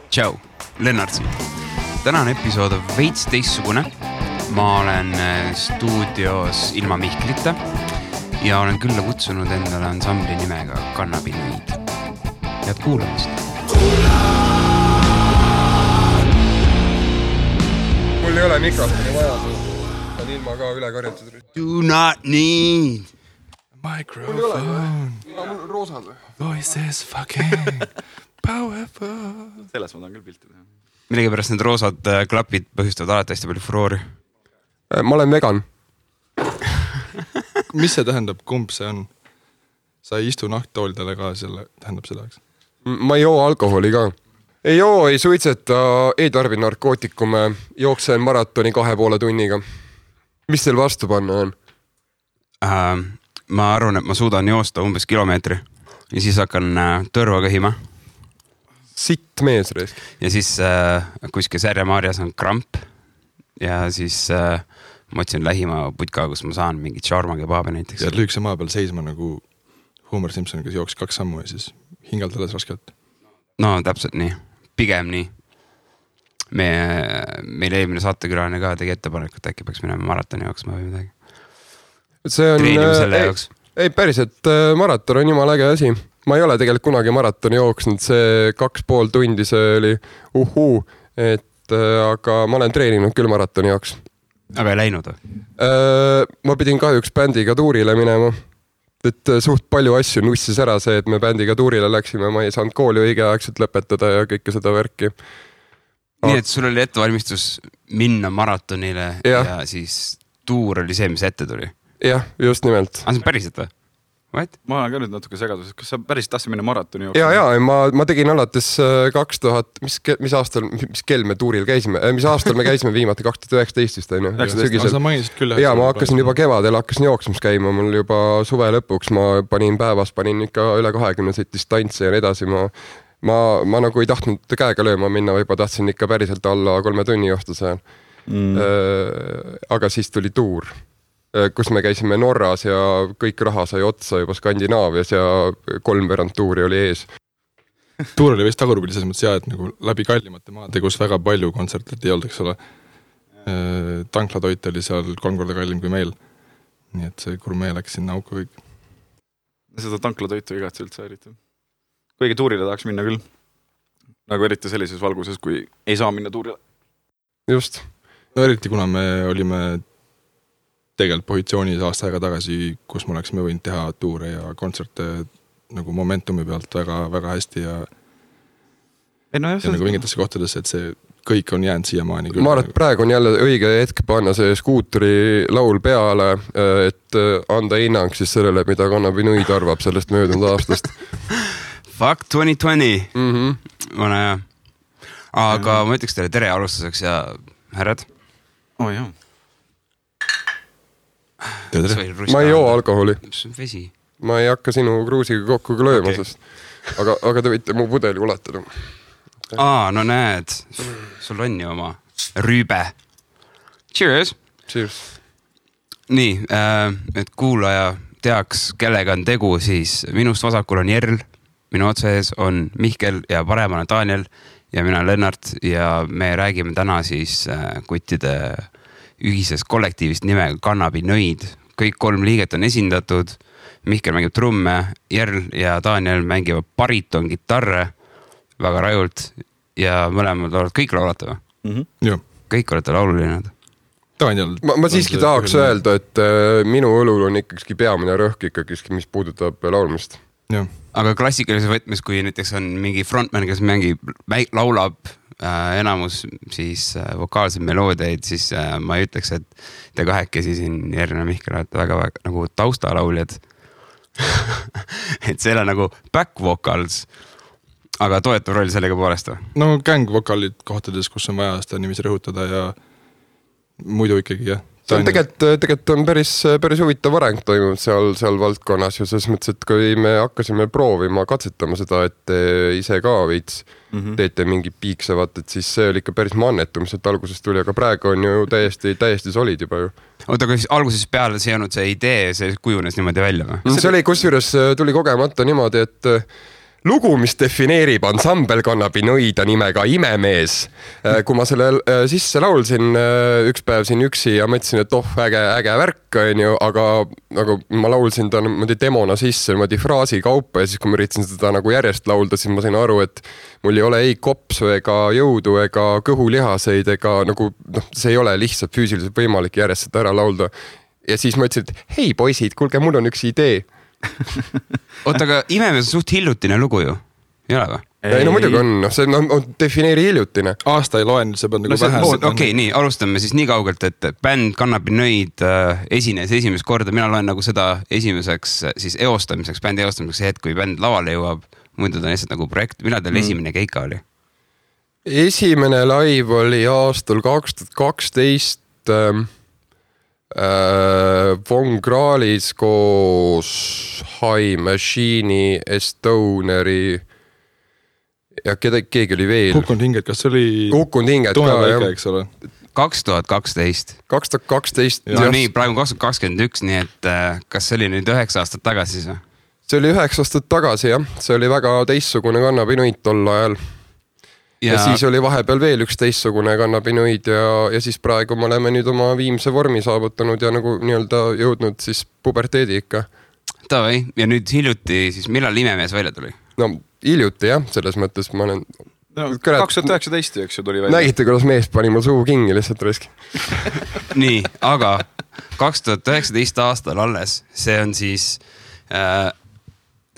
Tšau, Lennart siin. Tänane episood on veits teistsugune. Ma olen stuudios ilma Mihklita ja olen külla kutsunud endale ansambli nimega Kannabinoid. Head kuulamist. Mul ei ole mikrofoni vaja, on ilma ka üle karjatud. Do not need microphone. Mul on roosad. Voices fucking powerful. Selles ma tahan küll pilti teha. Millegipärast need roosad klapid põhjustavad alati hästi palju furoori. Ma olen vegan. Mis see tähendab, kumb see on? Sa ei istu nahktoolidele ka, selle tähendab seda, eks? Ma ei joo alkoholi ka. Ei joo, ei suitseta, ei tarbi narkootikume, jooksen maratoni 2,5 tunniga. Mis teil vastu panna on? Ma arvan, et ma suudan joosta umbes kilomeetri ja siis hakkan tõrva kõhima. Sitt mees reis. Ja siis kuskil Särjamaarjas on kramp ja siis ma otsin lähima putka, kus ma saan mingit shawarma kebaabi näiteks. Ja lüükse maa peal seisma nagu Homer Simpson, kes jooks 2 sammu ja siis hingalt alles raskelt. No täpselt nii, pigem nii. Meil eelmine saatekülaline ka tegi ettepanek, et äkki peaks minema maratoni jooksma või midagi. See on, treenime selle jaoks. Ei päris, et maraton on jumala äge asi. Ma ei ole tegelikult kunagi maratoni jooksnud, see 2,5 tundi see oli aga ma olen treeninud küll maratoni jaoks. Aga ei läinud või? Ma pidin kahjuks bändiga tuurile minema. Et suht palju asju nussis ära see, et me bändiga tuurile läksime, ma ei saanud kooli õigeaegselt lõpetada ja kõike seda värki. Nii, et sul oli ettevalmistus minna maratonile ja siis tuur oli see, mis ette tuli? Jah, just nimelt. See on päriselt või? What? Ma olen ka nüüd natuke segadus, kas sa päris tahtsid minna maratoni jooksma? Ja, ma tegin alates 2000, mis aastal, mis kell me tuuril käisime, mis aastal me käisime viimati 2019 vist, on ju? Sa mainisid küll. Ja ma hakkasin juba kevadel, hakkasin jooksmas käima, mul juba suve lõpuks, ma panin ikka üle 20 distantsi ja nii edasi, ma nagu ei tahtnud käega lööma minna, või tahtsin ikka päriselt alla 3 tunni joosta seal. Aga siis tuli tuur, kus me käisime Norras ja kõik raha sai otsa juba Skandinaavias ja 3 tuuri oli ees. Tuur oli vist tagurpidi selles mõttes et nagu läbi kallimate maade, kus väga palju kontserte ei olnud, eks ole. Tanklatoit oli seal 3 korda kallim kui meil. Nii et see gurmee läks sinna auku kõik. Seda tanklatoitu igatsi üldse eriti. Kuigi tuurile tahaks minna küll. Nagu eriti sellises valguses, kui ei saa minna tuurile. Just. No eriti kuna me olime tegelikult positsioonis aasta aega tagasi, kus me oleksime võinud teha tuure ja kontserte nagu momentumi pealt väga, väga hästi ja nagu mingitesse kohtadesse, et see kõik on jäänud siiamaani küll. Ma arvan, et praegu on jälle õige hetk panna see skuutri laul peale, et anda hinnang siis sellele, mida Kannabinoid arvab sellest möödunud aastast. Fuck 2020. Vana hea. Aga ma ütleks teile tere alustuseks ja härrad. Jah. Ma ei joo alkoholi. Vesi. Ma ei hakka sinu kruusiga kokku lööma, sest aga te võite mu pudeli ulatada. No näed, sul on ju oma rüübe. Cheers! Cheers! Nii, et kuulaja teaks, kellega on tegu, siis minust vasakul on Jerl, minu otsees on Mihkel ja paremal on Daniel ja mina Lennart ja me räägime täna siis kuttide ühises kollektiivist nimega Kannabinoid. Kõik 3 liiget on esindatud. Mihkel mängib trumme, Jerl ja Daniel mängivad bariton gitarre väga rajult ja mõlemad kõik laulata või? Kõik olete laululinnad. Daniel. Ma siiski tahaks öelda, et minu õlul on ikkagi peamine rõhk ikkagi, mis puudutab laulmist. Aga klassikalises võtmes, kui näiteks on mingi frontman, kes laulab enamus siis vokaalsed meloodiaid, siis ma ei ütleks, et te kahekesi siin Jerl ja Mihkel olete väga nagu taustalauljad. Et see on nagu back vocals, aga toetav roll sellega poolest või? No gang vokaalid kohtades, kus on vaja seda nimisi rõhutada ja muidu ikkagi jah. See on tegelikult on päris huvitav areng toimunud seal valdkonnas ja selles mõttes, et kui me hakkasime proovima katsetama seda, et te ise ka veits teete mingi piiksevat, et siis see oli ikka päris mannetum, et algusest tuli, aga praegu on ju täiesti solid juba ju. Oota, aga alguses peale see olnud see idee, see kujunes niimoodi välja või? See oli kusjuures tuli kogemata niimoodi, et lugu, mis defineerib ansambel Kannabinoida nimega Imemees. Kui ma selle sisse laulsin üks päev siin üksi ja mõtlesin, et äge värk on ju, aga nagu ma laulsin ta demona sisse fraasi kaupa ja siis kui ma üritasin seda nagu järjest laulda, siis ma sain aru, et mul ei ole ei kopsu ega jõudu ega kõhulihaseid ega nagu see ei ole lihtsalt füüsiliselt võimalik järjest seda ära laulda. Ja siis ma ütlesin, et hei poisid, kuulge, mul on üks idee. Oota, aga Imemees on suht hiljutine lugu ju, ei ole või? Ei, no muidugi on, see on defineeri hiljutine. Aasta ei loen, see peab nagu vähe. Okei, nii, alustame siis nii kaugelt, et bänd Kannabinoid esines esimest korda. Mina loen nagu seda esimeseks siis eostamiseks, bändi eostamiseks hetk, kui bänd lavale jõuab. Muidu ta on lihtsalt nagu projekt. Millal teil esimene keika oli? Esimene live oli aastal 2012 Von Krahlis koos High Machine'i, Estoneri ja keegi oli veel. Kukkunud hinged, kas see oli Kukkunud hinged ka, jah. Eks ole. 2012. 2012. No nii, praegu 2021, nii et kas see oli nüüd 9 aastat tagasi siis? See oli 9 aastat tagasi, jah. See oli väga teistsugune Kannabinoid tol ajal. Ja siis oli vahepeal veel üks teistsugune Kannabinoid ja siis praegu me oleme nüüd oma viimse vormi saavutanud ja nagu nii-öelda jõudnud siis puberteedi ikka. Tavai, ja nüüd hiljuti siis millal Imemees välja tuli? No hiljuti jah, selles mõttes ma olen... No, 2019, eks ju tuli välja. Nägite, kuidas mees pani mul suu kingi lihtsalt riski. Nii, aga 2019 aastal alles, see on siis...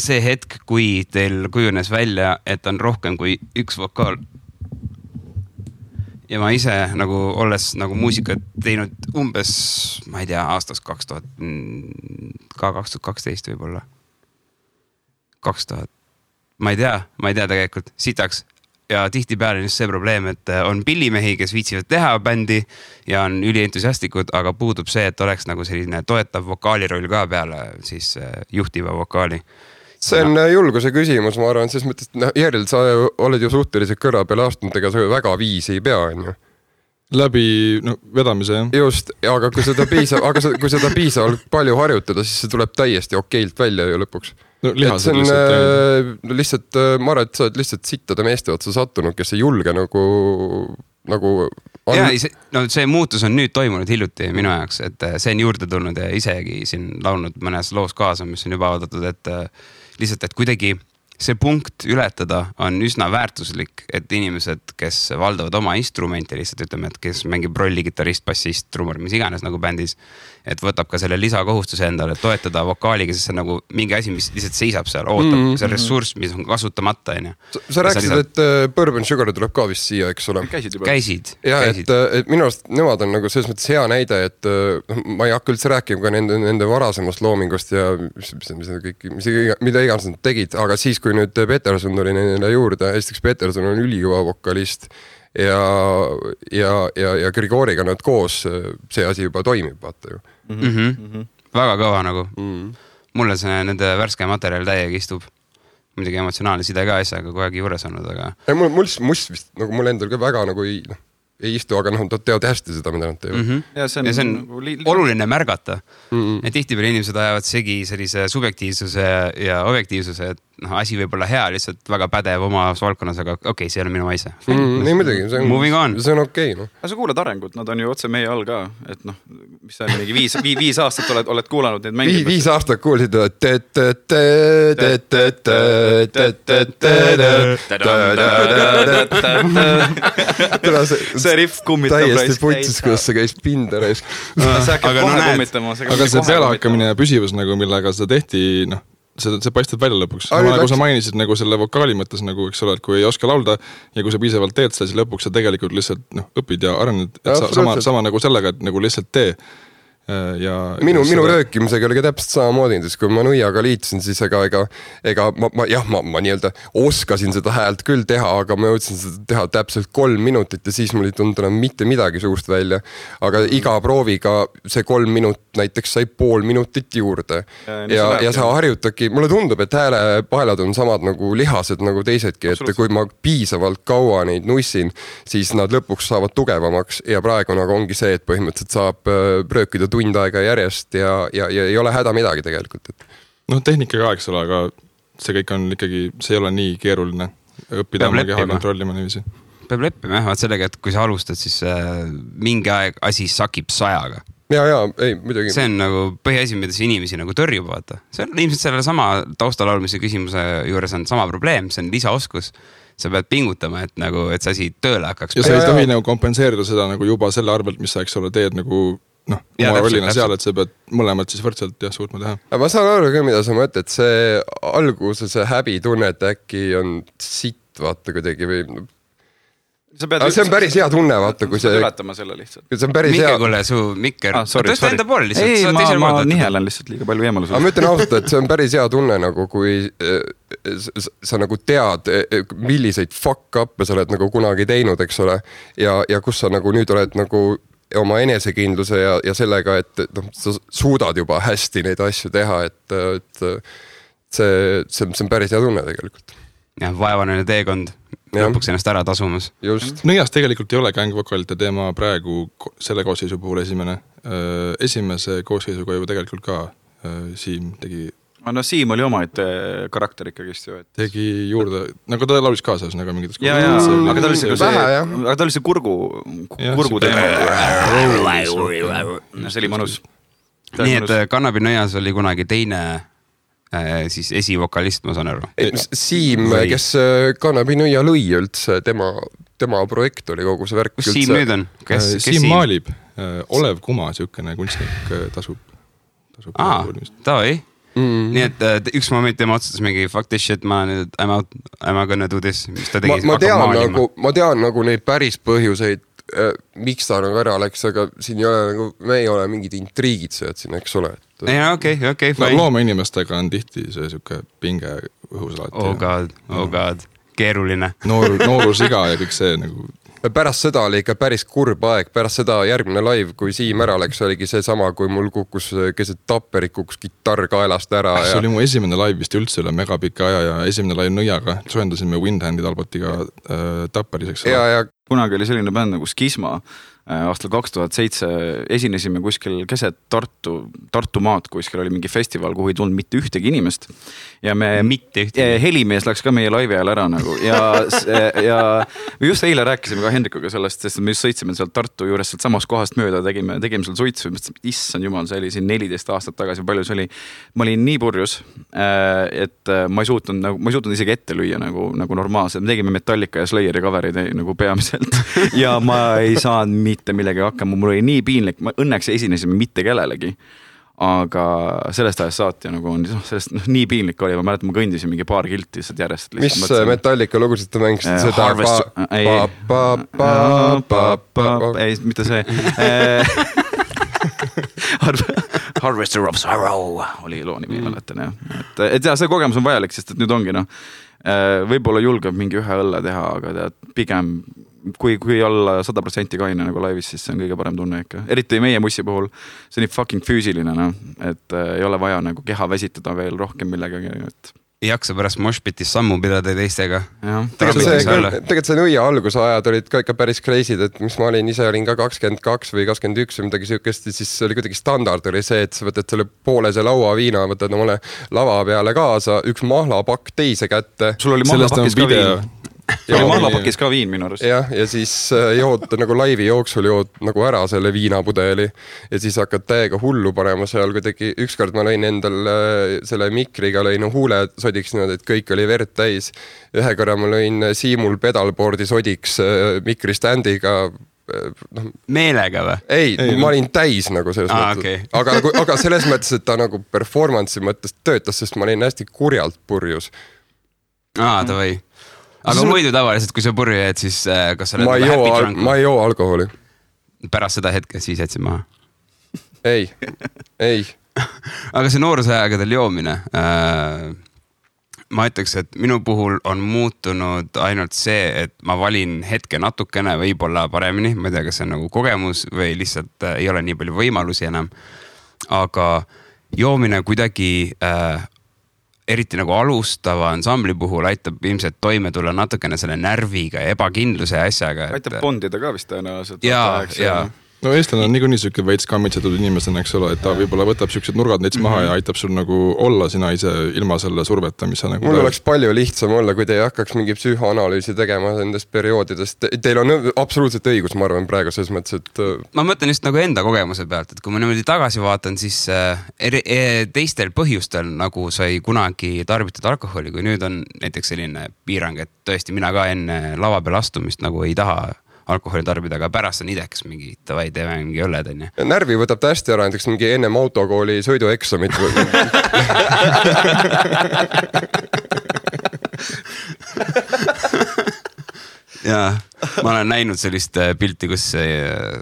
see hetk, kui teil kujunes välja, et on rohkem kui üks vokaal. Ja ma ise nagu olles nagu muusikat teinud umbes, ma ei tea, aastast 2012 võib-olla. 2000. Ma ei tea tegelikult, sitaks. Ja tihtipeale on just see probleem, et on pillimehi, kes viitsivad teha bändi ja on ülientusiastikud, aga puudub see, et oleks nagu selline toetav vokaaliroll ka peale siis juhtiva vokaali. See on julguse küsimus, ma arvan, selles mõttes, et Järjel, sa oled ju suhteliselt kõrva peale aastanud, ega sa väga viisi ei pea, on ju? Läbi vedamise, jah. Just, aga kui seda piisavalt palju harjutada, siis see tuleb täiesti okeilt välja ju lõpuks. No, lihased lihtsalt, ma arvan, et sa oled lihtsalt sittade meeste otsa sattunud, kes ei julge nagu ja, see muutus on nüüd toimunud hiljuti minu jaoks, et see on juurde tulnud ja isegi siin laulnud mõnes loos kaasa, mis on juba avaldatud, et lihtsalt, et kuidagi see punkt ületada on üsna väärtuslik, et inimesed, kes valdavad oma instrumenti lihtsalt ütleme, et kes mängib rolli, kitarrist, bassist, trummar, mis iganes nagu bändis, et võtab ka selle lisakohustuse endale toetada vokaaliga, sest see on nagu mingi asi, mis lihtsalt seisab seal, ootab see ressurss, mis on kasutamata. Sa rääkisid, et Bourbon Sugar tuleb ka vist siia, eks ole? Käisid. Ja, et minu arust nemad on nagu selles mõttes hea näide, et ma ei hakka üldse rääkima ka nende varasemast loomingust ja mida iganes nad tegid, aga siis, kui nüüd Peterson tuli neile juurde, esiteks Peterson on ülikõva vokalist ja Grigoriga nad koos, see asi juba toimib, vaata ju. Väga kõva nagu. Mulle see nende värske materjal täiega istub. Muidugi emotsionaalne side ka asjaga kogu aeg juures olnud, aga... Mul vist, nagu mul endal ka väga nagu ei istu, aga nad teavad hästi seda, mida nad teevad. Ja see on oluline märgata. Et tihtipeale inimesed ajavad segi sellise subjektiivsuse ja objektiivsuse, et asi võib olla hea, lihtsalt väga pädev oma valdkonnas, aga okei, see ei ole minu maise. Ei muidugi, see on okei. Aga sa kuulad arengut, nad on ju otse meie all ka, et mis see on mingi 5 aastat oled kuulanud neid mängimas. 5 aastat kuulsid, see riff kummitab täiesti putsis, kuidas see käis pinda reis. Aga see pealehakkamine ja püsivus, millega seda tehti, see paistab välja lõpuks. Nagu sa mainisid nagu selle vokaali mõttes, nagu, eks ole, et kui ei oska laulda ja kui sa piisavalt teed seda, siis lõpuks sa tegelikult lihtsalt õpid ja arened. Sama nagu sellega, et nagu lihtsalt tee. Minu röökimisega oli ka täpselt samamoodi, sest kui ma Nuiaga liitusin, siis ma nii-öelda oskasin seda häält küll teha, aga ma jõudsin seda teha täpselt 3 minutit ja siis mul ei tulnud enam mitte midagi suust välja. Aga iga prooviga see 3 minut näiteks sai 0,5 minutit juurde. Ja sa harjutadki, mulle tundub, et häälepaelad on samad nagu lihased nagu teisedki, et kui ma piisavalt kaua neid nussin, siis nad lõpuks saavad tugevamaks ja praegu nagu ongi see, et põhimõtteliselt saab röökida tund aega järjest ja ei ole häda midagi tegelikult. Tehnikaga, eks ole, aga see kõik on ikkagi, see ei ole nii keeruline õppida oma keha kontrollima niiviisi. Peab leppima jah, vaat sellega, et kui sa alustad, siis mingi aeg asi sakib 100-ga. Ja, ei, muidugi. See on nagu põhiasi, mida see inimesi nagu tõrjub, vaata. See on ilmselt selle sama taustalaulmise küsimuse juures on sama probleem, see on lisaoskus. Sa pead pingutama, et see asi tööle hakkaks. Ja sa ei tohi nagu kompenseerida seda nagu juba selle arvelt, mis sa, eks ole, teed nagu oma rollina seal, et sa pead mõlemad siis võrdselt suutma teha. Ma saan aru ka, mida sa mõtled, see alguses see häbitunne, et äkki on sitt, vaata kuidagi või... see on päris hea tunne, vaata, kui see... Ületama selle lihtsalt. See on päris hea... Mikke, su mikker... Tõsta enda pool lihtsalt. Ei, ma nihelen lihtsalt liiga palju eemalus. Ma ütlen ausalt, et see on päris hea tunne, nagu kui sa nagu tead, milliseid fuck-up'e sa oled nagu kunagi teinud, eks ole, ja kus sa nagu nüüd oled nagu oma enesekindluse ja sellega, et sa suudad juba hästi neid asju teha, et see on päris hea tunne tegelikult. Ja vaevaneline teekond lõpuks ennast ära tasumas. Just. Nõias tegelikult ei ole gängvokalite teema praegu selle koosseisu puhul esimese koosseisuga juba tegelikult ka Siim tegi... No Siim oli omaette karakter ikkagist ju. Tegi juurde, nagu ta laulis kaasas nagu mingites aga ta oli see kurgu teema. See oli mõnus. Nii et Kannabi Nõias oli kunagi teine siis esivokalist, ma saan aru. Siim, kes Kannabi Nõia lõi üldse, tema projekt oli kogu see värk. Kus Siim nüüd on? Siim maalib. Olev Kuma, siukene kunstnik tasub. Tavai. Nii et üks moment tema otsustas mingi fuck this shit, I'm gonna do this. Ma tean nagu neid päris põhjuseid, miks ta nagu ära läks, aga siin ei ole nagu, me ei ole mingid intriigid sööd siin, eks ole. Okei. Looma inimestega on tihti see siuke pinge õhus alati. Oh god, keeruline. Noorusiga ja kõik see nagu... Pärast seda oli ikka päris kurb aeg, pärast seda järgmine live, kui Siim ära läks, oligi see sama, kui mul kukkus keset Tapperit, kukkus kitarr kaelast ära. See oli mu esimene live vist üldse üle megapika aja ja esimene live Nõiaga. Soendasime Windhandid Albotiga Tapperiseks. Kunagi oli selline bänd nagu Skisma. Aastal 2007 esinesime kuskil keset Tartu maad, kuskil oli mingi festival, kuhu ei tulnud mitte ühtegi inimest. Ja me helimees läks ka meie laivi ajal ära nagu. Ja me just eile rääkisime ka Hendrikuga sellest, sest me just sõitsime sealt Tartu juures sealt samast kohast mööda, tegime seal suitsu. Issand jumal, see oli siin 14 aastat tagasi, palju see oli. Ma olin nii purjus, et ma ei suutnud isegi ette lüüa nagu normaalselt. Me tegime Metallica ja Slayeri coverid nagu peamiselt. Ja ma ei saanud mitte millegi hakkama, mul oli nii piinlik, õnneks esinesime mitte kellelegi, aga sellest ajast saati nagu on, sellest nii piinlik oli, ma mäletan, ma kõndisin mingi paar kilti järjest. Mis Metallica lugusid te mängisid seda? Ei, mitte see. Harvester of Sorrow oli loo nimi, mäletan. Et see kogemus on vajalik, sest et nüüd ongi võib-olla julgeb mingi ühe õlle teha, aga pigem kui olla 100% kaine nagu laivis, siis see on kõige parem tunne ikka. Eriti meie mussi puhul, see on nii fucking füüsiline, et ei ole vaja nagu keha väsitada veel rohkem millegagi. Ei jaksa pärast moshpitis sammu pidada teistega. Tegelikult see Nõia alguse ajad olid ka ikka päris kreisid, et mis ma olin ka 22 või 21 või midagi siukest, siis oli kuidagi standard oli see, et sa võtad selle poolese laua viina, võtad omale lava peale kaasa, üks mahlapakk teise kätte. Sul oli mahlapakis ka viin. Ja mahlapakis ka viin minu arust. Ja siis jood nagu laivi jooksul jood nagu ära selle viinapudeli ja siis hakkad täiega hullu panema seal kuidagi. Ükskord ma lõin endal selle mikriga, lõin huule sodiks niimoodi, et kõik oli verd täis. Ühe korra ma lõin Siimul pedalboardi sodiks mikriständiga. Meelega või? Ei, ma olin täis nagu selles mõttes. Okay. Aga selles mõttes, et ta nagu performance'i mõttes töötas, sest ma olin hästi kurjalt purjus. Tavai. Aga muidu tavaliselt, kui sa purju jäed, siis kas sa oled happy drunk? Ma ei joo alkoholi. Pärast seda hetke siis jätsid maha? Ei. Aga see noorusajagadel joomine, ma ütleks, et minu puhul on muutunud ainult see, et ma valin hetke natukene võib-olla paremini, ma ei tea, kas see on nagu kogemus või lihtsalt ei ole nii palju võimalusi enam, aga joomine kuidagi eriti nagu alustava ansambli puhul aitab ilmselt toime tulla natukene selle närviga ja ebakindluse ja asjaga. Aitab bondida ka vist tõenäoliselt. Ja no eestlane on niikuinii siuke veits kammitsetud inimesena, eks ole, et ta võib-olla võtab siuksed nurgad neits maha ja aitab sul nagu olla sina ise ilma selle surveta, mis sa nagu... Mul oleks palju lihtsam olla, kui te ei hakkaks mingi psühhoanalüüsi tegema nendest perioodidest. Teil on absoluutselt õigus, ma arvan, praegu selles mõttes, et... Ma mõtlen just nagu enda kogemuse pealt, et kui ma niimoodi tagasi vaatan, siis teistel põhjustel nagu sai kunagi tarbitud alkoholi, kui nüüd on näiteks selline piirang, et tõesti mina ka enne lava peal astumist nagu ei taha alkoholi tarbida, aga pärast on idekas mingi, tavai, teeme mingi õlled, on ju. Närvi võtab ta hästi ära, näiteks mingi ennem autokooli sõidueksamit. Jaa, ma olen näinud sellist pilti, kus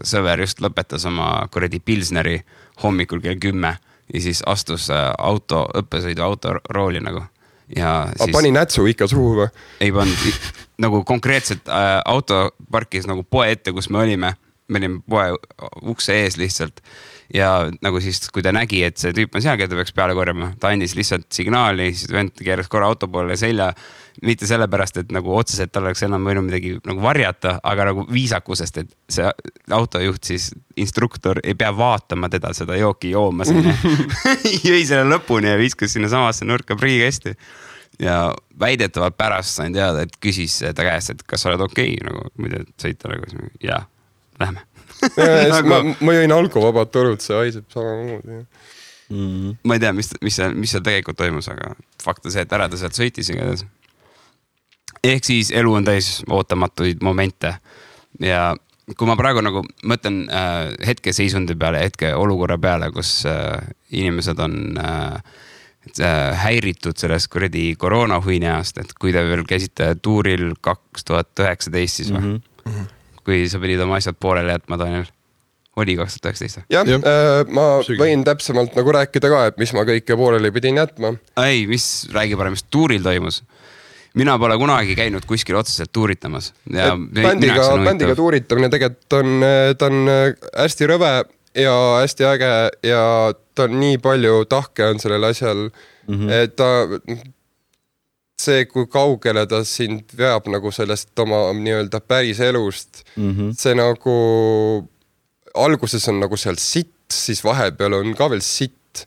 sõver just lõpetas oma kuradi pilsneri hommikul kell 10 ja siis astus õppesõidu autorooli nagu. Ja siis... pani nätsu ikka suhu või? Ei pannud, nagu konkreetselt auto parkis nagu poe ette, kus me olime poe ukse ees lihtsalt ja nagu siis, kui ta nägi, et see tüüp on seal, keda peaks peale korjama, ta andis lihtsalt signaali, siis vend keeras korra auto poole selja, mitte sellepärast, et nagu otseselt tal oleks enam võinud midagi nagu varjata, aga nagu viisakusest, et see autojuht siis instruktor ei pea vaatama teda seda jooki joomas. Jõi selle lõpuni ja viskus sinna samasse nurka prügikasti. Ja väidetavalt pärast sain teada, et küsis ta käest, et kas sa oled okei, nagu muide sõita nagu, jaa, lähme. Ma jõin alkovabad torud, see haiseb samamoodi. Ma ei tea, mis seal tegelikult toimus, aga fakt on see, et ära ta sealt sõitis igatahes. Ehk siis elu on täis ootamatuid momente ja kui ma praegu nagu mõtlen hetke seisundi peale, hetke olukorra peale, kus inimesed on häiritud sellest kuradi koroonahuineast, et kui te veel käisite tuuril 2019 siis või? Kui sa pidid oma asjad poolele jätma, Daniel, oli 2019? Jah, ma võin täpsemalt nagu rääkida ka, et mis ma kõike poolele pidin jätma. Ei, räägi parem, mis tuuril toimus? Mina pole kunagi käinud kuskil otseselt tuuritamas. Ja bändiga tuuritamine tegelikult ta on hästi rõve ja hästi äge ja ta on nii palju tahke on sellel asjal, et see, kui kaugele ta sind veab nagu sellest oma nii-öelda päris elust, see nagu alguses on nagu seal sitt, siis vahepeal on ka veel sitt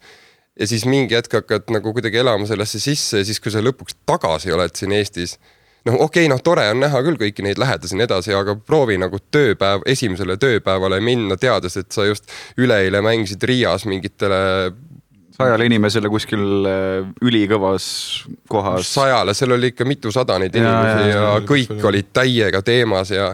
ja siis mingi hetk hakkad nagu kuidagi elama sellesse sisse ja siis, kui sa lõpuks tagasi oled siin Eestis, tore on näha küll kõiki neid lähedasi nii edasi, aga proovi nagu esimesele tööpäevale minna, teades, et sa just üleeile mängisid Riias mingitele 100 inimesele kuskil ülikõvas kohas. 100, seal oli ikka mitusada neid inimesi ja kõik olid täiega teemas ja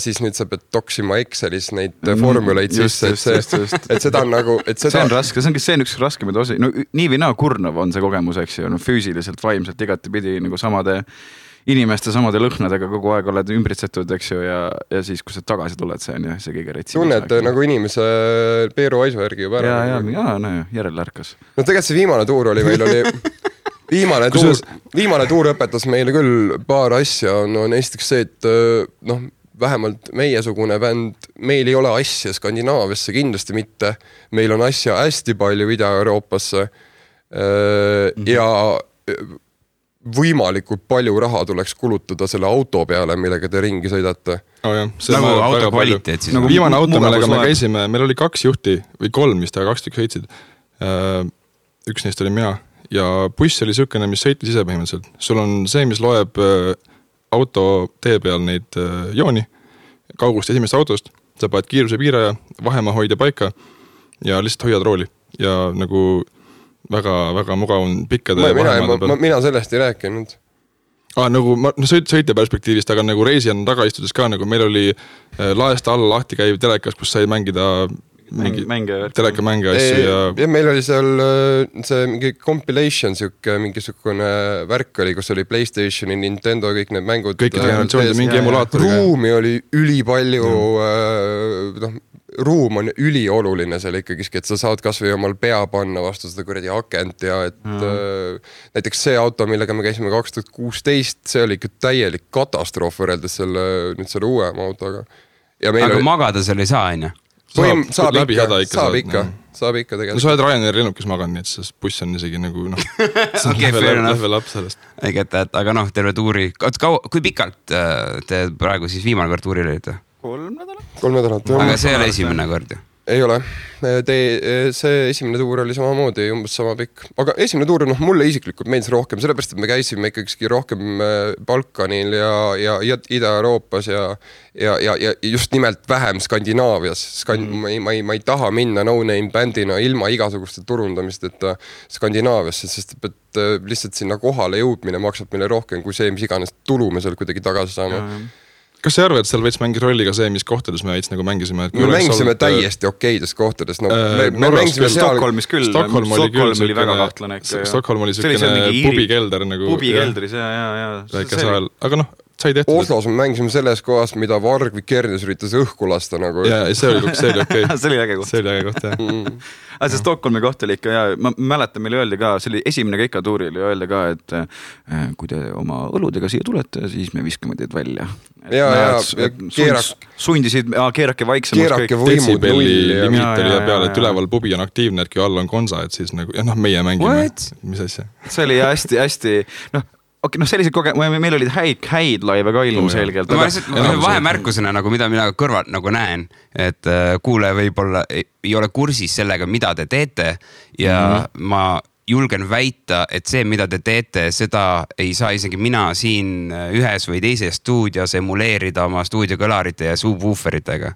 siis nüüd sa pead toksima Excelis neid formuleid sisse, et seda on nagu... See on raske, see on üks raskemaid osi. No nii või naa kurnav on see kogemus, eks ju, füüsiliselt, vaimselt igati pidi nagu samade inimeste, samade lõhnadega kogu aeg oled ümbritsetud, eks ju, ja siis, kui sa tagasi tuled, see on ju see kõige retsi. Tunned nagu inimese Peeru Aisu järgi juba ära. Ja, järele ärkas. No tegelikult see viimane tuur oli meil viimane tuur õpetas meile küll paar asja, esiteks see, et vähemalt meiesugune bänd, meil ei ole asja Skandinaaviasse kindlasti mitte, meil on asja hästi palju Ida-Euroopasse ja võimalikult palju raha tuleks kulutada selle auto peale, millega te ringi sõidate. Nagu auto kvaliteet siis. Viimane auto, millega me käisime, meil oli 2 juhti või 3, mis ta 2 tükk sõitsid. Üks neist oli mina ja buss oli sükene, mis sõitis ise põhimõtteliselt. Sul on see, mis loeb auto tee peal neid jooni kaugust esimest autost, sa paned kiiruse piiraja, vahemaa hoida paika ja lihtsalt hoiad rooli ja nagu väga mugav on pikkade vahemaade peal. Mina sellest ei rääkinud. Nagu sõitja perspektiivist, aga nagu reisijana taga istudes ka, nagu meil oli laest alla lahti käiv telekas, kus sai mängida telekamänge asju ja meil oli seal see mingi compilation mingisugune värk oli, kus oli PlayStationi, Nintendo, kõik need mängud. Kõik generatsioonid, mingi emulaator. Ruumi oli ülipalju, ruum on ülioluline seal ikkagi, et sa saad kas või omal pea panna vastu seda kuradi akent ja et näiteks see auto, millega me käisime 2016, see oli ikka täielik katastroof võrreldes selle uuema autoga. Aga magada seal ei saa, on ju? Saab ikka tegelikult. No sa oled Ryanair lennukis maganud, nii et see buss on isegi nagu level up sellest. Aga terve tuuri. Kui pikalt te praegu siis viimane kord tuuril olite? 3 nädalat. 3 nädalat. Aga see oli esimene kord ju? Ei ole. See esimene tuur oli samamoodi umbes sama pikk. Aga esimene tuur, mulle isiklikult meeldis rohkem, sellepärast, et me käisime ikkagi rohkem Balkanil ja Ida-Euroopas ja just nimelt vähem Skandinaavias. Ma ei taha minna no-name bändina ilma igasuguste turundamist, et Skandinaaviasse, sest et lihtsalt sinna kohale jõudmine maksab meile rohkem kui see, mis iganes tulu me seal kuidagi tagasi saame. Kas sa arvad, et seal võiks mängis rolli ka see, mis kohtades me veits nagu mängisime? Me mängisime täiesti okeides kohtades. Me mängisime Stockholmis küll. Stockholm oli väga kahtlane. Stockholm oli selline pubikelder nagu. Pubikeldris, jaa. Aga sai tehtud. Oslos me mängisime selles kohas, mida Varg Vikernes üritas õhku lasta nagu. Ja see oli okei. See oli äge koht. See oli äge koht, jah. Aga see Stockholmi koht oli ikka, ja ma mäletan, meile öeldi ka, see oli esimene keikatuuril ja öeldi ka, et kui te oma õludega siia tulete, siis me viskame teid välja. Sundisid, keerake vaiksemaks. Keerake võimud nulli. Limiit oli peale, et üleval pubi on aktiivne, et kui all on konsa, et siis nagu, meie mängime. Mis asja? See oli hästi, sellised meil olid häid laive ka ilmselgelt. Ma lihtsalt vahemärkusena, mida mina kõrvalt nagu näen, et kuule võib-olla ei ole kursis sellega, mida te teete ja ma julgen väita, et see, mida te teete, seda ei saa isegi mina siin ühes või teises stuudios emuleerida oma stuudiokõlarite ja subwooferitega.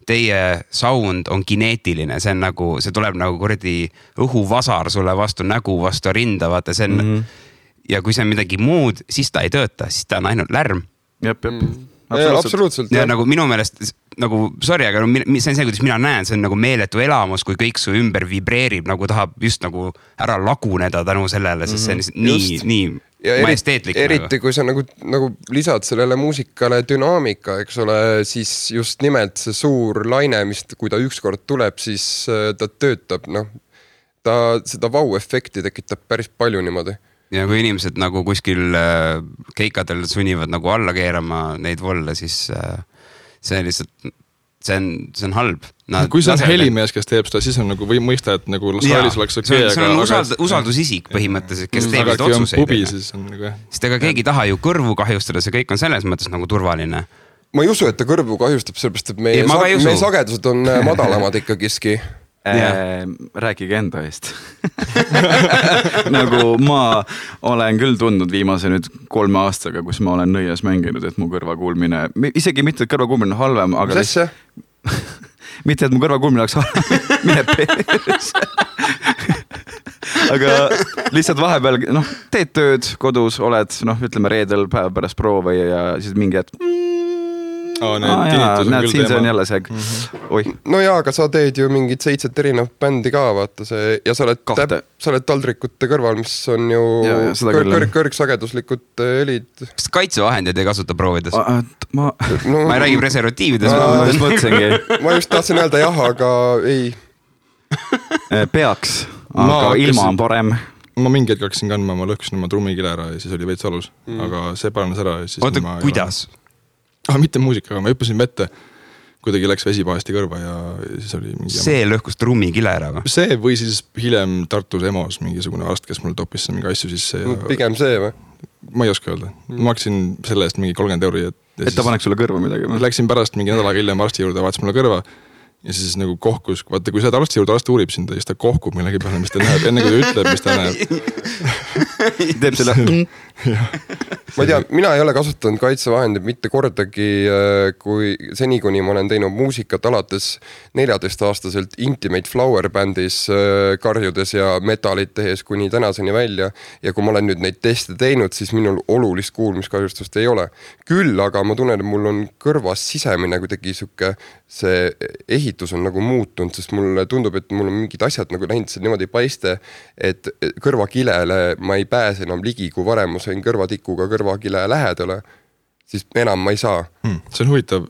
Teie sound on kineetiline, see tuleb nagu kuradi õhuvasar sulle vastu nägu, vastu rinda, vaata see on ja kui see on midagi muud, siis ta ei tööta, siis ta on ainult lärm. Jep. Absoluutselt. Ja nagu minu meelest, sorry, aga see on see, kuidas mina näen, see on nagu meeletu elamus, kui kõik su ümber vibreerib, nagu tahab just nagu ära laguneda tänu sellele, sest see on nii majesteetlik. Eriti kui sa nagu lisad sellele muusikale dünaamika, eks ole, siis just nimelt see suur laine, mis kui ta ükskord tuleb, siis ta töötab, ta seda vau-efekti tekitab päris palju niimoodi. Ja kui inimesed nagu kuskil keikadel sunnivad nagu alla keerama neid volle, siis see lihtsalt, see on halb. Kui see on helimees, kes teeb seda, siis on nagu või mõista, et nagu saalis oleks okei. See on usaldusisik põhimõtteliselt, kes teeb neid otsuseid. Sest ega keegi taha ju kõrvu kahjustada, see kõik on selles mõttes nagu turvaline. Ma ei usu, et ta kõrvu kahjustab, sellepärast, et meie sagedused on madalamad ikkagiski. Rääkige enda eest. Nagu ma olen küll tundnud viimase nüüd 3 aastaga, kus ma olen nõias mänginud, et mu kõrvakuulmine, isegi mitte, et kõrvakuulmine on halvem, aga mitte, et mu kõrvakuulmine oleks halvem, mine peres. Aga lihtsalt vahepeal, teed tööd kodus, oled, ütleme reedel päeva pärast proove ja siis mingi hetk näed, siin see on jälle see No jaa, aga sa teed ju mingid 7 erinevat bändi ka, vaata see ja sa oled taldrikute kõrval, mis on ju kõrgsageduslikud helid. Kas kaitsevahendid ei kasuta proovides? Ma ei räägi preservatiivides. Ma just tahtsin öelda jah, aga ei. Peaks, aga ilma on parem. Ma mingi hetk hakkasin kandma, ma lõhkusin oma trummikile ära ja siis oli veits valus, aga see paranes ära. Oota, kuidas? Mitte muusikaga, ma hüppasin vette, kuidagi läks vesi pahesti kõrva ja siis oli mingi see lõhkus trummikile ära või? See või siis hiljem Tartus EMO-s mingisugune arst, kes mul toppis mingi asju sisse ja... Pigem see või? Ma ei oska öelda. Ma hakkasin selle eest mingi 30 €. Et ta paneks sulle kõrva midagi? Läksin pärast mingi nädalaga hiljem arsti juurde, vaatas mulle kõrva ja siis nagu kohkus, vaata kui sa arsti juurde arst uurib sind, siis ta kohkub millegi peale, mis ta näeb, enne kui ta ütleb, mis ta näeb. Teeb selle... Ma ei tea, mina ei ole kasutanud kaitsevahendid mitte kordagi, kui seni kuni ma olen teinud muusikat alates 14-aastaselt Intimate Flower bändis karjudes ja metalit tehes kuni tänaseni välja ja kui ma olen nüüd neid teste teinud, siis minul olulist kuulmiskahjustust ei ole. Küll aga ma tunnen, et mul on kõrvas sisemine kuidagi suke, see ehitus on nagu muutunud, sest mulle tundub, et mul on mingid asjad nagu läinud see niimoodi paiste, et kõrvakilele ma ei pääse enam ligi, kui varem ma sain kõrvatikuga kõrvakile lähedale, siis enam ma ei saa. See on huvitav.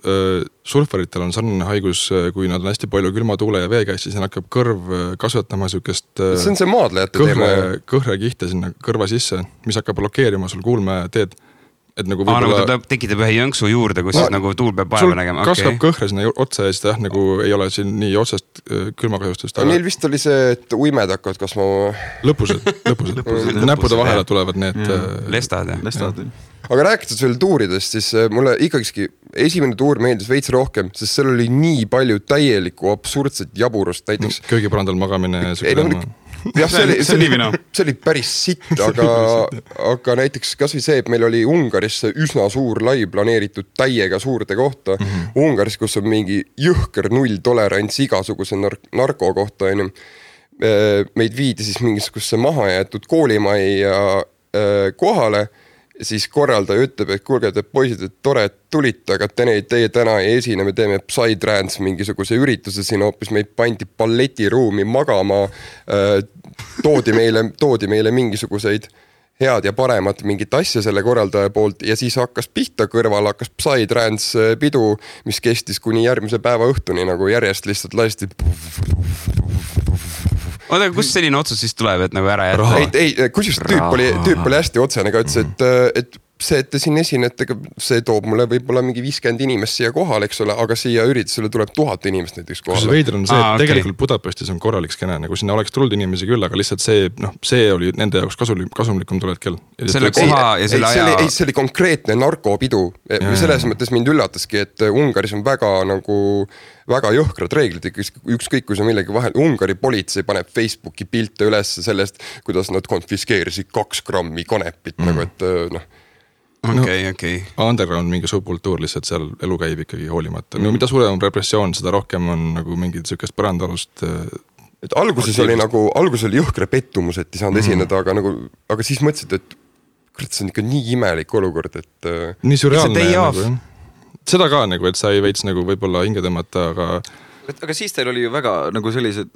Surfaritel on sarnane haigus, kui nad on hästi palju külma tuule ja vee käis, siis hakkab kõrv kasvatama sükest see on see maadlejate teema. Kõhre kihte sinna kõrva sisse, mis hakkab blokeerima sul kuulme teed. et nagu võib-olla... nagu ta tekitab ühe jõnksu juurde, kus nagu tuul peab vaeva nägema. Kasvab kõhre sinna otsa ja siis nagu ei ole siin nii otsest külmakahjustust. Neil vist oli see, et uimed hakkavad kasvama. Lõpused. Näppude vahele tulevad need... Lestad. Aga rääkides veel tuuridest, siis mulle ikkagi esimene tuur meeldis veits rohkem, sest seal oli nii palju täielikku absurdset jaburust. Näiteks... Köögipõrandal magamine. Jah, see oli päris sitt, aga näiteks kas või see, et meil oli Ungaris üsna suur lai planeeritud täiega suurde kohta. Ungaris, kus on mingi jõhker nulltolerants igasuguse narko kohta. Meid viidi siis mingisuguse maha jäetud koolimajja kohale. Siis korraldaja ütleb, et kuulge, et poisid, et tore, et tulite, aga teie täna ei esine, me teeme Psytrance mingisuguse ürituse siin hoopis, meid pandi balletiruumi magama, toodi meile mingisuguseid head ja paremat mingit asja selle korraldaja poolt ja siis hakkas pihta kõrval, hakkas Psytrance pidu, mis kestis kuni järgmise päeva õhtuni, nagu järjest lihtsalt lasti. Oota, kus selline otsus siis tuleb, et nagu ära jätta? Ei, kusjuures tüüp oli hästi otsene, aga ütles, et see, et te siin esinete, see toob mulle võib-olla mingi 50 inimest siia kohal, eks ole, aga siia üritusele tuleb 1000 inimest näiteks kohale. Kus veider on see, et tegelikult Budapestis on korralik skene, nagu sinna oleks tulnud inimesi küll, aga lihtsalt see oli nende jaoks kasumlikum tuled kell. Selle koha ja selle aja... See oli konkreetne narkopidu. Selles mõttes mind üllataski, et Ungaris on väga jõhkrad reeglid, ükskõik kui see millegi vahel. Ungari politsei paneb Facebooki pilte üles sellest, kuidas nad konfiskeerisid 2 grammi kanepit, nagu et Okay. Underground mingi subkultuur lihtsalt seal elu käib ikkagi hoolimata. No mida suurem on repressioon, seda rohkem on nagu mingid sükest põrandalust. Et alguses oli jõhkre pettumus, et ei saanud esineda, aga siis mõtlesid, et see on ikka nii imelik olukord, et... Nii surreaalne nagu, seda ka nagu, et sa ei veits nagu võib-olla hinge tõmmata, aga siis teil oli ju väga nagu sellised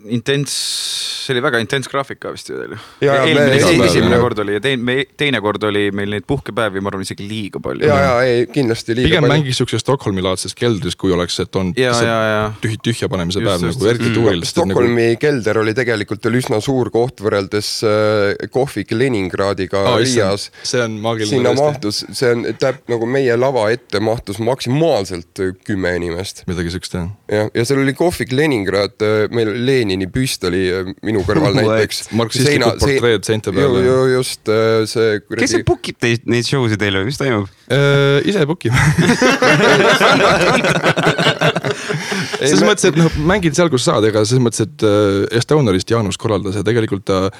see oli väga intens graafika vist ju teil. Esimene kord oli ja teine kord oli meil neid puhkepäevi, ma arvan isegi liiga palju. Ei, kindlasti liiga pigem palju. Pigem mängis üks Stockholmi-laadses keldris, kui oleks, et on tühja panemise päev nagu eriti tuuril. Stockholmi kelder oli tegelikult üsna suur koht võrreldes Kohvik Leningradiga Riias. See on maagiline. Sinna mahtus, see on nagu meie lava ette mahtus maksimaalselt 10 inimest. Midagi sükst, ja seal oli Kohvik Leningrad, meil Lenini püst oli minu kõrval näiteks. Marksistlikud portreed seinte peale. Just see... Kes see bookib neid show'si teile, mis toimub? Ise bookib. Selles mõttes, et mängid seal, kus saad, ega selles mõttes, et Estaunerist Jaanus korraldas ja tegelikult ta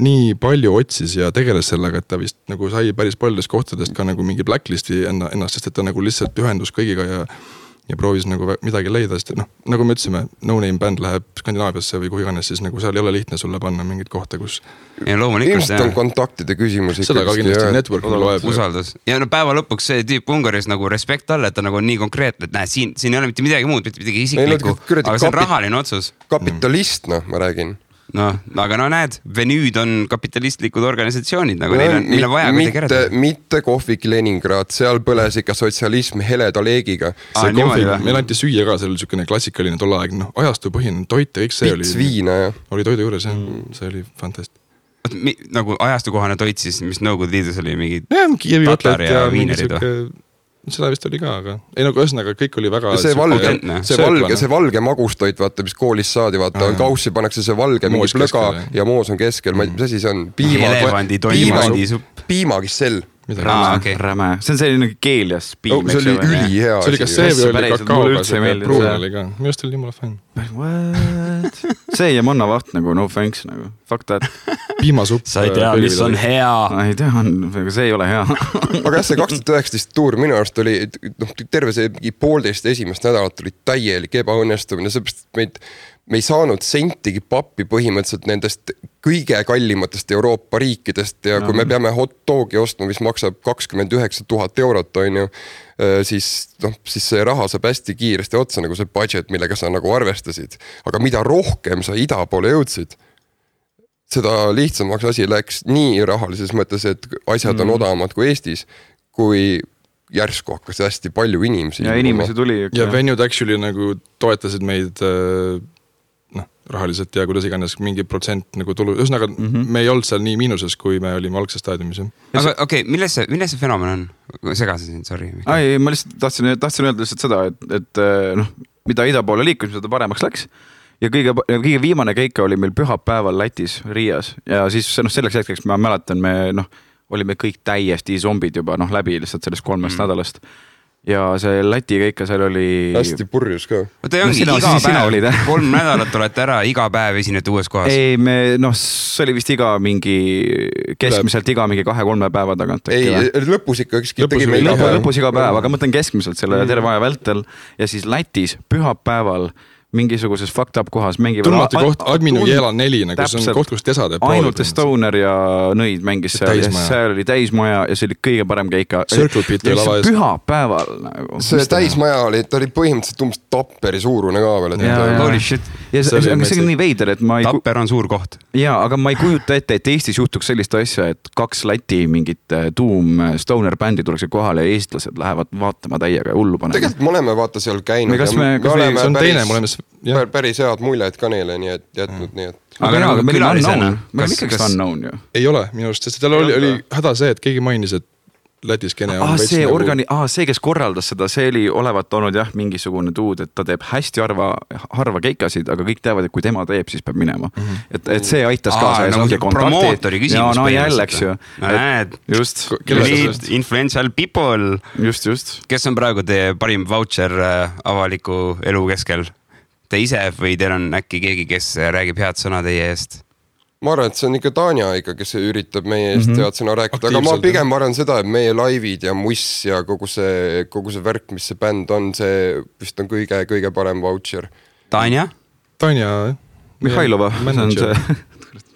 nii palju otsis ja tegeles sellega, et ta vist nagu sai päris paljudest kohtadest ka nagu mingi blacklisti ennast, sest et ta nagu lihtsalt ühendus kõigiga ja proovis nagu midagi leida, sest nagu me ütlesime, No Name bänd läheb Skandinaaviasse või kuhu iganes, siis nagu seal ei ole lihtne sulle panna mingit kohta, kus... Ilmselt on kontaktide küsimus. Seda ka kindlasti, network loeb. Usaldus. Ja päeva lõpuks see tüüp Ungaris nagu respekt all, et ta nagu on nii konkreetne, et siin ei ole mitte midagi muud, mitte midagi isiklikku, aga see on rahaline otsus. Kapitalist, ma räägin. Aga näed, Venüüd on kapitalistlikud organisatsioonid, nagu neil on vaja kuidagi kereda. Mitte Kohvik Leningrad, seal põles ikka sotsialism heleda leegiga. See Kohvik, meil anti süüa ka, see oli selline klassikaline tolle aeg, ajastupõhine toit ja kõik see oli... Pits viina, jah. Oli toidu juures, jah, see oli fantast. Nagu ajastukohane toit siis, mis Nõukogude Liidus oli mingi tatar ja viinerid või? Seda vist oli ka, aga ei nagu ühesõnaga kõik oli väga... See valge magustoit, vaata, mis koolis saadi, vaata, kaussi pannakse see valge mingi plöga ja moos on keskel, mis asi see on? Piimakissell. Räme. See on selline keelias piim. See oli ülihea. See oli ka see või oli kakaoga, see pruun oli ka. Minu just oli jumala fänn. What? See ja mannavaht nagu, no thanks nagu. Fuck that. Piimasupp. Sa ei tea, mis on hea. Ei tea, aga see ei ole hea. Aga see 2019 tuur minu arust oli, terve see 1,5 esimest nädalat oli täielik ebaõnnestumine, seepärast me ei saanud sentigi pappi põhimõtteliselt nendest kõige kallimatest Euroopa riikidest ja kui me peame hot dogi ostma, mis maksab 29 000 eurot, on ju, siis see raha saab hästi kiiresti otsa, nagu see budget, millega sa nagu arvestasid. Aga mida rohkem sa ida poole jõudsid, seda lihtsamaks asi läks nii rahalises mõttes, et asjad on odavamad kui Eestis, kui järsku hakkas hästi palju inimesi. Ja inimesi tuli. Ja Venued actually nagu toetasid meid rahaliselt ja kuidas iganes mingi protsent nagu tulu, ühesõnaga me ei olnud seal nii miinuses, kui me olime algses staadiumis. Aga okei, milles see fenomen on? Segasin siin, sorry. Ma lihtsalt tahtsin öelda lihtsalt seda, et mida ida poole liikus, mida ta paremaks läks. Ja kõige viimane keika oli meil pühapäeval Lätis, Riias. Ja siis selleks hetkeks ma mäletan, me olime kõik täiesti zombid juba läbi lihtsalt sellest 3 nädalast. Ja see Läti keika seal oli... Hästi purjus ka. Oota, ongi iga päev, 3 nädalat olete ära, iga päev esinete uues kohas. Ei, see oli vist keskmiselt iga mingi 2-3 päeva tagant. Ei, lõpus ikka tegime lõpus iga päev, aga mõtlen keskmiselt selle terve aja vältel. Ja siis Lätis pühapäeval mingisuguses fucked up kohas mängivad... Tundmatu koht, Adminu Jeela 4, nagu see on koht, kus tesa teeb. Ainult Stoner ja Nõid mängis seal. Seal oli täismaja ja see oli kõige parem keika. Circle Pit oli lava ees. Pühapäeval nagu. See täismaja oli, ta oli põhimõtteliselt umbes Tapperi suurune ka veel. Holy shit. Ja see on nii veider, et ma ei... Tapper on suur koht. Jaa, aga ma ei kujuta ette, et Eestis juhtuks sellist asja, et 2 Läti mingit Stoner bändi tuleks kohale ja eestlased lähevad vaatama täiega hullu panema. Tegelikult me oleme vaata seal käinud. See on teine, me oleme päris head muljed ka neile, nii et jätnud nii, et... Aga meil on unknown. Meil on ikkagi unknown ju. Ei ole minu arust, sest tal oli häda see, et keegi mainis, et Lätis kene on see, kes korraldas seda, see oli olevat olnud mingisugune tuud, et ta teeb hästi harva keikasid, aga kõik teavad, et kui tema teeb, siis peab minema. Et see aitas kaasa. Promootori küsimus. Jälleks ju. Näed, just. Influential people. Just. Kes on praegu teie parim voucher avaliku elu keskel? Te ise või teil on äkki keegi, kes räägib head sõna teie eest? Ma arvan, et see on ikka Tanja ikka, kes üritab meie eest head sõna rääkida, aga ma pigem arvan seda, et meie laivid ja muss ja kogu see värk, mis see bänd on, see vist on kõige parem voucher. Tanja? Tanja. Mihhailova.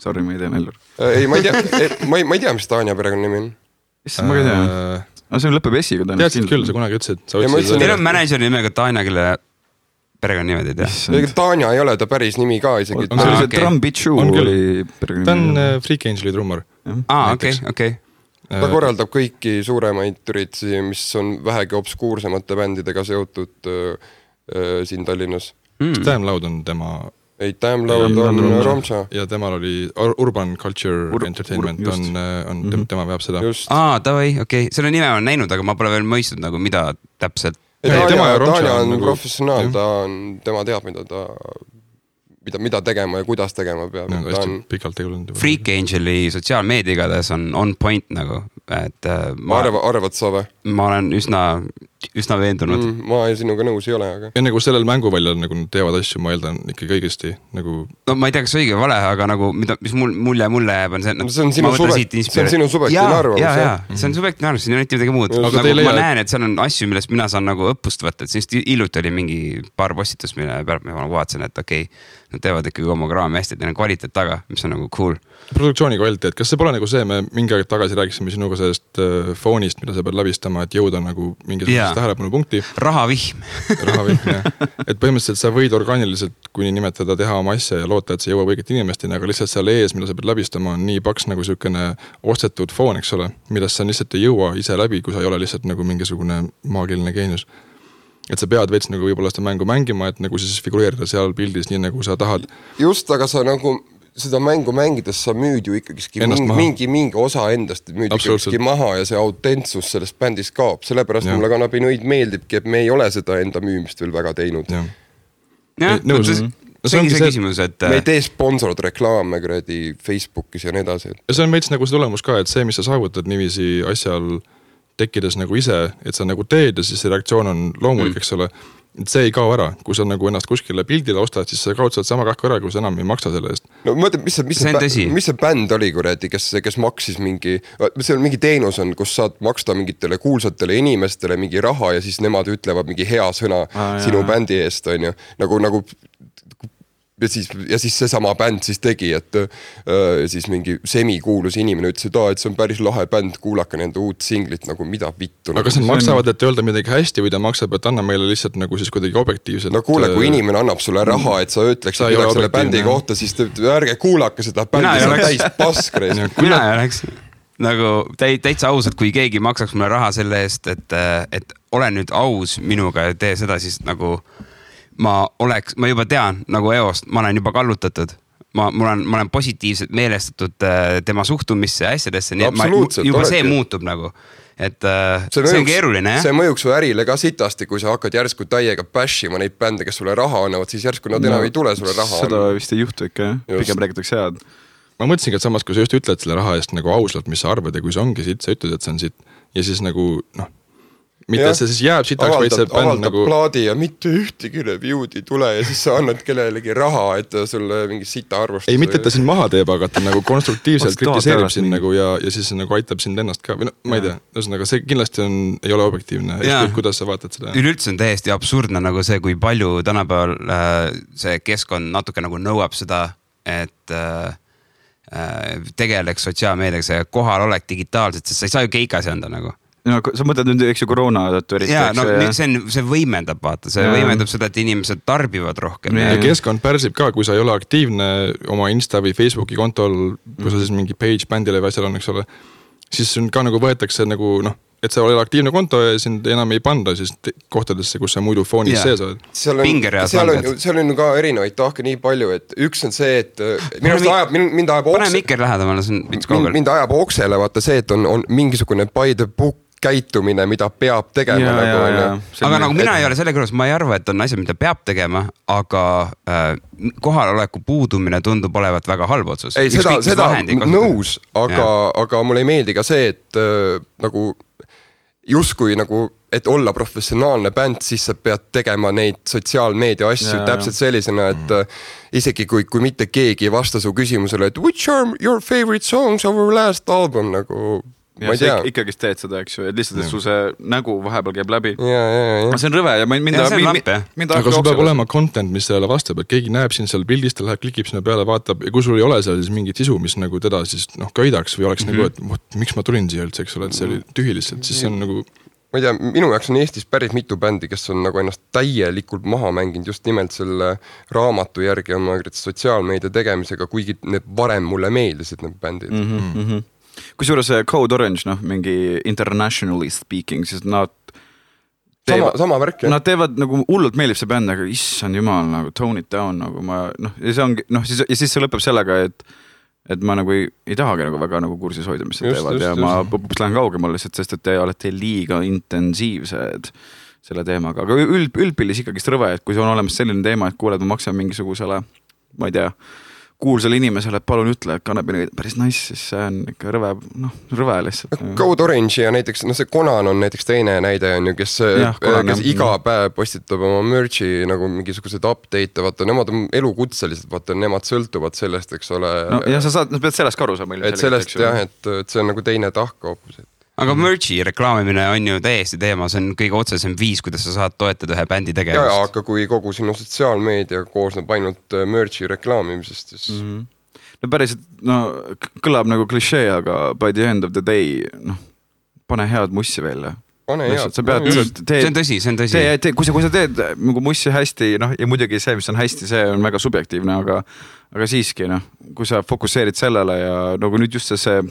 Sorry, ma ei tea Mellur. Ei, ma ei tea, mis Tanja perekonna nimi on. Ma ei tea. See on lõpeb S-iga. Teadsid küll, sa kunagi ütlesid. Teil on manager nimega Tanja, kelle perekonna nimed ei tea. Tanja ei ole ta päris nimi ka isegi. See oli see Drum Beat Shoe oli perekonna nimi. Ta on Freak Angeli trummar. Okei. Ta korraldab kõiki suuremaid üritusi, mis on vähegi obskuursemate bändidega seotud siin Tallinnas. Damn Loud on tema... Ei, Damn Loud on Romša. Ja temal oli Urban Culture Entertainment, tema veab seda. Tavai, okei. Selle nime on näinud, aga ma pole veel mõistnud, nagu mida täpselt. Tanja on professionaal, tema teab, mida tegema ja kuidas tegema peab. Pikalt tegelenud. Freak Angeli sotsiaalmeedia igades on point nagu. Arvad sa või? Ma olen üsna veendunud. Ma sinuga nõus ei ole, aga... Ja nagu sellel mänguväljal nagu teevad asju, ma eeldan ikka kõigesti nagu... No ma ei tea, kas õige vale, aga nagu mis mulle jääb on see... See on sinu subjektiivne arvamus. Jaa, see on subjektiivne arvamus, siin on mitte midagi muud. Ma näen, et seal on asju, millest mina saan nagu õppust võtta, et siin hiljuti oli mingi paar postitus, mille pealt ma vaatasin, et okei, nad teevad ikkagi homograami hästi, et neil on kvaliteet taga, mis on nagu cool. Produktsiooni kvaliteet, kas see pole nagu see, me mingi aeg tagasi rääkisime sinuga sellest foonist, mida sa pead läbistama, et jõuda nagu mingisugusest tähelepanu punkti. Rahavihm, jah. Et põhimõtteliselt sa võid orgaaniliselt, kuni nimetada, teha oma asja ja loota, et see jõuab õiget inimesteni, aga lihtsalt seal ees, mida sa pead läbistama, on nii paks nagu sükene ostetud foon, eks ole, millest sa lihtsalt ei jõua ise läbi, kui sa ei ole lihtsalt nagu mingisugune maagiline geenius. Et sa pead veits nagu võib-olla seda mängu mängima, et nagu siis figureerida seal pildis nii nagu sa tahad. Just, aga sa nagu seda mängu mängides sa müüd ju ikkagi mingi osa endast müüd ikkagi maha ja see autentsus sellest bändist kaob. Sellepärast mulle Kannapi Nõid meeldibki, et me ei ole seda enda müümist veel väga teinud. See ongi see küsimus, et... Me ei tee sponsorad reklaame kuradi Facebookis ja nii edasi. Ja see on veits nagu see tulemus ka, et see, mis sa saavutad niiviisi asjal tekkides nagu ise, et sa nagu teed ja siis see reaktsioon on loomulik, eks ole. Et see ei kao ära. Kui sa nagu ennast kuskile pildile ostad, siis sa kaotsad sama rahka ära, kui sa enam ei maksa selle eest. No mõtle, mis see bänd oli, kuradi, kes maksis mingi... See on mingi teenus on, kus saad maksta mingitele kuulsatele inimestele mingi raha ja siis nemad ütlevad mingi hea sõna sinu bändi eest, on ju. Nagu ja siis seesama bänd siis tegi, et siis mingi semikuulus inimene ütles, et see on päris lahe bänd, kuulake nende uut singlit, nagu mida vittu. Aga kas nad maksavad, et öelda midagi hästi või ta maksab, et anna meile lihtsalt nagu siis kuidagi objektiivselt? No kuule, kui inimene annab sulle raha, et sa ütleks midagi selle bändi kohta, siis ärge kuulake seda bändi, see on täis paskreis. Mina ei oleks nagu täitsa ausalt, kui keegi maksaks mulle raha selle eest, et ole nüüd aus minuga ja tee seda, siis nagu ma juba tean nagu Eost, ma olen juba kallutatud. Ma olen positiivselt meelestatud tema suhtumisse ja asjadesse, nii et juba see muutub nagu. Et see on keeruline, jah? See mõjuks su ärile ka sitasti, kui sa hakkad järsku täiega bashima neid bände, kes sulle raha annavad, siis järsku nad enam ei tule sulle raha. Seda vist ei juhtu ikka, pigem räägitakse head. Ma mõtlesingi, et samas, kui sa just ütled selle raha eest nagu ausalt, mis sa arvad ja kui see ongi siit, sa ütled, et see on siit ja siis nagu mitte et see siis jääb sitaks, vaid see bänd nagu plaadi ja mitte ühtegi review'd ei tule ja siis sa annad kellelegi raha, et sulle mingi sita arvustus. Ei, mitte et ta siin maha teeb, aga ta nagu konstruktiivselt kritiseerib sind nagu ja siis nagu aitab sind ennast ka või ma ei tea, ühesõnaga see kindlasti ei ole objektiivne, kuidas sa vaatad seda. Üleüldse on täiesti absurdne nagu see, kui palju tänapäeval see keskkond natuke nagu nõuab seda, et tegeleks sotsiaalmeediaga, see kohal olek digitaalselt, sest sa ei saa ju keikas anda nagu. No, sa mõtled nüüd, eks ju, koroona tõttu eriti. Jaa, no see võimendab, vaata, see võimendab seda, et inimesed tarbivad rohkem. Ja keskkond pärsib ka, kui sa ei ole aktiivne oma Insta või Facebooki kontol, kui sa siis mingi page bändile või asjal on, eks ole, siis ka nagu võetakse nagu, et sa oled aktiivne konto ja sind enam ei panda siis kohtadesse, kus sa muidu foonis sees oled. Seal on ka erinevaid tahke nii palju, et üks on see, et mind ajab oksele vaata see, et on mingisugune by the book käitumine, mida peab tegema. Aga nagu mina ei ole selle kõrvas, ma ei arva, et on asjad, mida peab tegema, aga kohaloleku puudumine tundub olevat väga halb otsus. Ei, seda nõus, aga mulle ei meeldi ka see, et nagu justkui nagu, et olla professionaalne bänd, siis sa pead tegema neid sotsiaalmeedia asju täpselt sellisena, et isegi kui mitte keegi ei vasta su küsimusele, et which are your favorite songs of our last album, nagu ja sa ikkagi teed seda, eks ju, et lihtsalt, et su see nägu vahepeal käib läbi. See on rõve ja aga sul peab olema content, mis sellele vastab, et keegi näeb siin seal pildist, ta läheb, klikib sinna peale, vaatab ja kui sul ei ole seal siis mingit sisu, mis nagu teda siis köidaks või oleks nagu, et miks ma tulin siia üldse, eks ole, et see oli tühi lihtsalt, siis see on nagu ma ei tea, minu jaoks on Eestis päris mitu bändi, kes on nagu ennast täielikult maha mänginud just nimelt selle raamatu järgi oma sotsiaalmeedia tegemisega, kuigi need varem mulle meeldisid need bändid. Kusjuures Code Orange, mingi internationally speaking, siis nad sama värk, nad teevad nagu hullult meeldib see bänd, aga issand jumal, nagu tone it down, nagu ja see ongi, ja siis see lõpeb sellega, et ma nagu ei tahagi nagu väga nagu kursis hoida, mis see teevad ja ma lähen kaugemal lihtsalt, sest et te olete liiga intensiivsed selle teemaga, aga üldpillis ikkagi rõve, et kui see on olemas selline teema, et kuuled, ma maksan mingisugusele, ma ei tea, kuulsale inimesele, et palun ütle, et kannabini päris nice, siis see on ikka rõve lihtsalt. Code Orange ja näiteks, see Conan on näiteks teine näide on ju, kes iga päev postitab oma merch'i nagu mingisugused update, vaata, nemad on elukutselised, vaata, nemad sõltuvad sellest, eks ole. No ja sa pead sellest ka aru saama. Et sellest jah, et see on nagu teine tahk hoopis. Aga merch'i reklaamimine on ju täiesti teema, see on kõige otsesem viis, kuidas sa saad toetada ühe bändi tegevust. Ja, aga kui kogu sinu sotsiaalmeedia koosneb ainult merch'i reklaamimisest, siis... No päriselt, kõlab nagu klišee, aga by the end of the day, pane head mussi välja. Pane head. See on tõsi. Kui sa teed nagu mussi hästi, ja muidugi see, mis on hästi, see on väga subjektiivne, aga siiski, kui sa fokusseerid sellele ja nagu nüüd just see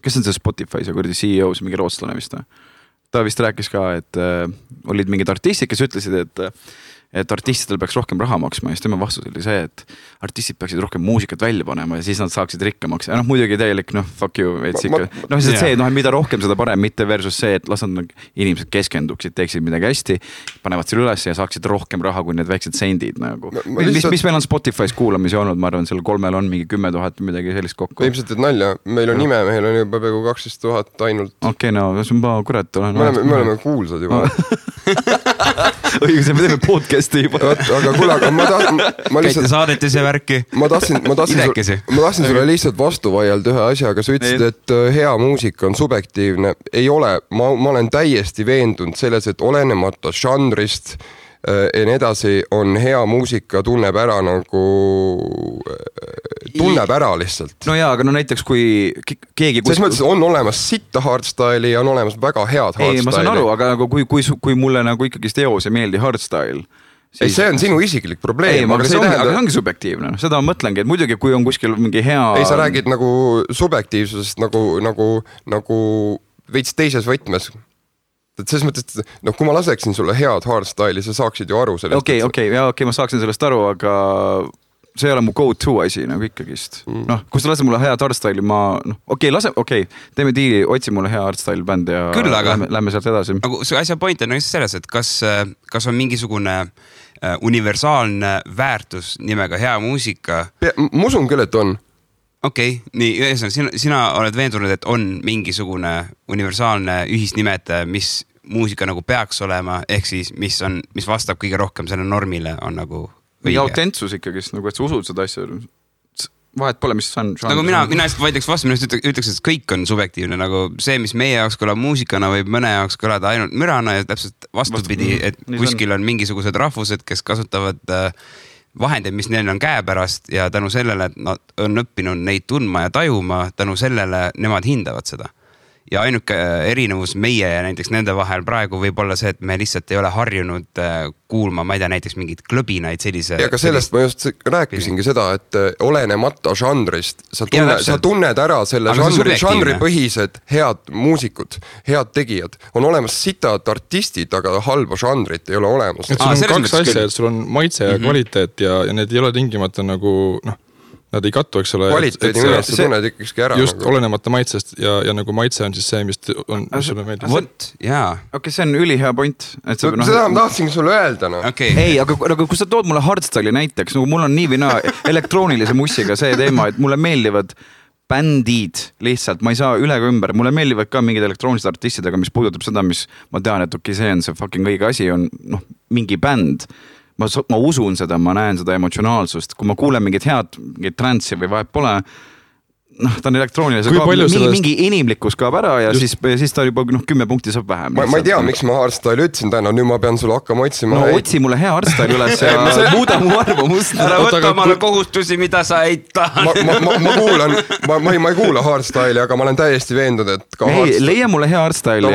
kes on see Spotify, see kurdi CEO, see mingi rootslane vist? Ta vist rääkis ka, et olid mingid artistid, kes ütlesid, et artistidel peaks rohkem raha maksma ja siis tema vastus oli see, et artistid peaksid rohkem muusikat välja panema ja siis nad saaksid rikkamaks. Ja muidugi täielik, fuck you. Mida rohkem seda parem, mitte versus see, et las nad inimesed keskenduksid, teeksid midagi hästi, panevad selle üles ja saaksid rohkem raha kui need väiksed sendid. Mis meil on Spotify's kuulamisi olnud, ma arvan, seal 3 on mingi 10 000 midagi sellist kokku. Ilmselt, et nalja, meil on nime, meil on juba peaaegu 12 000 ainult. Okei, see on kurat. Me oleme kuulsad juba. Õigus, me teeme podcasti juba. Aga kuule, ma lihtsalt... Saadeti see värki. Ma tahtsin sulle lihtsalt vastu vaielda ühe asjaga. Sa ütlesid, et hea muusika on subjektiivne. Ei ole. Ma olen täiesti veendunud selles, et olenemata žanrist ja nii edasi on hea muusika tunneb ära nagu... Tunneb ära lihtsalt. No jaa, aga näiteks kui keegi... Selles mõttes on olemas sitta hardstyle'i ja on olemas väga head hardstyle'i. Ei, ma saan aru, aga nagu kui mulle nagu ikkagi teos ei meeldi hardstyle... Ei, see on sinu isiklik probleem. Ei, aga see ongi subjektiivne. Seda ma mõtlengi, et muidugi kui on kuskil mingi hea... Ei, sa räägid nagu subjektiivsusest nagu veits teises võtmes. et selles mõttes, et noh, kui ma laseksin sulle head hardstyle'i, sa saaksid ju aru sellest. Okei, ma saaksin sellest aru, aga see ei ole mu go-to asi nagu ikkagist. Noh, kui sa lased mulle head hardstyle'i, teeme diili, otsi mulle hea hardstyle bänd ja küll, aga lähme sealt edasi. Nagu see asja point on selles, et kas on mingisugune universaalne väärtus nimega hea muusika? Ma usun küll, et on. Okei, nii, sina oled veendunud, et on mingisugune universaalne ühisnimetaja, mis muusika nagu peaks olema, ehk siis mis vastab kõige rohkem selle normile, on nagu või autentsus ikkagist, nagu et sa usud seda asja. Vahet pole, mis on. Nagu mina hästi vaidleks vastu, mina ütleks, et kõik on subjektiivne, nagu see, mis meie jaoks kõlab muusikana või mõne jaoks kõlada ainult mürana ja täpselt vastupidi, et kuskil on mingisugused rahvused, kes kasutavad vahendeid, mis neil on käepärast ja tänu sellele, et nad on õppinud neid tundma ja tajuma, tänu sellele nemad hindavad seda. Ja ainuke erinevus meie ja näiteks nende vahel praegu võib olla see, et me lihtsalt ei ole harjunud kuulma, ma ei tea, näiteks mingid klõbinaid sellise. Ja ka sellest ma just rääkisingi seda, et olenemata žanrist, sa tunned ära selle žanri põhised head muusikud, head tegijad. On olemas sitad artistid, aga halba žanrit ei ole olemas. Et sul on kaks asja, et sul on maitse ja kvaliteet ja need ei ole tingimata nagu, noh, nad ei kattu, eks ole. Kvaliteedi millest sa tunned ikkakski ära. Just nagu. Olenemata maitsest ja nagu maitse on siis see, mis sulle meeldib. Vot, jaa. Okei, see on ülihea point. Seda ma tahtsingi sulle öelda. No. Okay. Ei, aga kui sa tood mulle hardstyle'i näiteks, nagu mul on nii või naa elektroonilise mussiga see teema, et mulle meeldivad bändid lihtsalt, ma ei saa üle ega ümber. Mulle meeldivad ka mingid elektroonilised artistidega, mis puudutab seda, mis ma tean, et okei, see on see fucking õige asi, on mingi bänd. Ma usun seda, ma näen seda emotsionaalsust. Kui ma kuulen mingit head, mingit transsi või vahet pole, ta on elektroonilise, mingi inimlikkus kaob ära ja siis ta juba 10 punkti saab vähem. Ma ei tea, miks ma hardstyle ütlesin täna, nüüd ma pean sulle hakkama otsima. No otsi mulle hea hardstyle üles ja muuda mu arvamust. Ära võtta omale kohustusi, mida sa ei taha. Ma kuulan, ma ei kuula hardstyle'i, aga ma olen täiesti veendunud, et ka hardstyle. Leia mulle hea hardstyle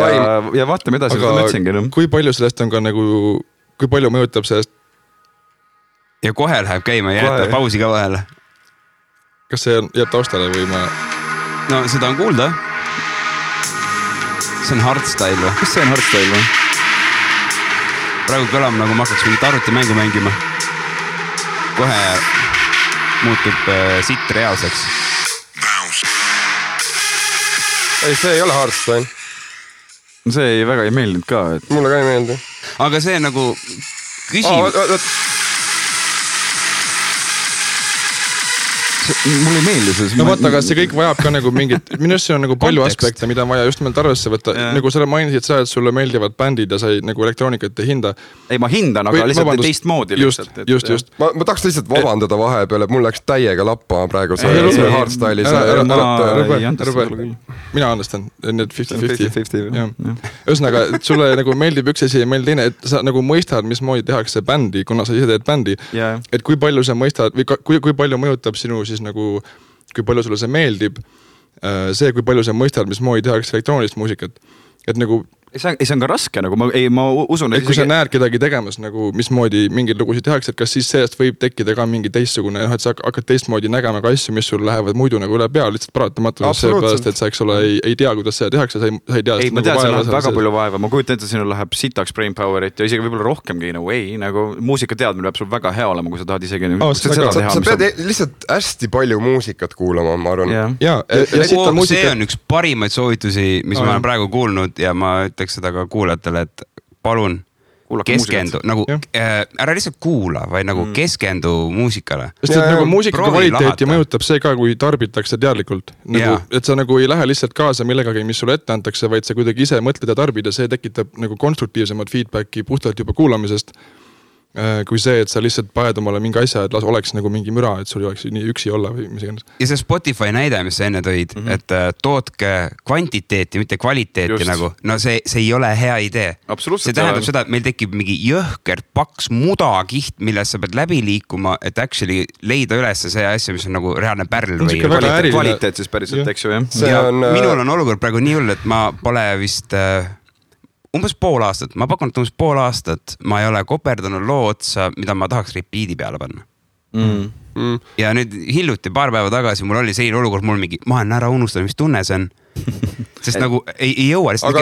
ja vaatame edasi, mida mõtlesingi. Kui palju sellest on ka nagu, kui palju mõjutab sellest ja kohe läheb käima ja jätta pausi ka vahele. Kas see jääb taustale või ma... No seda on kuulda. See on hardstyle või? Kas see on hardstyle või? Praegu kõlam nagu ma hakkaks mingit arvutimängu mängima. Kohe muutub sitt reaalseks. Ei, see ei ole hardstyle. See väga ei meeldinud ka. Et... Mulle ka ei meeldi. Aga see nagu küsimus... Mul ei meeldi see. No vaata, aga see kõik vajab ka nagu mingit, minust see on nagu palju aspekte, mida on vaja just nimelt arvesse võtta. Nagu sa mainisid seda, et sulle meeldivad bändid ja sa ei nagu elektroonikat ei hinda. Ei, ma hindan, aga lihtsalt teist moodi. Just. Ma tahaks lihtsalt vabandada vahepeal, et mul läks täiega lappa praegu see hardstyle'i. Mina andestan, need 50-50. Ühesõnaga, et sulle nagu meeldib üks asi ja meeldib teine, et sa nagu mõistad, mismoodi tehakse bändi, kuna sa ise teed bändi. Et kui palju sa mõistad või kui palju mõjutab sinu siis nagu, kui palju sulle see meeldib, see, kui palju sa mõistad, mismoodi tehakse elektroonilist muusikat. Et nagu... See on ka raske, nagu ma usun... Et kui sa näed kedagi tegemas, nagu mismoodi mingeid lugusid tehakse, et kas siis sellest võib tekkida ka mingi teistsugune, et sa hakkad teistmoodi nägema ka asju, mis sul lähevad muidu nagu üle pea, lihtsalt paratamatus seepärast, et sa eks ole ei tea, kuidas seda tehakse, sa ei tea... Ei, ma tean, see läheb väga palju vaeva, ma kujutan ette, sinul läheb sitaks brain powerit ja isegi võib-olla rohkemgi, nagu muusika teadmine peab sul väga hea olema, kui sa tahad isegi... Sa pead lihtsalt hästi palju muusikat kuulama, ma arvan. See on üks parimaid soovitusi, mis ma olen praegu kuulnud ja ma seda ka kuulajatele, et palun keskendu, nagu ära lihtsalt kuula, vaid nagu keskendu muusikale. Sest et nagu muusika kvaliteeti mõjutab see ka, kui tarbitakse teadlikult. Et sa nagu ei lähe lihtsalt kaasa millegagi, mis sulle ette antakse, vaid sa kuidagi ise mõtled ja tarbid ja see tekitab nagu konstruktiivsemad feedbacki puhtalt juba kuulamisest. Kui see, et sa lihtsalt paned omale mingi asja, et oleks nagu mingi müra, et sul oleks nii üksi olla või mis iganes. Ja see Spotify näide, mis sa enne tõid, et tootke kvantiteeti, mitte kvaliteeti nagu, no see ei ole hea idee. See tähendab seda, et meil tekib mingi jõhkert paks mudakiht, millest sa pead läbi liikuma, et actually leida üles see asja, mis on nagu reaalne pärl või kvaliteet siis päriselt, eks ju, jah? Minul on olukord praegu nii hull, et ma pole vist... umbes pool aastat, ma pakun, et umbes pool aastat ma ei ole koperdanud loo otsa, mida ma tahaks repeat'i peale panna. Ja nüüd hiljuti paar päeva tagasi mul oli selline olukord, mul mingi, ma olen ära unustanud, mis tunne see on. sest nagu ei jõua lihtsalt,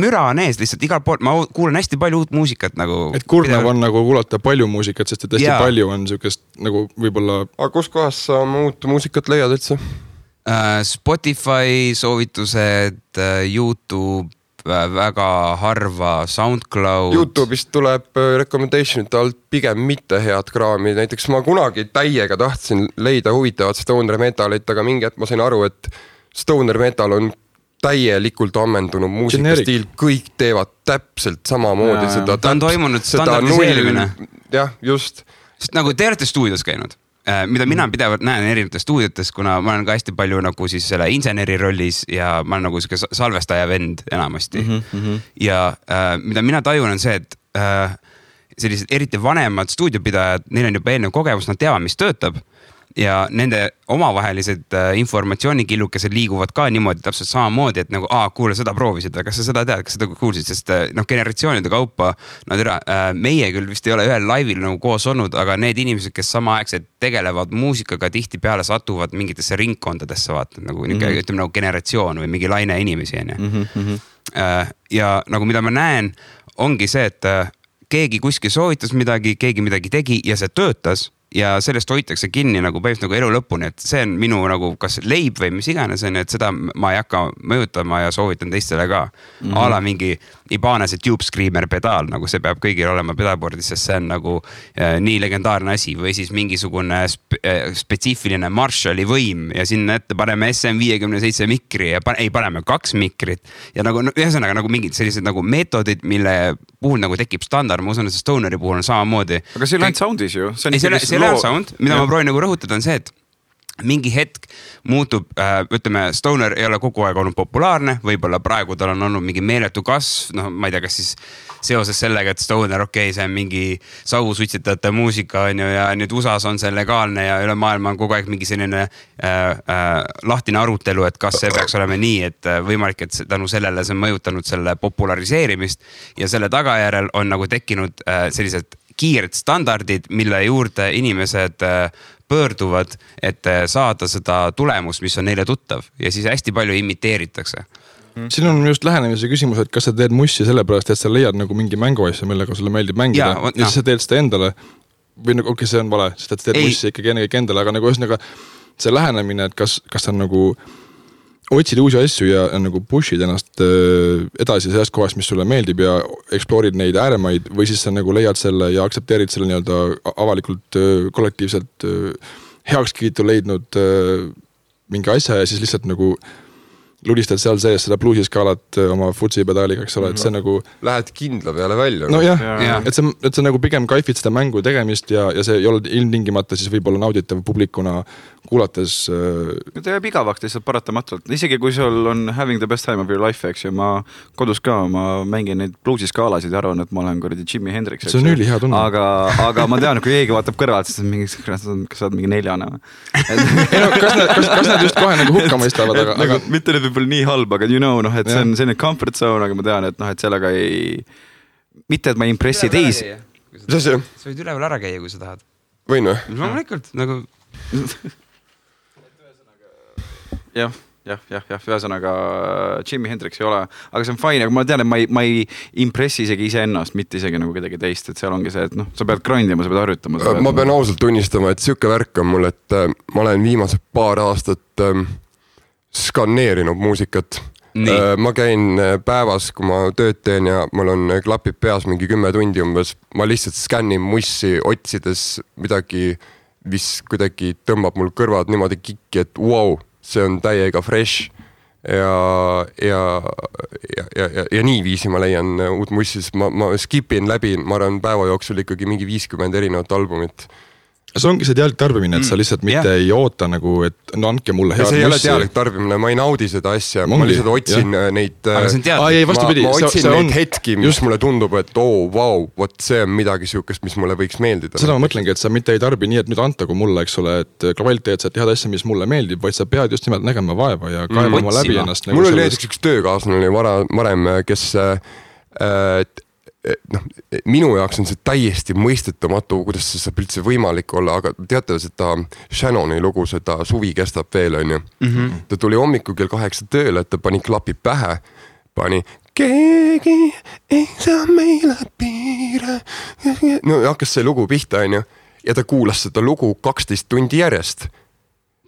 müra on ees lihtsalt igal pool, ma kuulen hästi palju uut muusikat nagu. Et kurnav on nagu kuulata palju muusikat, sest et hästi palju on siukest nagu võib-olla. Aga kus kohas sa uut muusikat leiad üldse? Spotify soovitused, YouTube, väga harva SoundCloud. YouTube'ist tuleb recommendation'ite alt pigem mitte head kraami. Näiteks ma kunagi täiega tahtsin leida huvitavat stoner metalit, aga mingi hetk ma sain aru, et stoner metal on täielikult ammendunud muusikastiil. Kõik teevad täpselt samamoodi seda. Ta on toimunud standardiseerimine. Jah, just. Sest nagu te olete stuudios käinud. Mida mina pidevalt näen erinevates stuudiotes, kuna ma olen ka hästi palju nagu siis selle inseneri rollis ja ma olen nagu salvestaja vend enamasti. Ja mida mina tajun on see, et sellised eriti vanemad stuudiopidajad, neil on juba eelnev kogemus, nad teavad, mis töötab. Ja nende omavahelised informatsioonikillukesed liiguvad ka niimoodi täpselt samamoodi, et nagu, kuule, seda proovisid, kas sa seda tead, kas seda kuulsid, sest generatsioonide kaupa, meie küll vist ei ole ühel laivil nagu koos olnud, aga need inimesed, kes samaaegselt tegelevad muusikaga, tihti peale satuvad mingitesse ringkondadesse, vaata, nagu, ütleme nagu generatsioon või mingi laine inimesi. Ja nagu mida ma näen, ongi see, et keegi kuskil soovitas midagi, keegi midagi tegi ja see töötas. Ja sellest hoitakse kinni nagu päevist nagu elu lõpuni, et see on minu nagu kas leib või mis iganes on, et seda ma ei hakka mõjutama ja soovitan teistele ka. Ala mingi Ibanese Tube Screamer pedaal, nagu see peab kõigil olema pedalboardis, sest see on nagu nii legendaarne asi või siis mingisugune spetsiifiline Marshalli võim ja sinna ette paneme SM57 mikri ja paneme 2 mikrit ja nagu ühesõnaga nagu mingid sellised nagu meetodid, mille puhul nagu tekib standard, ma usun, et see Stoneri puhul on samamoodi. Aga see on soundis ju. See on sound, mida ma proovin nagu rõhutada on see, et mingi hetk muutub, ütleme, Stoner ei ole kogu aeg olnud populaarne, võib-olla praegu tal on olnud mingi meeletu kasv, ma ei tea, kas siis seoses sellega, et Stoner, see on mingi sausutsitajate muusika on ju, ja nüüd USAs on see legaalne ja üle maailma on kogu aeg mingi selline lahtine arutelu, et kas see peaks olema nii, et võimalik, et tänu sellele see on mõjutanud selle populariseerimist ja selle tagajärel on nagu tekkinud sellised kiired standardid, mille juurde inimesed pöörduvad, et saada seda tulemust, mis on neile tuttav ja siis hästi palju imiteeritakse. Siin on just lähenemise küsimus, et kas sa teed mussi sellepärast, et sa leiad nagu mingi mänguasja, millega sulle meeldib mängida ja siis sa teed seda endale või nagu, see on vale, sest et sa teed mussi ikkagi ennekõike endale, aga nagu ühesõnaga see lähenemine, et kas on nagu otsid uusi asju ja nagu pushid ennast edasi sellest kohast, mis sulle meeldib ja eksploorid neid ääremaid või siis sa nagu leiad selle ja aktsepteerid selle nii-öelda avalikult kollektiivselt heakskiitu leidnud mingi asja ja siis lihtsalt nagu ludistad seal sees seda bluusiskaalat oma futsi pedaaliga, eks ole, et see nagu lähed kindla peale välja. No jah, et see nagu pigem kaifid seda mängu tegemist ja see ei ole ilmtingimata siis võib-olla nauditav publikuna kuulates. Ta jääb igavaks lihtsalt paratamatult, isegi kui sul on having the best time of your life, eks ju, ma kodus ka, ma mängin neid bluusiskaalasid ja arvan, et ma olen kuradi Jimi Hendrix. See on üli hea tunne. Aga ma tean, kui keegi vaatab kõrvalt, siis on mingi, kas sa oled mingi 4. Kas nad just kohe nagu hukka mõistavad, aga mitte nüüd võib-olla nii halb, aga you know, et see on selline comfort zone, aga ma tean, et et sellega ei, mitte et ma impressi teisi. Sa võid üleval ära käia, kui sa tahad. Võin või? Loomulikult, nagu jah, ühesõnaga Jimi Hendrix ei ole, aga see on fine, aga ma tean, et ma ei impressi isegi ise ennast, mitte isegi nagu kedagi teist, et seal ongi see, et sa pead grindima, sa pead harjutama. Ma pean ausalt tunnistama, et siuke värk on mul, et ma olen viimased paar aastat skanneerinud muusikat. Ma käin päevas, kui ma tööd teen ja mul on klapid peas mingi 10 tundi umbes, ma lihtsalt skännin mussi otsides midagi, mis kuidagi tõmbab mul kõrvad niimoodi kikki, et wow, see on täiega fresh ja nii viisi ma leian uut mussi, ma skipin läbi, ma arvan päeva jooksul ikkagi mingi 50 erinevat albumit. See ongi see teadlik tarbimine, et sa lihtsalt mitte ei oota nagu, et andke mulle head mussi. See ei ole teadlik tarbimine, ma ei naudi seda asja, ma lihtsalt otsin neid ma otsin neid hetki, mis mulle tundub, et vau, vot see on midagi siukest, mis mulle võiks meeldida. Seda ma mõtlengi, et sa mitte ei tarbi nii, et nüüd antagu mulle, eks ole, et kvaliteetset head asja, mis mulle meeldib, vaid sa pead just nimelt nägema vaeva ja kaevama läbi ennast. Mul oli näiteks üks töökaaslane varem, kes minu jaoks on see täiesti mõistetamatu, kuidas see saab üldse võimalik olla, aga teate seda Shannoni lugu, seda Suvi kestab veel, on ju. Ta tuli hommikul kell 8 tööle, et ta pani klapi pähe, pani keegi ei saa meile piire. No hakkas see lugu pihta, on ju. Ja ta kuulas seda lugu 12 tundi järjest.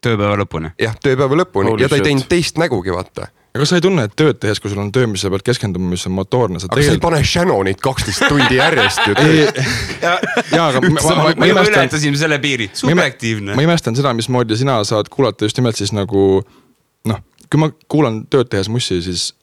Tööpäeva lõpuni? Jah, tööpäeva lõpuni. Ja ta ei teinud teist nägugi, vaata. Aga sa ei tunne, et tööd tehes, kui sul on töö, mis sa pead keskenduma, mis on motoorne. Aga sa ei pane Shannonit 12 tundi järjest. Jaa, aga ma ületasime selle piiri. Subjektiivne. Ma imestan seda, mismoodi sina saad kuulata just nimelt siis nagu, kui ma kuulan tööd tehes mussi, siis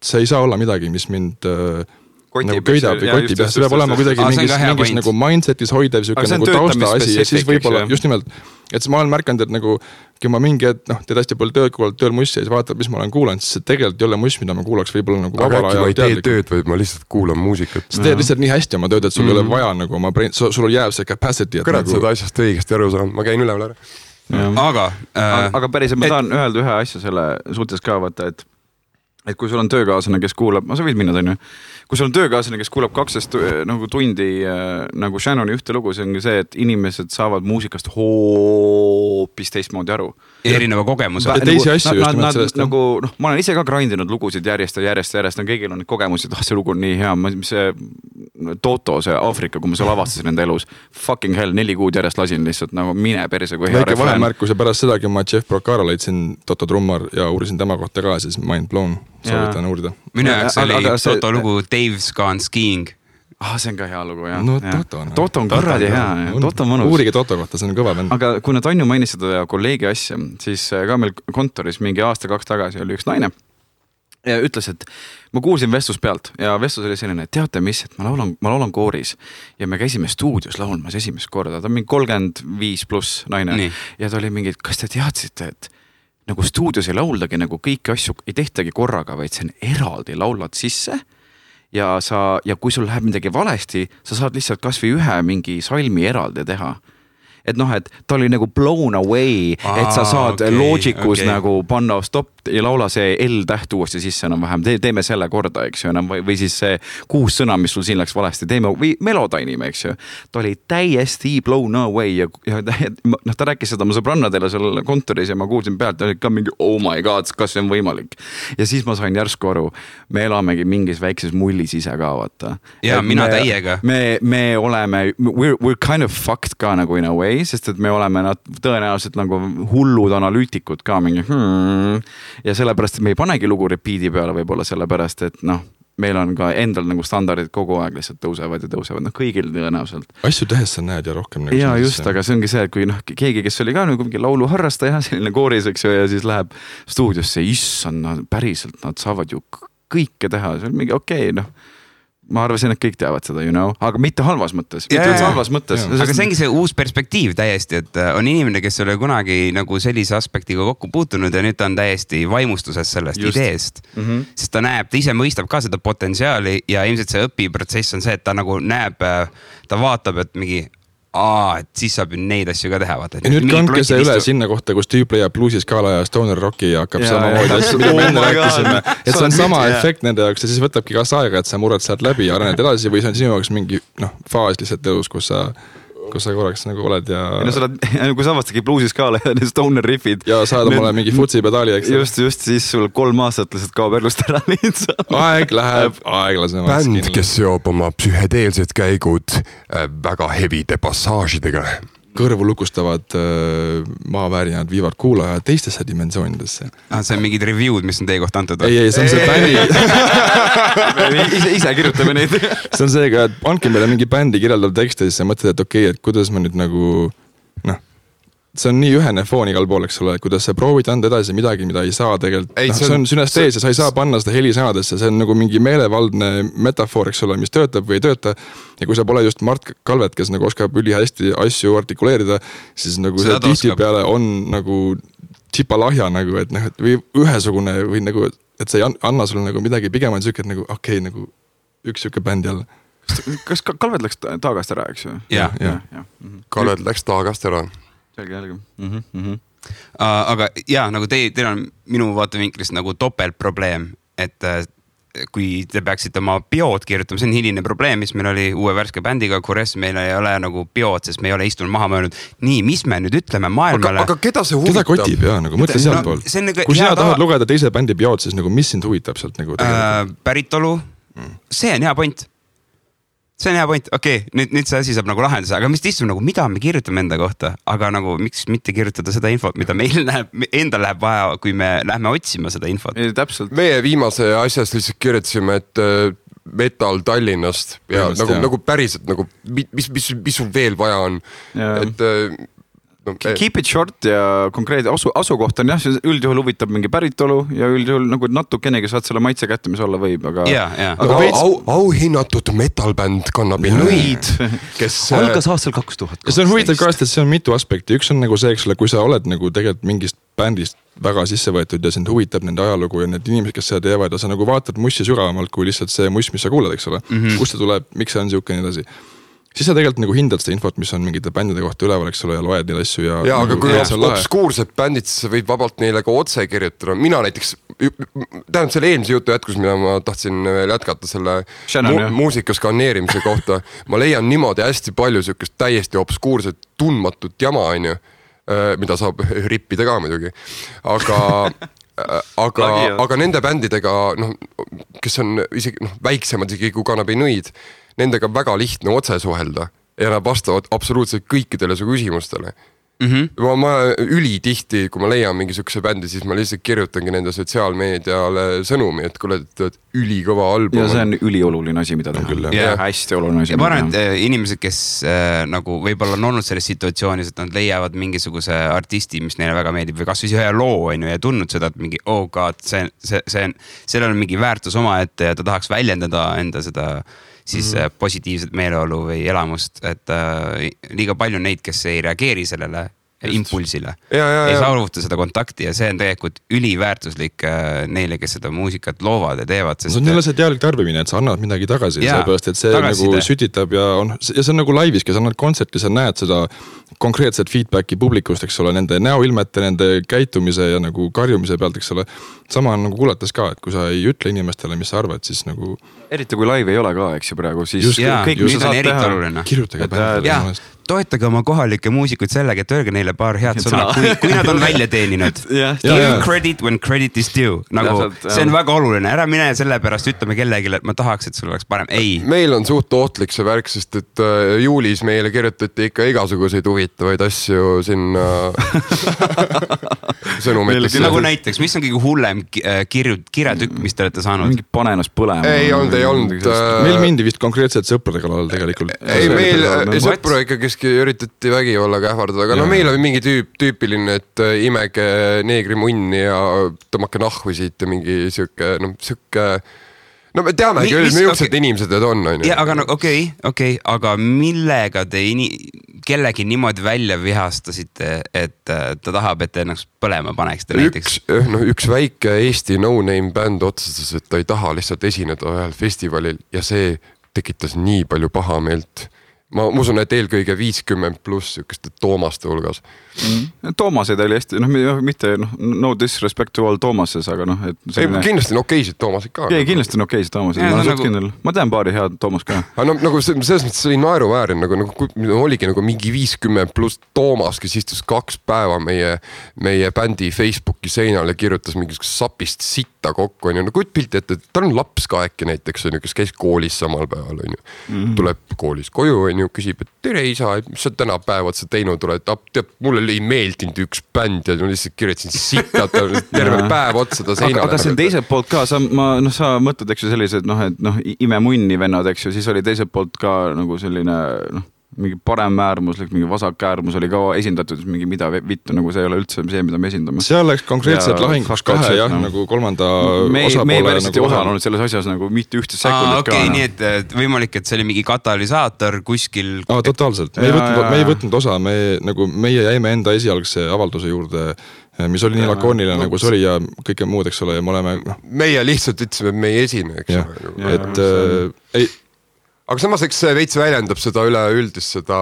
see ei saa olla midagi, mis mind nagu köidab või kotib. See peab olema kuidagi mingis nagu mindsetis hoidev nagu tausta asi ja siis võib-olla just nimelt, et ma olen märkanud, et nagu kui ma mingi, teed hästi palju tööd, kuulad tööl mussi ja siis vaatad, mis ma olen kuulanud, siis see tegelikult ei ole muss, mida ma kuulaks võib-olla nagu vabala ja teadlikult. Aga äkki ma ei tee tööd, või ma lihtsalt kuulan muusikat. Sa teed lihtsalt nii hästi oma tööd, et sul ei ole vaja nagu oma brain, sul jääb see capacity. Kõrad nagu... seda asjast õigesti aru saanud, ma käin üleval ära. Aga päris, ma tahan öelda ühe asja selle suhtes ka vaata, et kui sul on töökaaslane, kes kuulab, sa võid minna, on ju, kui sul on töökaaslane, kes kuulab 12 nagu tundi nagu Shannoni ühte lugu, see on see, et inimesed saavad muusikast hoopis teistmoodi aru. Erineva kogemuse. Teisi asju just nimelt sellest. Nagu, ma olen ise ka grindinud lugusid järjest, kõigil on neid kogemusi, et see lugu on nii hea. See Toto, see Aafrika, kui ma seal avastasin enda elus, fucking hell, 4 kuud järjest lasin lihtsalt nagu mine perse kui hea refrään. Väike vahemärkus ja pärast seda, kui ma Jeff Procaro leidsin Toto trummar ja uurisin tema kohta ka, siis mind blown. Soovitan uurida. Minu jaoks oli Toto lugu Dave's Gone Skiing. See on ka hea lugu, jah. No Toto on kuradi hea. Toto on mõnus. Uurige Toto kohta, see on kõva bänd. Aga kui Tanju mainis seda kolleegi asja, siis ka meil kontoris mingi aasta-2 tagasi oli üks naine ja ütles, et ma kuulsin vestlus pealt ja vestlus oli selline, et teate mis, et ma laulan kooris ja me käisime stuudios laulmas esimest korda. Ta on mingi 35+ naine. Nii. Ja ta oli mingi, kas te teadsite, et nagu stuudios ei lauldagi nagu kõiki asju ei tehtagi korraga, vaid see on eraldi laulad sisse ja kui sul läheb midagi valesti, sa saad lihtsalt kas või ühe mingi salmi eraldi teha. Et et ta oli nagu blown away, et sa saad Logicus nagu panna stop ja laula see L-täht uuesti sisse enam vähem, teeme selle korda, eks ju, enam või siis see 6 sõna, mis sul siin läks valesti, teeme või Melodyne'ime, eks ju. Ta oli täiesti blown away ja ta rääkis seda mu sõbrannadele seal kontoris ja ma kuulsin pealt, oli ka mingi oh my god, kas see on võimalik. Ja siis ma sain järsku aru, me elamegi mingis väikses mullis ise ka, vaata. Ja mina täiega. Me oleme, we're kind of fucked ka nagu in a way, sest et me oleme tõenäoliselt nagu hullud analüütikud ka mingi ja sellepärast, et me ei panegi lugu repeat'i peale võib-olla sellepärast, et meil on ka endal nagu standardid kogu aeg lihtsalt tõusevad ja tõusevad, kõigil tõenäoliselt. Asju tehes sa näed ja rohkem nagu ja just, aga see ongi see, et kui keegi, kes oli ka nagu mingi lauluharrastaja, selline kooris, eks ju, ja siis läheb stuudiosse, issand, päriselt, nad saavad ju kõike teha, see on mingi okei, ma arvasin, et kõik teavad seda, aga mitte halvas mõttes. Aga see ongi see uus perspektiiv täiesti, et on inimene, kes oli kunagi nagu sellise aspektiga kokku puutunud ja nüüd ta on täiesti vaimustuses sellest ideest. Sest ta näeb, ta ise mõistab ka seda potentsiaali ja ilmselt see õpiprotsess on see, et ta nagu näeb, ta vaatab, et mingi et siis saab ju neid asju ka teha. Vaata. Ja nüüd kandke see üle sinna kohta, kus tüüp leiab bluusiskaala ja stoner rocki ja hakkab samamoodi asju, mida me enne rääkisime. Et see on sama efekt nende jaoks ja siis võtabki kas aega, et sa murrad sealt läbi ja arened edasi või see on sinu jaoks mingi faas lihtsalt elus, kus sa korraks nagu oled ja... kui sa avastagi bluusiskaala ja need stoner riffid. Ja saad omale mingi futsi pedaali, eks. Just, siis sul 3 aastat lihtsalt kaob elust ära lihtsalt. Aeg läheb aeglasemaks. Bänd, kes seob oma psühhedeelsed käigud väga hevide passaažidega. Kõrvu lukustavad maaväärinad viivad kuulaja teistesse dimensioonidesse. See on mingid review'd, mis on teie kohta antud. Ei, see on see bändi. ise kirjutame neid. See on seega, et andke meile mingi bändi kirjeldav tekst ja siis sa mõtled, et okei, et kuidas ma nüüd nagu, see on nii ühene foon igal pool, eks ole, kuidas sa proovid anda edasi midagi, mida ei saa tegelikult. See on sünestees ja sa ei saa panna seda helisõnadesse, see on nagu mingi meelevaldne metafoor, eks ole, mis töötab või ei tööta. Ja kui sa pole just Mart Kalvet, kes nagu oskab ülihästi asju artikuleerida, siis nagu see tihti peale on nagu tšipalahja nagu, et või ühesugune või nagu, et see ei anna sulle nagu midagi, pigem on siuke, et nagu okei, nagu üks siuke bänd jälle. Kas Kalvet läks taagast ära, eks ju? Ja. Kalvet läks taagast ära. Selge. Aga nagu teil on minu vaatevinklist nagu topeltprobleem, et kui te peaksite oma biood kirjutama, see on hiline probleem, mis meil oli uue värske bändiga, Kures meil ei ole nagu biood, sest me ei ole istunud maha mõelnud. Nii, mis me nüüd ütleme maailmale? Aga keda see huvitab? Keda kotib, jah, nagu mõtle sealt pool. Kui sina tahad lugeda teise bändi biood, siis nagu mis sind huvitab sealt nagu päritolu, see on hea point. See on hea point, okei, nüüd see asi saab nagu lahenduse, aga mis istub nagu, mida me kirjutame enda kohta, aga nagu miks mitte kirjutada seda infot, mida meil endal läheb vaja, kui me lähme otsima seda infot. Täpselt. Meie viimase asjast lihtsalt kirjutasime, et metal Tallinnast ja nagu päriselt, nagu, mis sul veel vaja on, et Keep it short ja konkreetne asukoht on jah, üldjuhul huvitab mingi päritolu ja üldjuhul nagu natukenegi saad selle maitse kätte, mis olla võib, aga auhinnatud metalbänd Kannabi Nõid, kes algas aastal 2000. See on huvitav ka, et see on mitu aspekti. Üks on nagu see, eks ole, kui sa oled nagu tegelikult mingist bändist väga sisse võetud ja sind huvitab nende ajalugu ja need inimesed, kes seda teevad ja sa nagu vaatad mussi sügavamalt kui lihtsalt see muss, mis sa kuulad, eks ole, kust see tuleb, miks see on siuke nii edasi. Siis sa tegelikult nagu hindad seda infot, mis on mingite bändide kohta üleval, eks ole, ja loed neid asju ja aga kui obskuursed bändid, siis sa võid vabalt neile ka otse kirjutada. Mina näiteks, tähendab selle eelmise jutu jätkus, mida ma tahtsin veel jätkata selle muusika skaneerimise kohta. Ma leian niimoodi hästi palju sükest täiesti obskuurset, tundmatut jama, on ju, mida saab rippida ka muidugi. Aga nende bändidega, kes on isegi väiksemad isegi kui Kannabi Nõid, nendega väga lihtne otse suhelda ja nad vastavad absoluutselt kõikidele su küsimustele. Ma ülitihti, kui ma leian mingisuguse bändi, siis ma lihtsalt kirjutangi nende sotsiaalmeediale sõnumi, et kuule, et ülikõva album. Ja see on ülioluline asi, mida ta küll. Hästi oluline asi. Ja ma arvan, et inimesed, kes nagu võib-olla on olnud selles situatsioonis, et nad leiavad mingisuguse artisti, mis neile väga meeldib või kas või ühe loo on ju, ja tundnud seda, et mingi, oh god, sellel on mingi väärtus oma ette ja ta tahaks väljendada enda seda siis positiivset meeleolu või elamust, et liiga palju neid, kes ei reageeri sellele impulsile. Ei saavuta seda kontakti ja see on tegelikult üliväärtuslik neile, kes seda muusikat loovad ja teevad. See on jälle see teadlik tarbimine, et sa annad midagi tagasi, sellepärast, et see nagu sütitab ja see on nagu laivis, kes annad kontserti, sa näed seda konkreetset feedbacki publikust, eks ole, nende näoilmete, nende käitumise ja nagu karjumise pealt, eks ole. Sama on nagu kuulates ka, et kui sa ei ütle inimestele, mis sa arvad, siis nagu eriti kui live ei ole ka, eks ju praegu, siis kõik, mis saad teha. Kirjutage bändi. Toetage oma kohalikke muusikuid sellega, et öelge neile paar head sõna, kui nad on välja teeninud. Give credit when credit is due. Nagu, see on väga oluline. Ära mine selle pärast ütleme kellegile, et ma tahaks, et sul oleks parem. Ei. Meil on suht ohtlik see värk, sest et juulis meile kirjutati ikka igasuguseid huvitavaid asju sinna sõnumiteks. Nagu näiteks, mis on kõige hullem kirjatükk, mis te olete saanud? Mingi pane ennast põlema. Ei olnud. Meil mindi vist konkreetselt sõprade kallal tegelikult. Ei, meil sõpru ikka keski üritati vägivallaga ähvardada, aga meil oli mingi tüüpiline, et imege neegri munni ja tõmmake nahvi siit ja mingi siuke, no me teamegi, millised inimesed need on. Ja, aga okei, aga millega te kellegi niimoodi välja vihastasite, et ta tahab, et ennast põlema paneksite näiteks? Üks väike Eesti no-name bänd otsustas, et ta ei taha lihtsalt esineda ühel festivalil ja see tekitas nii palju pahameelt. Ma usun, et eelkõige 50 pluss sükeste Toomaste hulgas. Toomased oli hästi, mitte no disrespect to all Toomases, aga kindlasti on okeisid Toomased ka. Ei, kindlasti on okeisid Toomased. Ma tean paari head Toomas ka. Nagu selles mõttes oli naeruväärin, oligi mingi 50 pluss Toomas, kes istus 2 päeva meie bändi Facebooki seinal ja kirjutas mingisugust sapist sitta kokku. Kuid pilti, et tal on laps ka äkki näiteks, kes käis koolis samal päeval. Tuleb koolis koju, küsib, et tere isa, mis sa täna päevad sa teinud oled, mulle ei meeldinud üks bänd ja ma lihtsalt kirjutasin sitta, terve päev otsa ta seinale. Aga see on teiselt poolt ka, sa mõtled, eks ju sellised, imemunni vennad, eks ju, siis oli teiselt poolt ka nagu selline, mingi parem äärmuslik, mingi vasak äärmus oli ka esindatud, mingi mida vittu, nagu see ei ole üldse see, mida me esindame. Seal läks konkreetselt lahinguks kahe, nagu kolmanda osapoole. Me päriselt ei osanud selles asjas nagu mitte ühte sekundit ka. Nii et võimalik, et see oli mingi katalüsaator kuskil. Totaalselt, me ei võtnud osa, meie jäime enda esialgse avalduse juurde, mis oli nii lakooniline, nagu see oli ja kõike muud, eks ole, ja me oleme... Meie lihtsalt ütlesime, et me ei esine, eks ole. Aga samas eks see veits väljendab seda üleüldist seda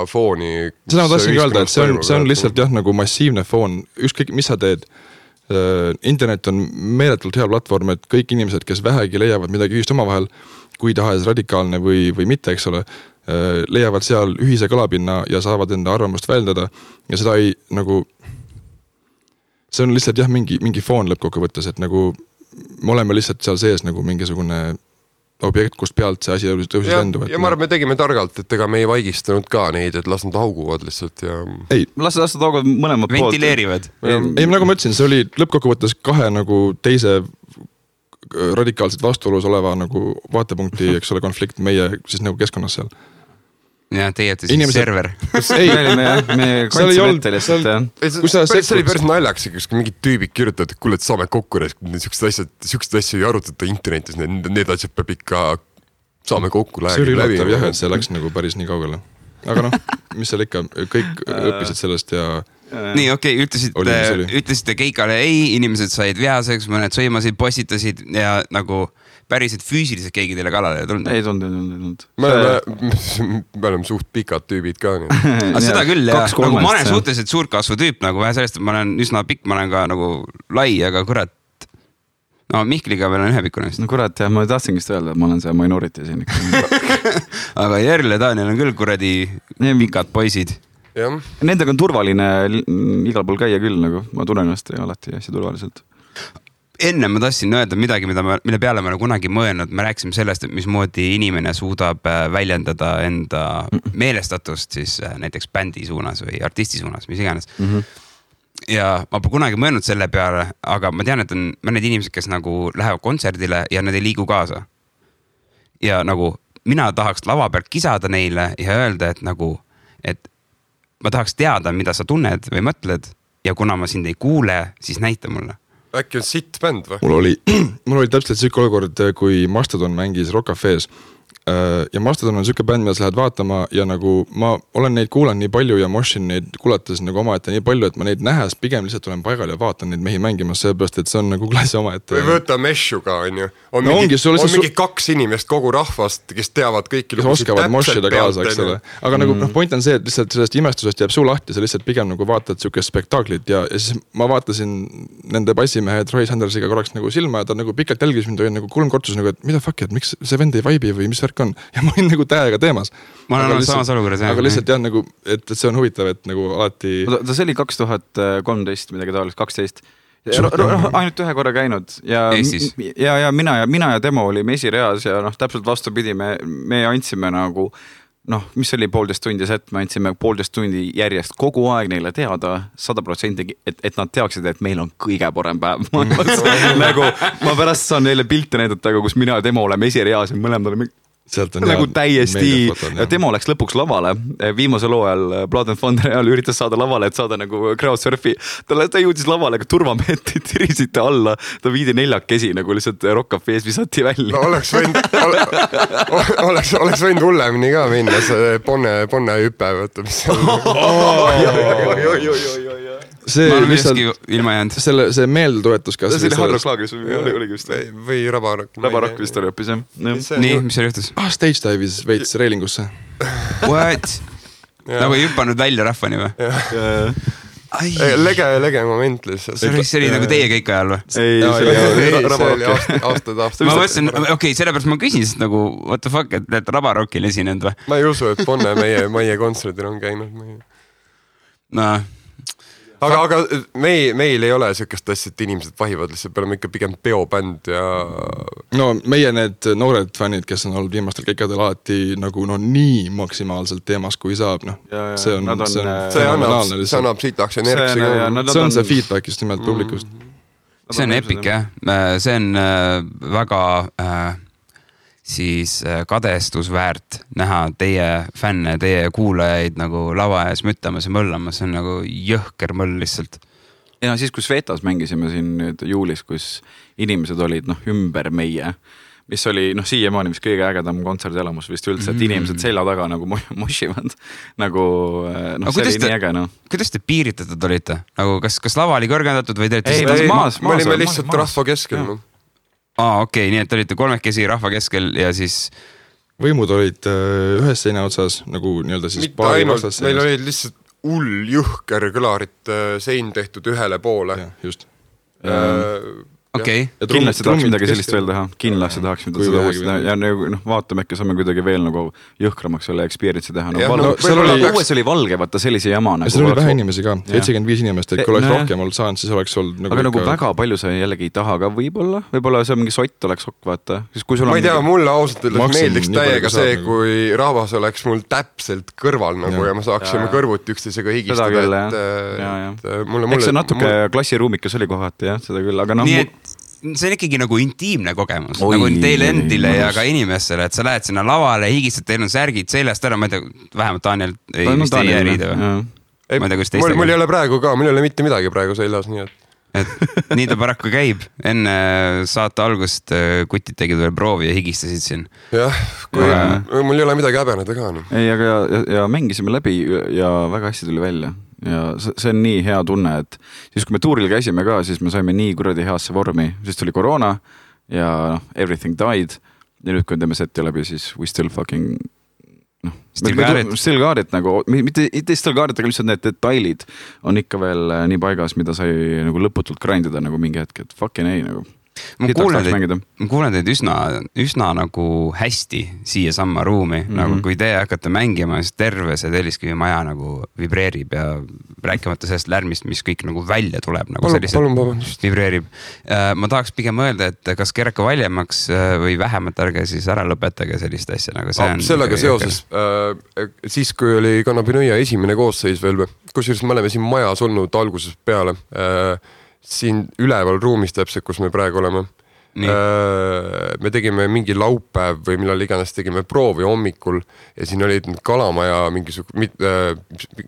fooni. Seda ma tahtsin öelda, et see on lihtsalt jah, nagu massiivne foon, ükskõik mis sa teed, internet on meeletult hea platvorm, et kõik inimesed, kes vähegi leiavad midagi ühist omavahel, kui tahes radikaalne või mitte, eks ole, leiavad seal ühise kõlapinna ja saavad enda arvamust väljendada ja seda ei nagu, see on lihtsalt jah, mingi foon lõppkokkuvõttes, et nagu me oleme lihtsalt seal sees nagu mingisugune objekt, kust pealt see asi tõusis lendu. Ja ma arvan, me tegime targalt, et ega me ei vaigistanud ka neid, et las nad hauguvad lihtsalt ja... Ei, las nad hauguvad mõlemad poolt. Ventileerivad. Ei, nagu ma ütlesin, see oli lõppkokkuvõttes kahe nagu teise radikaalselt vastuolus oleva nagu vaatepunkti, eks ole, konflikt meie siis nagu keskkonnas seal. Ja teie olete siis server. Ei, me kandsime ette lihtsalt, jah. See oli päris naljaks, kus mingid tüübid kirjutavad, et kuule, et saame kokku, niisugused asju ei arutata internetis, need asjad peab ikka saame kokku läbi. See oli üllatav jah, et see läks nagu päris nii kaugele. Aga noh, mis seal ikka, kõik õppisid sellest ja... Nii, okei, ütlesite keikale ei, inimesed said vihaseks, mõned sõimasid, postitasid ja nagu... päriselt füüsiliselt keegi teile kalale tulnud? Ei tulnud. Me oleme suht pikad tüübid ka. Aga seda küll, jah. Nagu ma olen suhteliselt suurkasvu tüüp, nagu vähe sellest, et ma olen üsna pikk, ma olen ka nagu lai, aga kurat, no Mihkliga meil on ühepikkune. No kurat, jah, ma tahtsingi seda öelda, et ma olen see minority siin. Aga Järl ja Daniel on küll kuradi pikad poisid. Nendega on turvaline igal pool käia küll, nagu ma tunnen ennast alati hästi turvaliselt. Enne ma tahtsin öelda midagi, mille peale ma olen kunagi mõelnud, me rääkisime sellest, et mismoodi inimene suudab väljendada enda meelestatust siis näiteks bändi suunas või artisti suunas, mis iganes. Ja ma pole kunagi mõelnud selle peale, aga ma tean, et on mõned inimesed, kes nagu lähevad kontserdile ja nad ei liigu kaasa. Ja nagu mina tahaks lava pealt kisada neile ja öelda, et nagu, et ma tahaks teada, mida sa tunned või mõtled ja kuna ma sind ei kuule, siis näita mulle. Äkki on sitt bänd või? Mul oli täpselt siuke olukord, kui Mastodon mängis Rock Cafe's ja Mastodon on siuke bänd, mida sa lähed vaatama ja nagu ma olen neid kuulan nii palju ja Moshin neid kuulates nagu omaette nii palju, et ma neid nähes pigem lihtsalt olen paigal ja vaatan neid mehi mängimas, seepärast, et see on nagu klassi omaette. Või võtta Meshu ka, on ju. On mingi 2 inimest kogu rahvast, kes teavad kõiki kes oskavad Moshida kaasa, eks ole. Aga nagu point on see, et lihtsalt sellest imestusest jääb suu lahti, sa lihtsalt pigem nagu vaatad siukest spektaaklit ja siis ma vaatasin nende bassimehe Troy Sandersiga korraks nagu silma ja ta nagu pikalt jälgis mind ja nagu 3 kortus nagu, et mida fuck, et miks see vend ei vibe või mis värk on ja ma olin nagu täiega teemas. Ma olen samas olukorras. Aga lihtsalt jah, nagu, et see on huvitav, et nagu alati... See oli 2013, midagi taolist, 12. Ainult ühe korra käinud. Ja mina ja Demo olime esireas ja täpselt vastupidi, me andsime nagu... mis oli 1,5 tundi set, me andsime 1,5 tundi järjest kogu aeg neile teada 100%, et nad teaksid, et meil on kõige parem päev. Nagu ma pärast saan neile pilte näidata, kus mina ja Demo oleme esireas ja mõlemad oleme nagu täiesti ja Demo läks lõpuks lavale viimase loo ajal Blood and Thunder ajal üritas saada lavale, et saada nagu crowdsurfi ta jõudis lavale, aga turvameetid tirisite alla, ta viidi 4 nagu lihtsalt Rock Cafe's visati välja. No oleks võinud hullemini ka minna see ponne hüpe võtta, mis see lihtsalt ilma jäänud. See meelduetus kas see oli Hardrock Laagris oligi vist või Rabarock vist oli hoopis jah. Nii, mis seal juhtus? Stage dive'is veits reilingusse. What? Nagu ei hüppanud välja rahvani või? Lege moment lihtsalt. See oli nagu teie kõik ajal või? Ei, aastad. Ma mõtlesin, okei, sellepärast ma küsin, sest nagu what the fuck, et Rabarockil esinenud või? Ma ei usu, et Ponne meie kontserdil on käinud. Aga meil ei ole sükest asja, et inimesed vahivad lihtsalt, peame ikka pigem peobänd ja... No meie need noored fännid, kes on olnud viimastel keikadel alati nagu nii maksimaalselt teemas, kui saab, see annab sitaks energisi. See on see feedback just nimelt publikust. See on epic, jah. See on väga... siis kadestusväärt näha teie fänne, teie kuulajaid nagu lava ees müttamas ja möllamas, see on nagu jõhker möll lihtsalt. Ja siis, kus Vetas mängisime siin nüüd juulis, kus inimesed olid ümber meie, mis oli siiamaani mis kõige ägedam kontserdielamus vist üldse, et inimesed selja taga nagu moshivad. Nagu see oli nii äge. Kuidas te piiritatud olite? Nagu kas lava oli kõrgendatud või te maas? Me olime lihtsalt rahva keskel. Okei, nii et olite 3 rahva keskel ja siis... Võimud olid ühes seina otsas, nagu nii-öelda siis paari vastas. Meil olid lihtsalt jõhker kõlarit sein tehtud ühele poole. Ja, just. okei. Kindlasti tahaks midagi sellist veel teha, kindlasti tahaks midagi sellist teha ja vaatame, äkki saame kuidagi veel nagu jõhkramaks selle experience'i teha. Uues oli valge, vaata sellise jama. Seal oli vähe inimesi ka, 75 inimest, et kui oleks rohkem olnud saanud, siis oleks olnud aga nagu väga palju sa jällegi ei taha ka võib-olla see mingi sott oleks okk, vaata. Ma ei tea, mulle ausalt meeldiks täiega see, kui rahvas oleks mul täpselt kõrval nagu ja ma saaksime kõrvuti üksteisega higistada. Eks see natuke klassiruumikas oli kohati, jah, seda küll, aga see on ikkagi nagu intiimne kogemus, nagu teile endile ja ka inimestele, et sa lähed sinna lavale, higistad, teil on särgid seljast ära, ma ei tea, vähemalt Daniel vist ei järida või? Mul ei ole praegu ka, mul ei ole mitte midagi praegu seljas, nii et nii ta paraku käib. Enne saate algust kutid tegid veel proovi ja higistasid siin. Jah, mul ei ole midagi häbeneda ka. Ei, aga ja mängisime läbi ja väga hästi tuli välja. Ja see on nii hea tunne, et siis kui me tuuril käisime ka, siis me saime nii kuradi heasse vormi, siis tuli koroona ja everything died ja nüüd kui teeme seti läbi, siis we still fucking still got it nagu, mitte still got it, aga lihtsalt need detailid on ikka veel nii paigas, mida sai nagu lõputult grindida nagu mingi hetk, et fucking ei nagu. Ma kuulen teid üsna nagu hästi siia samma ruumi, nagu kui te hakkate mängima, siis terve see Telliskivi maja nagu vibreerib ja rääkimata sellest lärmist, mis kõik nagu välja tuleb, nagu selliselt vibreerib. Ma tahaks pigem öelda, et kas keraka valjemaks või vähemalt ärge siis ära lõpetage sellist asja, nagu see on. Sellega seoses, siis kui oli Kannabinõia esimene koosseis veel, kusjuures me oleme siin majas olnud algusest peale, siin üleval ruumis täpselt, kus me praegu oleme. Me tegime mingi laupäev või millal iganes tegime proovi hommikul ja siin olid Kalamaja mis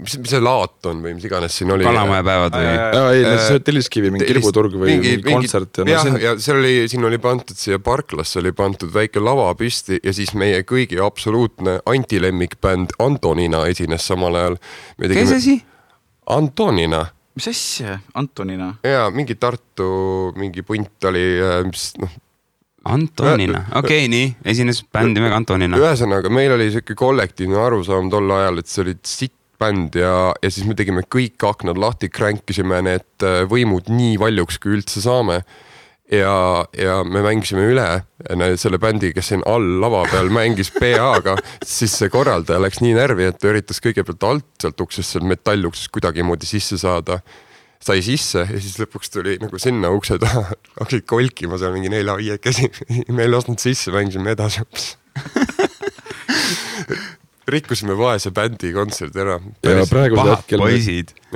see laat on või mis iganes siin oli. Kalamaja päevad või? Ei, Telliskivi, mingi kirbuturg või kontsert. Ja siin oli pandud siia parklasse, oli pandud väike lava püsti ja siis meie kõigi absoluutne antilemmikbänd Antonina esines samal ajal. Kes esi? Antonina. Mis asja? Antonina? Jaa, mingi Tartu, mingi punt oli, Antonina, okei, nii, esines bändi mega Antonina. Ühesõnaga, meil oli selline kollektiivne arusaam tol ajal, et see oli sitt bänd ja siis me tegime kõik aknad lahti, kränkisime need võimud nii valjuks, kui üldse saame. Ja me mängisime üle selle bändi, kes siin all lava peal mängis PA-ga, siis see korraldaja läks nii närvi, et ta üritas kõigepealt alt sealt uksest, seal metalluksest kuidagi moodi sisse saada. Sai sisse ja siis lõpuks tuli nagu sinna ukse taha, hakkasid kolkima seal mingi 4-5 käsi. Me ei lasknud sisse, mängisime edasi. Rikkusime vaese bändi kontsert ära. Ja praegu hetkel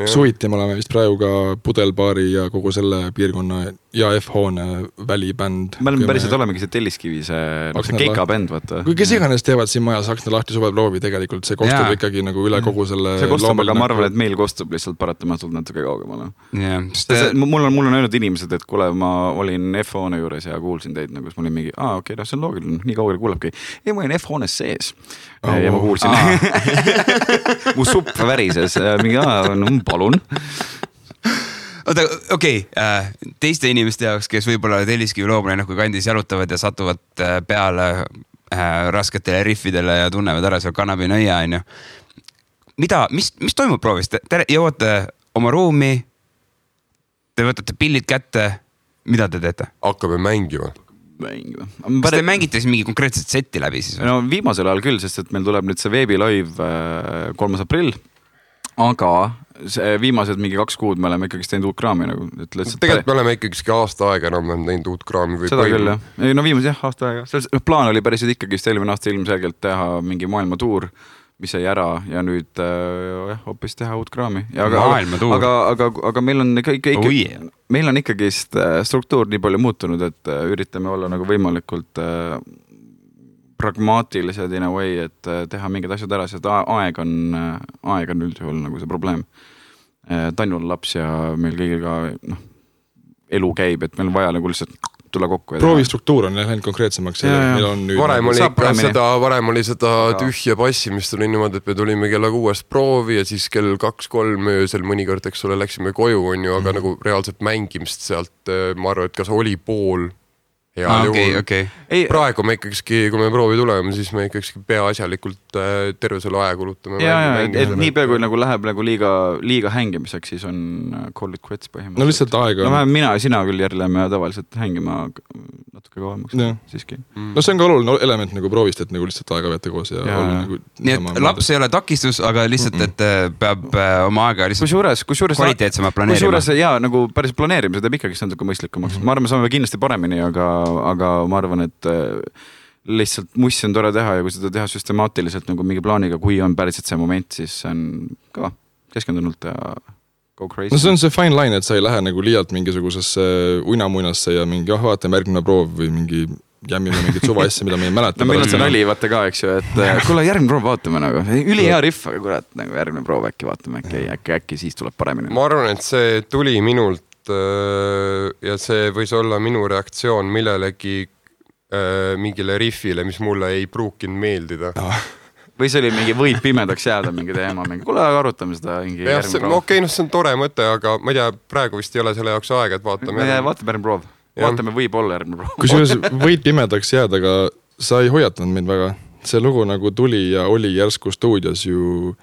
suviti me oleme vist praegu ka Pudelbaari ja kogu selle piirkonna ja F-hoone välibänd. Me oleme päriselt olemegi see Telliskivi, see keikabänd, vaata. Kui kes iganes teevad siin majas Aksna lahti suveproovi, tegelikult see kostub ikkagi nagu üle kogu selle... See kostub, aga ma arvan, et meil kostub lihtsalt paratamatult natuke kaugemale. Mul on öelnud inimesed, et kuule, ma olin F-hoone juures ja kuulsin teid, nagu ma olin mingi, okei, see on loogiline, nii kaugele kuulebki. Ei, ma olin F-hoones sees ja ma kuulsin. Mu supp värises, mingi, palun. Oota, okei, teiste inimeste jaoks, kes võib-olla Telliskivi Loomalinnaku kandis jalutavad ja satuvad peale rasketele riffidele ja tunnevad ära seal Kannabinõia, on ju. Mis toimub proovis? Te jõuate oma ruumi, te võtate pillid kätte, mida te teete? Hakkame mängima. Kas te mängite siis mingi konkreetset setti läbi siis? No viimasel ajal küll, sest et meil tuleb nüüd see veebilive 3. aprill, aga viimased mingi 2 kuud me oleme ikkagi teinud uut kraami nagu. Tegelikult me oleme ikkagi aasta aega enam teinud uut kraami. Seda küll, jah. No viimas jah, aasta aega. Plaan oli päris ikkagi eelmine aasta ilmselgelt teha mingi maailmatuur, mis jäi ära ja nüüd hoopis teha uut kraami. Aga meil on ikkagi struktuur nii palju muutunud, et üritame olla nagu võimalikult pragmaatilised in a way, et teha mingid asjad ära, sest aeg on üldjuhul nagu see probleem. Tanju on laps ja meil kõigil ka elu käib, et meil on vaja nagu lihtsalt tulla kokku. Proovistruktuur on läinud konkreetsemaks. Varem oli seda tühja passimist oli niimoodi, et me tulime kella 6 proovi ja siis kell 2-3 öösel mõnikord, eks ole, läksime koju, on ju, aga nagu reaalselt mängimist sealt, ma arvan, et kas oli pool Hea juhul. Okay. Praegu me ikkagi, kui me proovi tuleme, siis me ikkagi peaasjalikult terve selle aja kulutame. Et nii peaaegu kui nagu läheb nagu liiga hängimiseks, siis on call it quits põhimõtteliselt. No lihtsalt aega. No mina ja sina küll järgleme tavaliselt hängima natuke kauemaks siiski. No see on ka oluline element nagu proovist, et nagu lihtsalt aega veeta koos ja olla nagu... Nii et laps ei ole takistus, aga lihtsalt, et peab oma aega lihtsalt kvaliteetsemalt planeerima. Kusjuures nagu päris planeerimise teeb ikkagi natuke mõistlikumaks. Ma arvan, saame kindlasti paremini, aga ma arvan, et lihtsalt mussi on tore teha ja kui seda teha süstemaatiliselt nagu mingi plaaniga, kui on päriselt see moment, siis see on ka keskendunult ja go crazy. No see on see fine line, et sa ei lähe nagu liialt mingisugusesse uinamuinasse ja mingi vaatame järgmine proov või mingi jämmime mingit suva asja, mida me ei mäleta. No meil on see nali vaata ka, eks ju, et kuule järgmine proov vaatame nagu, üli hea riff, aga kurat, nagu järgmine proov äkki vaatame, äkki siis tuleb paremini. Ma arvan, et see tuli minult ja see võis olla minu reaktsioon millelegi mingile riffile, mis mulle ei pruukinud meeldida. Või see oli mingi võib pimedaks jääda mingi teema, kuule arutame seda järgmine proov. Okei, see on tore mõte, aga ma ei tea, praegu vist ei ole selle jaoks aega, et vaatame järgmine proov. Vaatame võib-olla järgmine proov. Kusjuures võid pimedaks jääda, aga sa ei hoiatanud meid väga. See lugu nagu tuli ja oli järsku stuudios ju...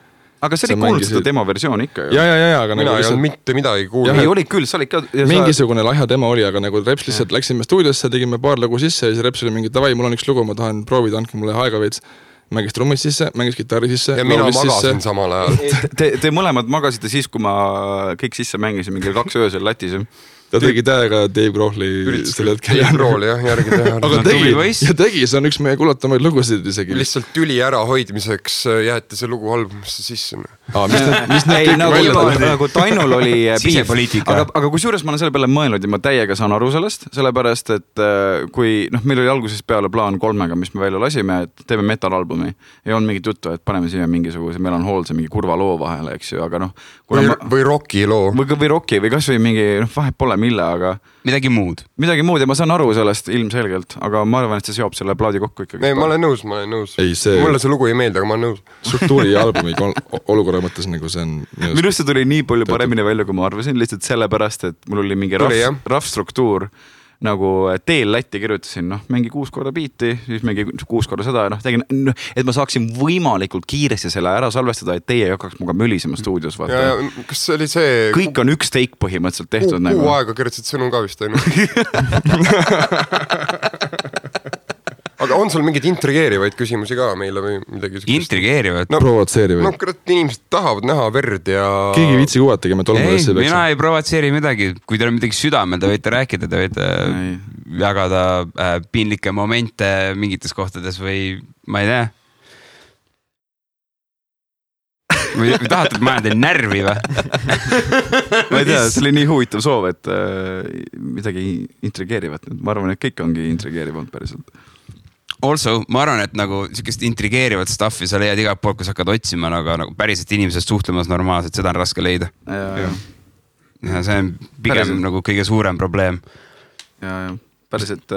Aga see oli kuulnud seda demo versioon ikka ju. Ja, aga mina ei olnud mitte midagi kuulnud. Ei, oli küll, sa olid ka... Mingisugune lahja demo oli, aga nagu Reps lihtsalt läksime stuudiosse, tegime paar lugu sisse ja siis Reps oli mingi, davai, mul on üks lugu, ma tahan proovida, andke mulle aega veits. Mängis trummid sisse, mängis gitarri sisse. Ja mina magasin samal ajal. Te mõlemad magasite siis, kui ma kõik sisse mängisin mingi 2 öösel latis. Ta tegi täiega Dave Grohli selle hetkel. Dave Grohli jah, järgi teha. Aga tegi, see on üks meie kuulatamaid lugusid isegi. Lihtsalt tüli ära hoidmiseks jäeti see lugu albumisse sisse. Nagu Tainul oli aga kusjuures ma olen selle peale mõelnud ja ma täiega saan aru sellest, sellepärast, et kui meil oli alguses peale plaan 3, mis me välja lasime, et teeme metalalbumi ja on mingit juttu, et paneme siia mingisuguse melanhoolse mingi kurva loo vahele, eks ju, aga või rocki loo. Või rocki või kas või mingi, vahet pole mille, aga midagi muud ja ma saan aru sellest ilmselgelt, aga ma arvan, et see seob selle plaadi kokku ikkagi. Ei, ma olen nõus. Mulle see lugu ei meeldi, aga ma olen nõus. Struktuuri ja albumi olukorra mõttes nagu see on... Minust see tuli nii palju paremini välja, kui ma arvasin, lihtsalt sellepärast, et mul oli mingi rough struktuur, nagu teel Lätti kirjutasin, mingi 6 korda biiti, siis mingi 6 korda seda ja tegin, et ma saaksin võimalikult kiiresti selle ära salvestada, et teie ei hakkaks muga mölisema stuudios. Ja, kas see oli see... Kõik on üks take põhimõtteliselt tehtud. Kuu aega kirjutasid sõnu ka vist, ainult. Aga on sul mingeid intrigeerivaid küsimusi ka meile või midagi? Intrigeerivad? Provotseerivaid. Inimesed tahavad näha verd ja... Keegi viitsi kuvatagi, me tolmades ei peksa. Mina ei provotseeri midagi. Kui teil on midagi südamel, te võite rääkida, te võite jagada piinlikke momente mingites kohtades või ma ei tea. Või tahate, et ma olen teil närvi või? Ma ei tea, see oli nii huvitav soov, et midagi intrigeerivat. Ma arvan, et kõik ongi intrigeerivad päriselt. Also, ma arvan, et nagu sellist intrigeerivat stuffi sa leiad igalt poolt, kui sa hakkad otsima, aga nagu päriselt inimesed suhtlemas normaalselt, seda on raske leida. Ja see on pigem nagu kõige suurem probleem. Ja päriselt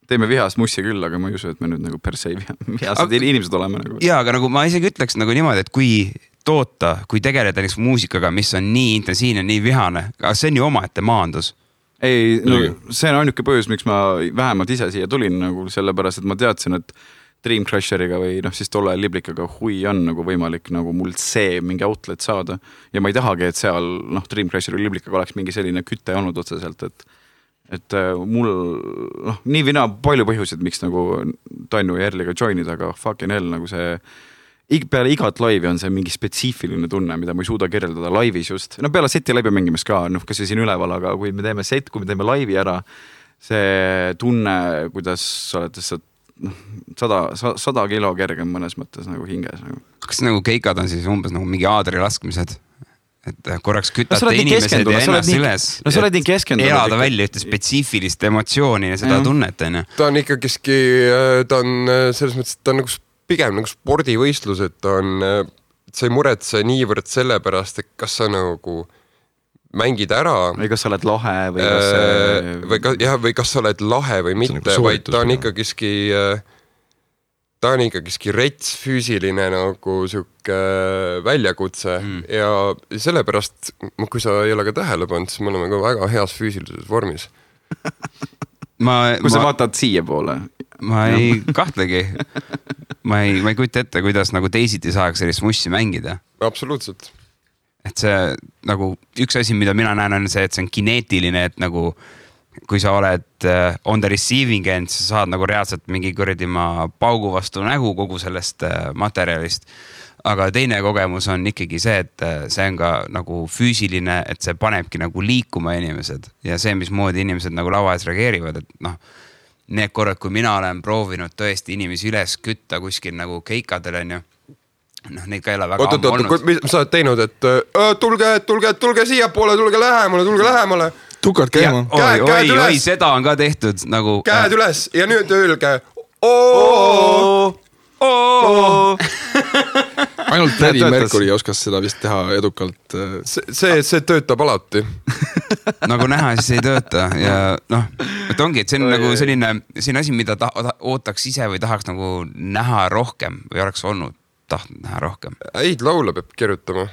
teeme vihast mussi küll, aga ma ei usu, et me nüüd nagu per se vihased inimesed oleme. Nagu. Jaa, aga nagu ma isegi ütleks nagu niimoodi, et kui toota, kui tegeleda näiteks muusikaga, mis on nii intensiivne, nii vihane, aga see on ju omaette maandus. Ei, see on ainuke põhjus, miks ma vähemalt ise siia tulin nagu sellepärast, et ma teadsin, et Dream Crasheriga või siis tolle Liblikaga hui on nagu võimalik nagu mul see mingi outlet saada ja ma ei tahagi, et seal Dream Crasheri Liblikaga oleks mingi selline kütte olnud otseselt, et mul nii vina palju põhjusid, miks nagu Tainu ja Erliga joinida, aga fucking hell nagu see peale igat laivi on see mingi spetsiifiline tunne, mida ma ei suuda kirjeldada laivis just. Peale seti laivi mängimist ka, kas see siin üleval, aga kui me teeme set, kui me teeme laivi ära, see tunne, kuidas sa oled 100 kilo kergem mõnes mõttes nagu hinges. Kas nagu keikad on siis umbes nagu mingi aadri laskmised? Et korraks kütate inimesed ja ennast üles. No sa oled nii keskendunud. Elada välja ühte spetsiifilist emotsiooni ja seda tunnet. Ta on ikkagiski, ta on selles mõttes, ta on nagu pigem nagu spordivõistlus, et sa ei muretse niivõrd selle pärast, et kas sa nagu mängid ära. Või kas sa oled lahe või kas sa oled lahe või mitte, vaid ta on ikkagiski rets füüsiline nagu siuke väljakutse ja sellepärast, kui sa ei ole ka tähele pannud, siis me oleme ka väga heas füüsilises vormis. Kui sa vaatad siia poole. Ma ei kahtlegi. Ma ei kujuta ette, kuidas nagu teisiti saaks sellist mussi mängida. Absoluutselt. Et see nagu üks asi, mida mina näen, on see, et see on kineetiline, et nagu kui sa oled on the receiving end, sa saad nagu reaalselt mingi kõrdima paugu vastu nägu kogu sellest materjalist. Aga teine kogemus on ikkagi see, et see on ka nagu füüsiline, et see panebki nagu liikuma inimesed ja see, mismoodi inimesed nagu lava ees reageerivad, et noh, need korrad, kui mina olen proovinud tõesti inimesi üles kütta kuskil nagu keikadel on ju, noh, neid ka ei ole väga ammu olnud. Mis sa oled teinud, et tulge siia poole, tulge lähemale. Tukad käima. Oi, seda on ka tehtud nagu. Käed üles ja nüüd öelge. Ainult Freddie Mercury oskas seda vist teha edukalt. See töötab alati. Nagu näha, siis ei tööta ja noh, et ongi, et see on nagu selline asi, mida ootaks ise või tahaks nagu näha rohkem või oleks olnud tahtnud näha rohkem. Häid laule peab kirjutama.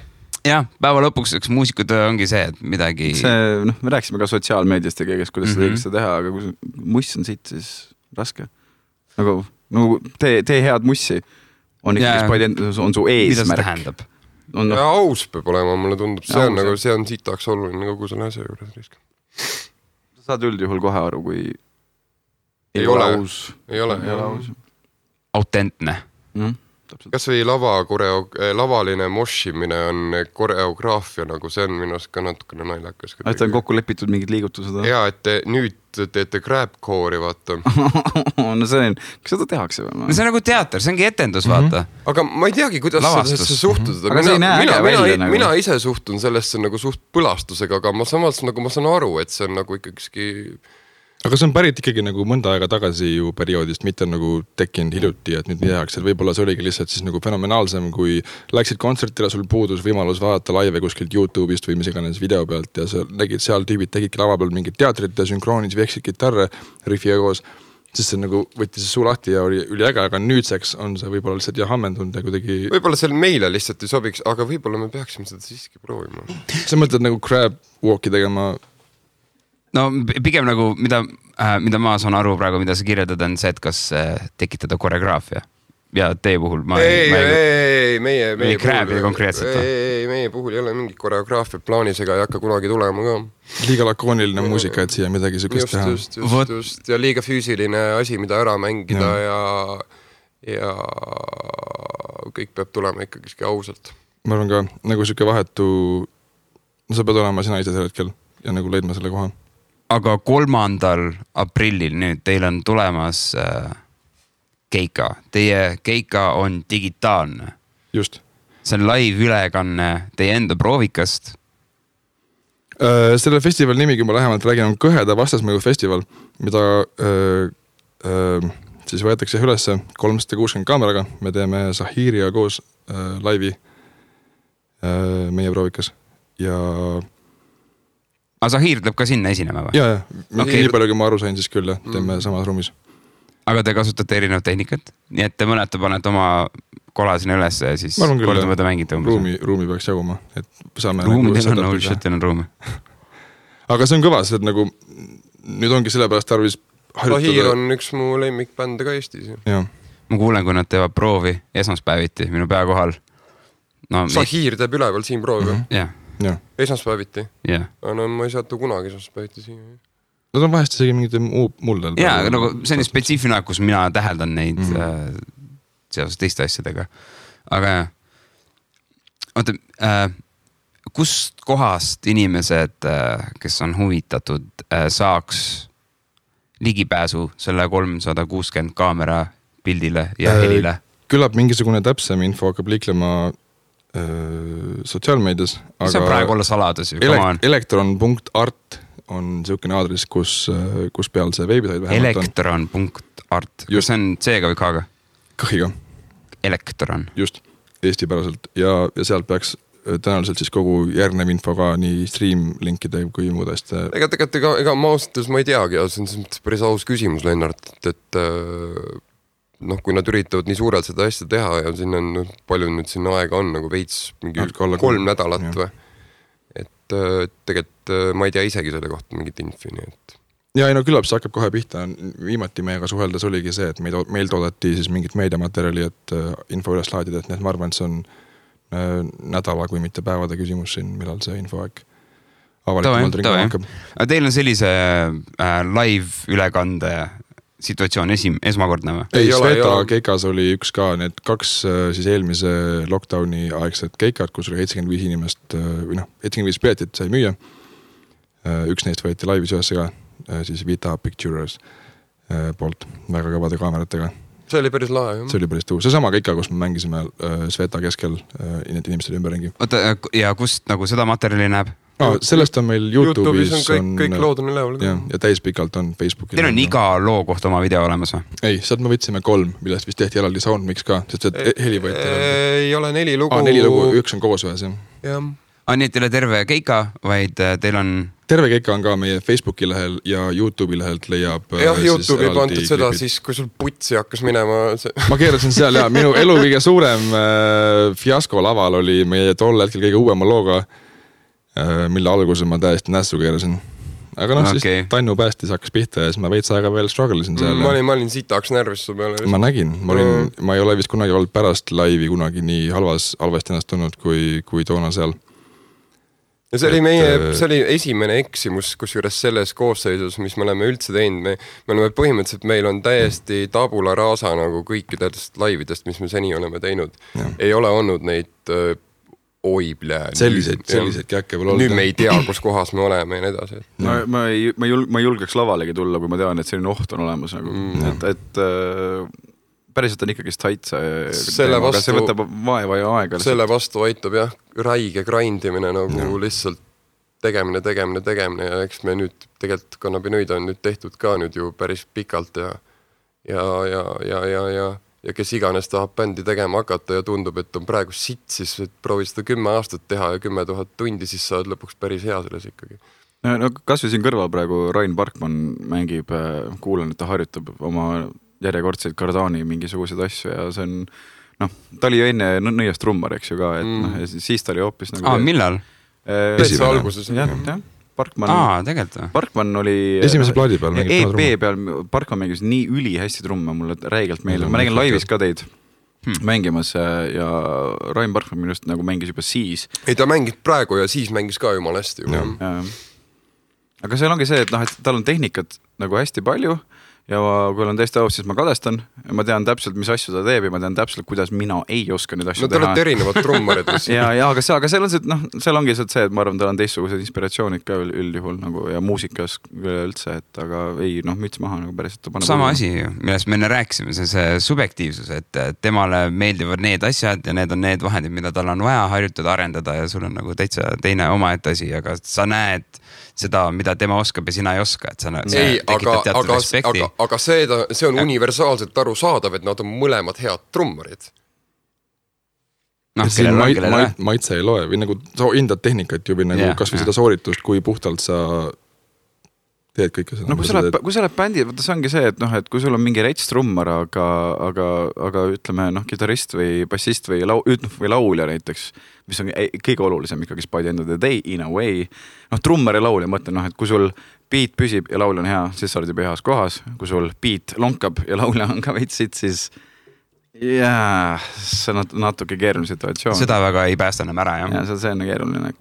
Jah, päeva lõpuks üks muusikud ongi see, et midagi... Me rääkisime ka sotsiaalmeediast ja kõigest, kuidas seda õigesti teha, aga kui muss on siit, siis raske. Nagu tee head mussi. On su eesmärk. Mida see tähendab? Ja aus peab olema, mulle tundub. See on sitaks oluline kogu selle asja juures. Sa saad üldjuhul kohe aru, kui ei ole aus. Ei ole aus. Autentne. Kas või lavaline moshimine on koreograafia, nagu see on minust ka natukene naljakas. Et on kokku lepitud mingid liigutused? Ja, et nüüd teete crabcore'i, vaata. No see on, kas seda tehakse või? No see on nagu teater, see ongi etendus, vaata. Aga ma ei teagi, kuidas sellesse suhtuda. Aga see ei näe äge välja nagu. Mina ise suhtun sellesse nagu suht põlastusega, aga ma samas nagu ma saan aru, et see on nagu ikkagi... Aga see on pärit ikkagi nagu mõnda aega tagasi ju perioodist, mitte nagu tekkinud hiljuti, et nüüd nii tehakse, et võib-olla see oligi lihtsalt siis nagu fenomenaalsem, kui läksid kontsertile, sul puudus võimalus vaadata laive kuskilt YouTube'ist või mis iganes video pealt ja sa nägid seal tüübid tegidki lava peal mingid teatrit ja sünkroonis veksid kitarre riffiga koos, siis see nagu võttis suu lahti ja oli üliäge, aga nüüdseks on see võib-olla lihtsalt hammendunud ja kuidagi... Võib-olla see meile lihtsalt ei sobiks, aga võib-olla me peaksime seda siiski proovima. Sa mõtled nagu crab walk'i tegema... No pigem nagu, mida ma saan aru praegu, mida sa kirjeldad, on see, et kas tekitada koreograafia. Ja teie puhul ma... Meie krääbi konkreetselt. Meie puhul ei ole mingit koreograafia plaanis ega ei hakka kunagi tulema ka. Liiga lakooniline muusika, et siia midagi sükest teha. Just. Ja liiga füüsiline asi, mida ära mängida ja kõik peab tulema ikkagi ausalt. Ma arvan ka, nagu süke vahetu... No sa pead olema sina ise sel hetkel ja nagu leidma selle koha. Aga 3. aprillil nüüd teil on tulemas keika. Teie keika on digitaalne. Just. See on live ülekanne teie enda proovikast. Selle festival nimi, kui ma lähemalt räägin, on Kõheda vastasmõju festival, mida siis võetakse üles 360 kaameraga. Me teeme Zahiriga koos laivi meie proovikas ja... Aga Zahir tuleb ka sinna esinema või? Jaa. Nii palju, kui ma aru sain, siis küll teeme samas ruumis. Aga te kasutate erinevat tehnikat? Nii et te mõnete panete oma kola sinna üles ja siis kordamööda mängite umbes? Ruumi peaks jaguma. Ruumidel on, teil on ruumi. Aga see on kõvas, et nagu nüüd ongi sellepärast tarvis harjutada. Zahir on üks mu lemmikbände ka Eestis. Ma kuulen, kui nad teevad proovi esmaspäeviti minu pea kohal. Zahir teeb üleval siin proovi? Jah. Esmaspäeviti? No ma ei saatu kunagi esmaspäeviti siin. Nad on vahest isegi mingid muldel. Jaa, aga nagu see on spetsiifiline, kus mina täheldan neid seoses teiste asjadega. Aga oota, kust kohast inimesed, kes on huvitatud, saaks ligipääsu selle 360 kaamera pildile ja helile? Küllap mingisugune täpsem info hakkab liiklema sotsiaalmeedias. See on praegu olla saladus ju. Elektron.art on niisugune aadress, kus peal see veebisait vähemalt on. Elektron.art. Kas see on C-ga või K-ga? Kõhiga. Elektron. Just, eestipäraselt. Ja sealt peaks tõenäoliselt siis kogu järgnev info ka nii stream-linkide kui muud asja. Ega ma ausalt, ma ei teagi, see on päris aus küsimus, Lennart, et kui nad üritavad nii suurelt seda asja teha ja siin on palju nüüd sinna aega on nagu veits mingi 3 nädalat või. Et tegelikult ma ei tea isegi selle kohta mingit infi, nii et ja ei no küllap see hakkab kohe pihta, viimati meiega suheldes oligi see, et meil toodati siis mingit meediamaterjali, et info üles laadida, et ma arvan, et see on nädala, kui mitte päevade küsimus siin, millal see infoaeg avalikumalt ringi hakkab. Aga teil on sellise live ülekande situatsioon esmakordne või? Ei, Sveta Keikas oli üks ka, need 2 siis eelmise lockdowni aegset keikad, kus oli 75 inimest või 75 piletit sai müüa. Üks neist võeti laivis ühesse ka, siis Vita Pictures poolt väga kõvade kaameratega. See oli päris lahe, jah. See oli päris tuus. See sama keika, kus me mängisime Sveta keskel need inimesed ümberringi. Oota, ja kust nagu seda materjali näeb? Sellest on meil YouTube'is on kõik lood on üleval. Ja täispikalt on Facebookil. Teil on iga loo kohta oma video olemas või? Ei, sealt me võtsime 3, millest vist tehti eraldi soundmix ka, sest see heli võeti. Ei ole 4 lugu. 4 lugu, 1 on koos ühes, jah. Jah. Nii et teil on terve keika, vaid teil on... Terve keika on ka meie Facebooki lehel ja YouTube'i lehelt leiab... Jah, YouTube'i pandud seda siis, kui sul putsi hakkas minema... Ma keerasin seal ja minu elu kõige suurem fiasko laval oli meie tol hetkel kõige uuema looga, mille alguse ma täiesti nässu keerasin. Aga siis Tannu päästis hakkas pihta ja siis ma veits aega veel strugglesin seal. Ma olin sitaks närvis su peale. Ma nägin, ma ei ole vist kunagi olnud pärast laivi kunagi nii halvasti ennast tulnud kui toona seal. Ja see oli esimene eksimus, kusjuures selles koosseisus, mis me oleme üldse teinud. Me oleme põhimõtteliselt, meil on täiesti tabula rasa nagu kõikidest laividest, mis me seni oleme teinud. Ja. Ei ole olnud neid selliseid käkke veel olnud. Nüüd me ei tea, kus kohas me oleme ja nii edasi. Ma julgeks lavalegi tulla, kui ma tean, et selline oht on olemas. Et päriselt on ikkagi stait see võtab vaeva ja aega. Selle vastu aitab jah, räige grindimine nagu lihtsalt tegemine ja eks me nüüd tegelikult kannabinoid on nüüd tehtud ka nüüd ju päris pikalt ja kes iganes tahab bändi tegema hakata ja tundub, et on praegu sitt, siis proovi seda 10 aastat teha ja 10 000 tundi, siis saad lõpuks päris hea selles ikkagi. No kas või siin kõrval praegu Rain Parkman mängib, kuulan, et ta harjutab oma järjekordseid Cardani mingisugused asju ja see on, ta oli ju enne nõiast trummar, eks ju ka, et siis ta oli hoopis nagu... millal? Täitsa alguses. Jah. Parkman oli esimese plaadi peal EP peal Parkman mängis nii üli hästi trumme, mulle räigelt meeldib. Ma nägin laivis ka teid mängimas ja Rain Parkman minust nagu mängis juba siis. Ei, ta mängis praegu ja siis mängis ka jumal hästi. Aga seal ongi see, et tal on tehnikat nagu hästi palju ja kui olen täiesti aus, siis ma kadestan. Ma tean täpselt, mis asju ta teeb ja ma tean täpselt, kuidas mina ei oska neid asju teha. No te olete erinevad trummarid. aga seal on see, seal ongi see, et ma arvan, tal on teistsugused inspiratsioonid ka üldjuhul nagu, ja muusikas üldse, et aga ei, müts maha nagu päris. Sama asi, millest me enne rääkisime, see subjektiivsus, et temale meeldivad need asjad ja need on need vahendid, mida tal on vaja harjutada, arendada ja sul on nagu täitsa teine omaette asi, aga sa näed seda, mida tema oskab ja sina ei oska, et sa tekitab teatud respekti. Aga see on universaalselt aru saadav, et nad on mõlemad head trummarid. Maitse ei loe või nagu sa hindad tehnikat ju või nagu kas või seda sooritust, kui puhtalt sa teed kõike seda. No kui sa oled bändi, see ongi see, et kui sul on mingi rets trummar, aga ütleme gitarist või bassist või laulja näiteks, mis on kõige olulisem ikkagi by the end of the day in a way. Trummar ja laulja mõtlen, et kui sul beat püsib ja laulja on hea, siis sa oled juba heas kohas. Kui sul beat lonkab ja laulja on ka veitsid, siis see on natuke keeruline situatsioon. Seda väga ei päästa enam ära, jah. Ja see on keeruline.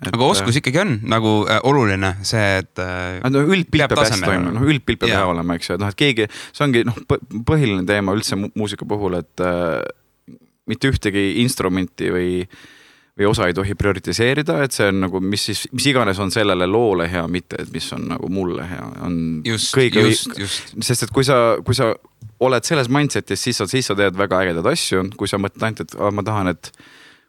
Aga oskus ikkagi on nagu oluline see, et üldpilt peab hästi toimuma, üldpilt peab hea olema, eks ju, et keegi, see ongi põhiline teema üldse muusika puhul, et mitte ühtegi instrumenti või osa ei tohi prioritiseerida, et see on nagu, mis iganes on sellele loole hea, mitte et mis on nagu mulle hea. Just. Sest et kui sa oled selles mindsetis, siis sa teed väga ägedad asju, kui sa mõtled ainult, et ma tahan, et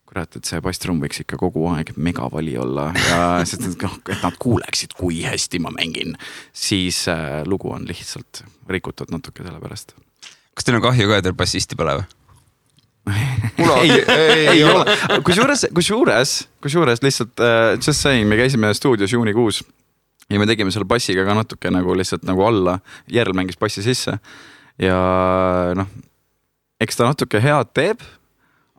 kurat, et see basstrumm võiks ikka kogu aeg megavali olla ja sest, et nad kuuleksid, kui hästi ma mängin, siis lugu on lihtsalt rikutud natuke selle pärast. Kas teil on kahju ka, et teil bassisti pole või? ei ole. Kusjuures lihtsalt just saying, me käisime stuudios juunikuus ja me tegime selle bassiga ka natuke nagu lihtsalt nagu alla, Järl mängis bassi sisse ja eks ta natuke head teeb,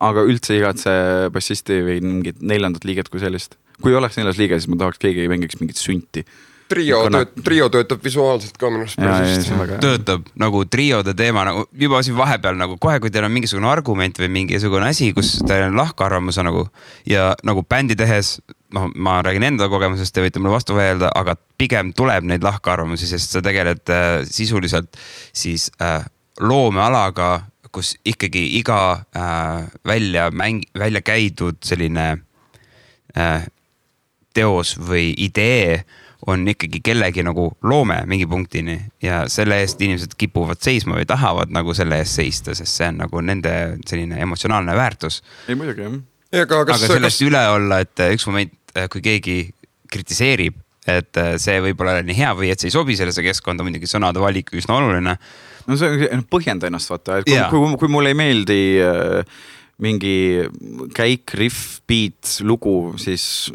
aga üldse igatse bassisti või mingit 4. liiget kui sellist. Kui oleks 4. liige, siis ma tahaks keegi mängiks mingit sünti. Trio töötab visuaalselt ka minu arust. Töötab nagu triode teema nagu juba siin vahepeal nagu kohe, kui teil on mingisugune argument või mingisugune asi, kus teil on lahkarvamus nagu ja nagu bändi tehes, ma räägin enda kogemusest, te võite mulle vastu väelda, aga pigem tuleb neid lahkarvamusi, sest sa tegeled sisuliselt siis loomealaga, kus ikkagi iga välja käidud selline teos või idee on ikkagi kellegi nagu loome mingi punktini ja selle eest inimesed kipuvad seisma või tahavad nagu selle eest seista, sest see on nagu nende selline emotsionaalne väärtus. Ei muidugi, jah. Aga sellest üle olla, et üks moment, kui keegi kritiseerib, et see võib olla nii hea või et see ei sobi sellesse keskkonda, muidugi sõnade valik üsna oluline. No see on põhjenda ennast vaata, et kui mulle ei meeldi mingi käik, riff, beat, lugu, siis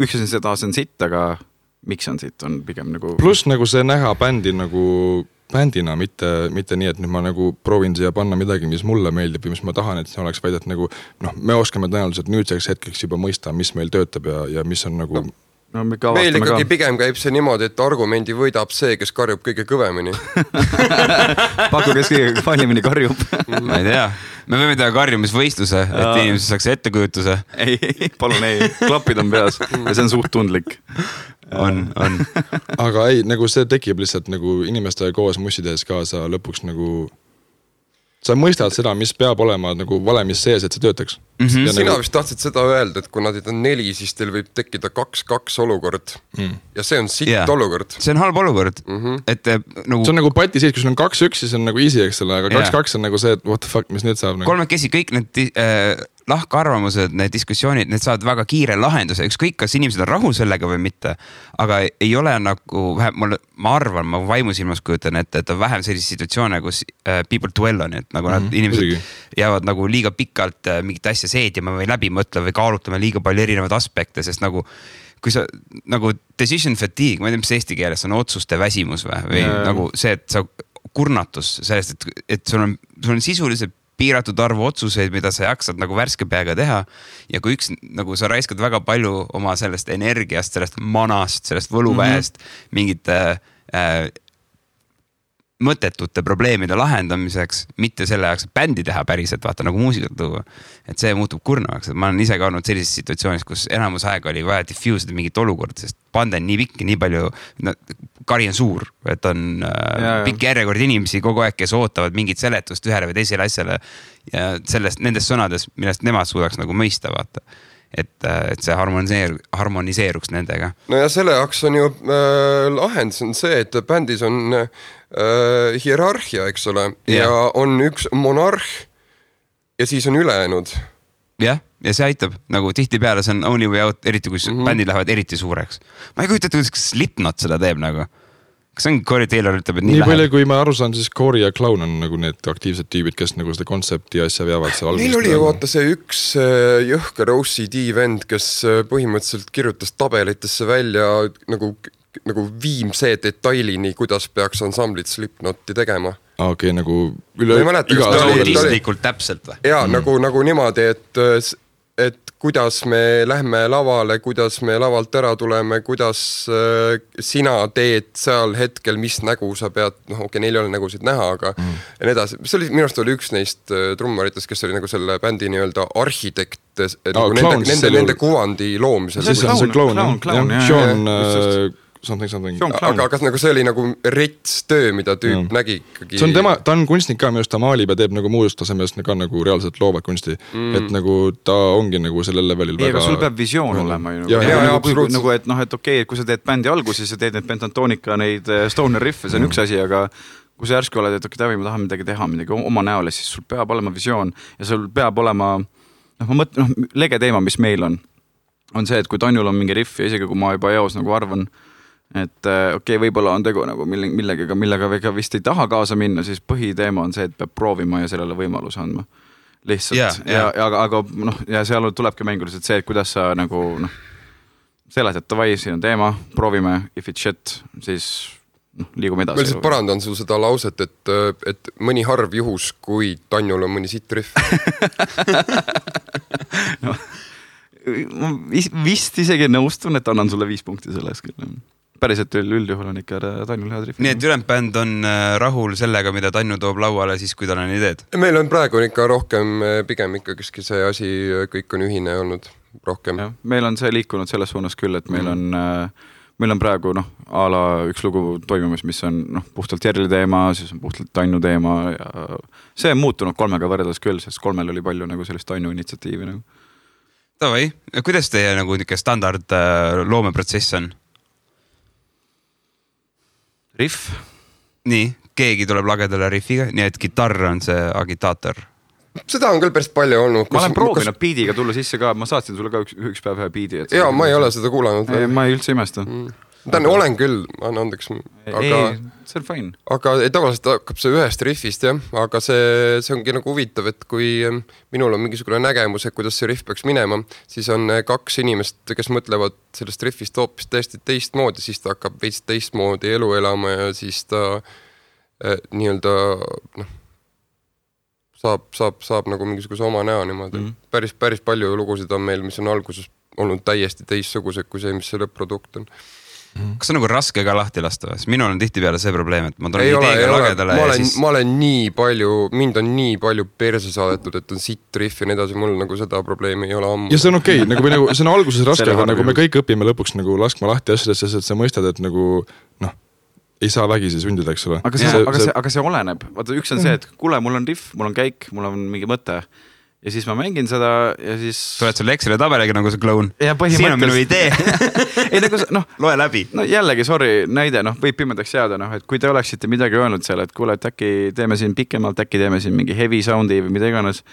üks asi seda on sitt, aga miks on sitt, on pigem nagu... Plus nagu see näha bändi nagu bändina, mitte nii, et nüüd ma nagu proovin siia panna midagi, mis mulle meeldib ja mis ma tahan, et see oleks vaid, et nagu me oskame tõenäoliselt nüüdseks hetkeks juba mõista, mis meil töötab ja mis on nagu... No, meil ikkagi pigem käib see niimoodi, et argumendi võidab see, kes karjub kõige kõvemini. Paku, kes kõige paljemini karjub. Ma ei tea. Me võime teha karjumisvõistluse, et inimesed saaks ettekujutuse. Ei, palun ei. Klapid on peas ja see on suht tundlik. On. Aga ei, nagu see tekib lihtsalt nagu inimestega koos mussides kaasa lõpuks nagu... Sa mõistad seda, mis peab olema nagu valemis sees, et see töötaks. Sina vist tahtsid seda öelda, et kui nad on 4, siis teil võib tekkida 2-2 olukord. Ja see on sitt olukord. See on halb olukord. Et, nagu... See on nagu pati siis, kui sul on 2-1, siis on nagu easy, eks ole, aga 2-2 on nagu see, et what the fuck, mis nüüd saab? Nagu... Kolmekesi kõik need lahkarvamused, need diskussioonid, need saavad väga kiire lahenduse. Ükskõik, kas inimesed on rahul sellega või mitte, aga ei ole nagu, ma arvan, ma vaimusilmas kujutan, et on vähem sellise situatsioone, kus people dwell on, et nagu nad inimesed jäävad nagu liiga pikalt mingit asja seedima või läbi mõtle või kaalutame liiga palju erinevaid aspekte, sest nagu kui sa nagu decision fatigue, ma ei tea, mis eesti keeles on otsuste väsimus või nagu see, et sa kurnatus sellest, et sul on sisuliselt piiratud arvu otsuseid, mida sa jaksad nagu värske peaga teha ja kui nagu sa raiskad väga palju oma sellest energiast, sellest manast, sellest võluväest mingite mõttetute probleemide lahendamiseks, mitte selle jaoks, et bändi teha päriselt, vaata nagu muusikat tuua. Et see muutub kurnavaks. Ma olen ise ka olnud sellises situatsioonis, kus enamus aega oli vaja diffuse'ida mingit olukorda, sest band on nii pikk, nii palju, kari on suur, et on pikk järjekord inimesi kogu aeg, kes ootavad mingit seletust ühele või teisele asjale ja nendest sõnades, millest nemad suudaks nagu mõista, vaata. Et see harmoniseeruks nendega. No ja selle jaoks on ju lahendus on see, et bändis on hierarhia, eks ole, ja on üks monarh ja siis on ülejäänud. Ja see aitab, nagu tihti peale see on only way out, eriti kui bändid lähevad eriti suureks. Ma ei kujuta, et Slipknot seda teeb nagu. Kas on Corey Taylor ütleb, et nii palju, kui ma aru saan, siis Corey ja Clown on nagu need aktiivsed tüübid, kes nagu seda kontsepti asja veavad seal algusest. Neil oli ju vaata see üks jõhker OCD vend, kes põhimõtteliselt kirjutas tabelitesse välja nagu viimse detailini, kuidas peaks ansamblit Slipknoti tegema. Okei, nagu üle täpselt või? Jaa, nagu niimoodi, et kuidas me lähme lavale, kuidas me lavalt ära tuleme, kuidas sina teed seal hetkel, mis nägu sa pead, neil ei ole nägusid näha, aga ja nii edasi. See oli, minu arust oli üks neist trummaritest, kes oli nagu selle bändi nii-öelda arhitekt nende kuvandi loomisel. See on see Clown, Sean something. Aga kas nagu see oli nagu rets töö, mida tüüp nägi ikkagi? See on ta on kunstnik ka, minu arust ta maalib ja teeb nagu muust tasemest ka nagu reaalselt loovad kunsti. Et nagu ta ongi nagu sellel levelil väga... Aga sul peab visioon olema ju. Nagu, et okei, kui sa teed bändi alguses ja teed need pentatonika, neid stoner riffe, see on üks asi, aga kui sa järsku oled, et okei, ma tahan midagi teha, midagi oma näole, siis sul peab olema visioon ja sul peab olema, lege teema, mis meil on see, et kui Tanjul on mingi riff ja isegi kui ma juba eos nagu arvan, et okei, võib-olla on tegu nagu millega vega vist ei taha kaasa minna, siis põhiteema on see, et peab proovima ja sellele võimaluse andma. Lihtsalt. Ja seal tulebki mänguliselt see, et kuidas sa nagu seletad, davai, siin on teema, proovime, if it's shit, siis liigume edasi. Ma lihtsalt parandan sul seda lauset, et mõni harv juhus, kui Tanjul on mõni sitt riff. Ma vist isegi nõustun, et annan sulle 5 punkti selles küll. päriselt üldjuhul on ikka Tannul head riffid. Nii et ülejäänud bänd on rahul sellega, mida Tannu toob lauale siis, kui tal on ideed? Meil on praegu ikka rohkem, pigem ikkagi see asi, kõik on ühine olnud rohkem. Ja, meil on see liikunud selles suunas küll, et meil on praegu a la üks lugu toimumas, mis on puhtalt Jerli teema, siis on puhtalt Tannu teema ja see on muutunud 3 võrreldes küll, sest 3 oli palju sellist Tannu initsiatiivi. Tavai, kuidas teie standard loomeprotsess on? Riff. Nii, keegi tuleb lagedale riffiga, nii et gitarr on see agitaator. Seda on küll päris palju olnud. Ma olen proovinud biidiga tulla sisse ka, ma saatsin sulle ka üks päev ühe biidi. Jaa, ma ei ole seda kuulanud. Ma ei üldse imesta. Olen küll, anna andeks. Ei, see on fine. Aga tavaliselt hakkab see ühest riffist, jah. Aga see ongi huvitav, et kui minul on mingisugune nägemus, et kuidas see riff peaks minema, siis on 2 inimest, kes mõtlevad sellest riffist hoopis täiesti teistmoodi, siis ta hakkab veits teistmoodi elu elama ja siis ta nii-öelda saab mingisuguse oma näo niimoodi. Päris palju lugusid on meil, mis on alguses olnud täiesti teistsugused kui see, mis see lõpp-produkt on. Kas on raske ka lahti lasta? Minul on tihtipeale see probleem, et ma tulen ideega lagedale ja siis... Ma olen nii palju, mind on nii palju perse saadetud, et on sitt riff ja nii edasi, mul seda probleemi ei ole ammu. Ja see on okei, see on alguses raske, aga me kõik õpime lõpuks laskma lahti asjadesse, et sa mõistad, et ei saa vägisi sundida, eks ole. Aga see oleneb. Vaata, üks on see, et kuule, mul on riff, mul on käik, mul on mingi mõte. Ja siis ma mängin seda ja siis... Tuled sulle Exceli tabeliga nagu see kloun. Siin on minu idee. Ei, loe läbi. Jällegi, sorry, näide, võib pimedaks jääda, et kui te oleksite midagi öelnud seal, et kuule, et äkki teeme siin pikemalt, äkki teeme siin mingi heavy soundi või mida iganes.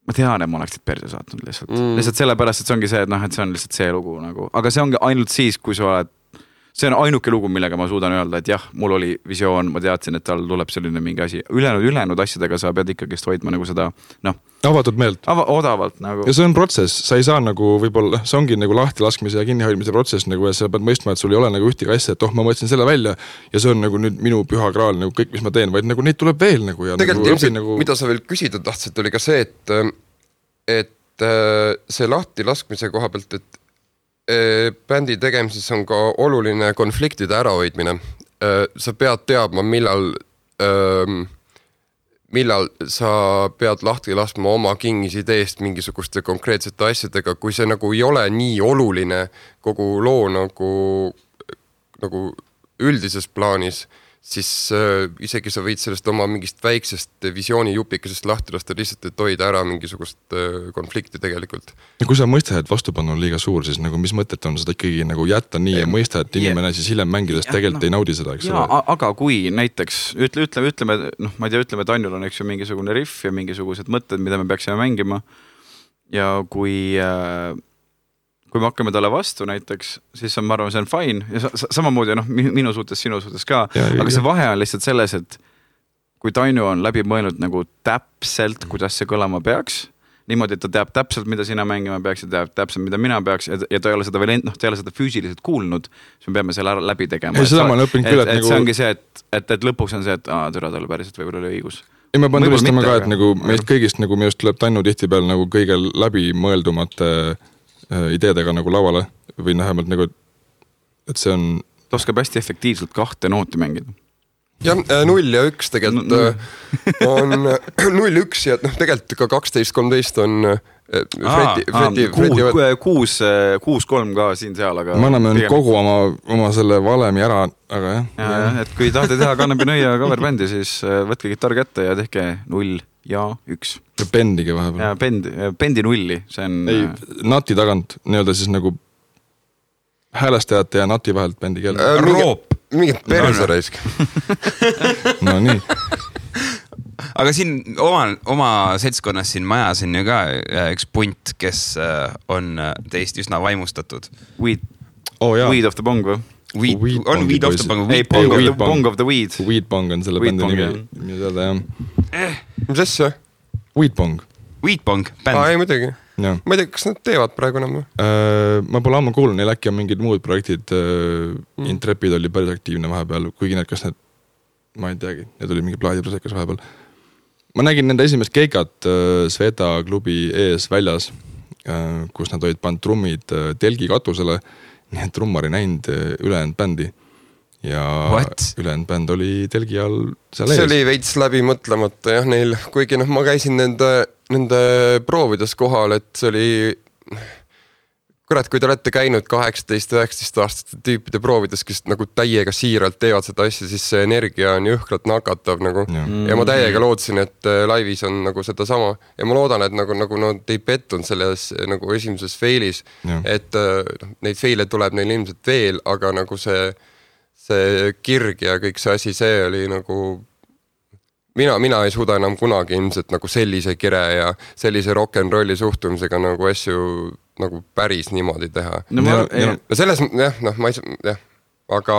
Ma tean, et ma oleksid perse saatnud lihtsalt. Lihtsalt sellepärast, et see ongi see, et see on lihtsalt see lugu aga see ongi ainult siis, kui sa oled see on ainuke lugu, millega ma suudan öelda, et jah, mul oli visioon, ma teadsin, et tal tuleb selline mingi asi. Ülejäänud asjadega sa pead ikkagist hoidma seda, avatud meelt. Odavalt Ja see on protsess, sa ei saa võib-olla, see ongi lahti laskmise ja kinnihoidmise protsess, ja sa pead mõistma, et sul ei ole ühtegi asja, et ma mõtlesin selle välja ja see on nüüd minu püha kraal, kõik, mis ma teen, vaid neid tuleb veel. Ja tegelikult mida sa veel küsida tahtsid, oli ka see, et see lahti laskmise koha pealt, et bändi tegemises on ka oluline konfliktide ärahoidmine. Sa pead teadma, millal sa pead lahti laskma oma kingis ideest mingisuguste konkreetsete asjadega, kui see ei ole nii oluline kogu loo nagu üldises plaanis, siis isegi sa võid sellest oma mingist väiksest visioonijupikesest lahti lasta lihtsalt, et hoida ära mingisugust konflikti tegelikult. Ja kui sa mõistad, et vastupanu on liiga suur, siis mis mõtet on seda ikkagi jätta nii ja mõista, et inimene siis hiljem mängides tegelikult ei naudi seda, eks ole? Aga kui näiteks, ütleme, ma ei tea, ütleme, et Annul on mingisugune riff ja mingisugused mõtted, mida me peaksime mängima ja kui me hakkame talle vastu näiteks, siis ma arvan, see on fine ja samamoodi minu suhtes, sinu suhtes ka, aga see vahe on lihtsalt selles, et kui Tainu on läbi mõelnud täpselt, kuidas see kõlama peaks, niimoodi, et ta teab täpselt, mida sina mängima peaks ja teab täpselt, mida mina peaks ja ta ei ole seda veel ta ei ole seda füüsiliselt kuulnud, siis me peame selle läbi tegema. See ongi see, et lõpuks on see, et türa talle päriselt võib-olla oli õigus. Ja me pean tulistama ka, et meist kõigist minu just tuleb Tainu tihtipeal kõige läbi mõeldumate ideedega lauale või vähemalt et see on... Ta oskab hästi efektiivselt 2 nooti mängida. Jah, 0 ja 1 tegelikult on 0-1 ja tegelikult ka 12-13 on Fredi 6-3 ka siin-seal, aga... Me anname kogu oma selle valemi ära, aga jah. Ja, et kui tahate teha Kannepi Nõia coverbändi, siis võtke gitarr kätte ja tehke 0 ja 1. Ja bendigi vahepeal. Ja bendi 0, see on... Ei, nati tagant, siis häälestajate ja nati vahelt bendi keel. Roop. Mingid perseraisk. No nii. Aga siin oma seltskonnas siin majas on ju ka üks punt, kes on teist üsna vaimustatud. Weed of the Bong või? Weed of the Bong. Ei, Bong of the Weed. Weed Bong on selle bändi nimi. Mida Mis asja? Weed Bong. Weed Bong, bänd. Ei, muidugi. Ma ei tea, kas nad teevad praegu enam? Ma pole ammu kuulnud, neil äkki on mingid muud projektid. Intrepid oli päris aktiivne vahepeal, kuigi kas need, ma ei teagi, need oli mingi plaadiprosekas vahepeal. Ma nägin nende esimest keikat Sveta klubi ees väljas, kus nad olid pannud trummid telgi katusele nii et trummar ei näinud ülejäänud bändi ja ülejäänud bänd oli telgi all seal ees. See oli veits läbi mõtlemata jah neil, kuigi ma käisin nende proovides kohal, et see oli kurat, kui te olete käinud 18-19 aastaste tüüpide proovides, kes nagu täiega siiralt teevad seda asja, siis see energia on jõhkralt nakatav nagu. Ja ma täiega lootsin, et laivis on nagu seda sama. Ja ma loodan, et nagu nad ei pettunud selles nagu esimeses feilis, et neid feile tuleb neil ilmselt veel, aga nagu see kirg ja kõik see asi, see oli nagu mina ei suuda enam kunagi ilmselt nagu sellise kire ja sellise rock'n'rolli suhtumisega nagu asju nagu päris niimoodi teha. No selles, ma ei saa, aga...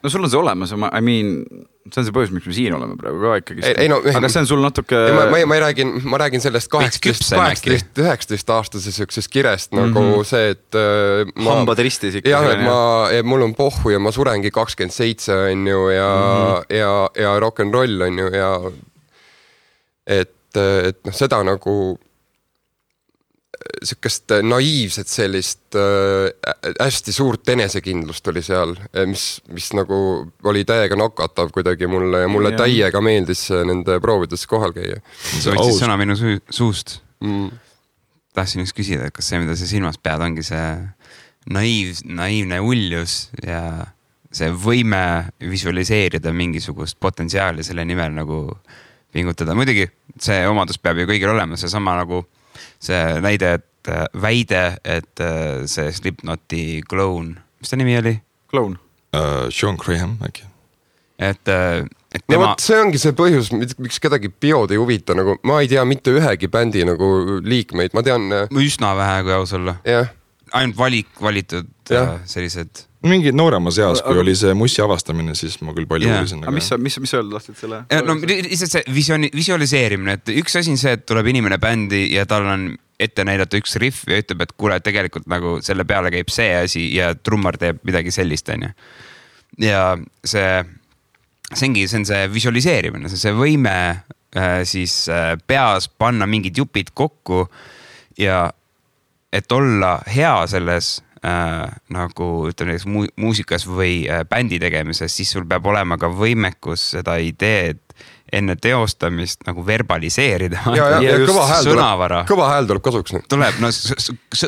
No sul on see olemas, I mean, see on see põhjus, miks me siin oleme praegu ka ikkagi. Aga see on sul natuke... Ma räägin sellest 18-19 aastase sükses kirest nagu see, et... Hambad ristis ikka. Jah, et mul on pohhu ja ma surengi 27 on ju ja rock'n'roll on ju ja et seda nagu sükest naiivset sellist hästi suurt enesekindlust oli seal, mis nagu oli täiega nakatav kuidagi mulle ja mulle täiega meeldis nende proovides kohal käia. See võttis sõna minu suust. Tahtsin üks küsida, kas see, mida sa silmas pead, ongi see naiivne uljus ja see võime visualiseerida mingisugust potentsiaali selle nimel nagu pingutada. Muidugi see omadus peab ju kõigil olema, see sama nagu see väide, et see Slipknoti kloun, mis ta nimi oli? Kloun. Sean Graham äkki. Et tema... No see ongi see põhjus, miks kedagi biod ei huvita, nagu ma ei tea mitte ühegi bändi nagu liikmeid, ma tean... Üsna vähe, kui aus olla. Ainult valitud sellised... Mingi noorema seas, kui oli see mussi avastamine, siis ma küll palju uurisin. Aga mis öelda lahtud selle? No lihtsalt see visualiseerimine, et üks asi on see, et tuleb inimene bändi ja tal on ette näidata üks riff ja ütleb, et kuule, tegelikult nagu selle peale käib see asi ja trummar teeb midagi sellist, on ju. Ja see on see visualiseerimine, see võime siis peas panna mingid jupid kokku ja et olla hea selles nagu ütleme muusikas või bändi tegemises, siis sul peab olema ka võimekus seda ideed enne teostamist nagu verbaliseerida. Ja kõva hääl tuleb kasuks. Tuleb, no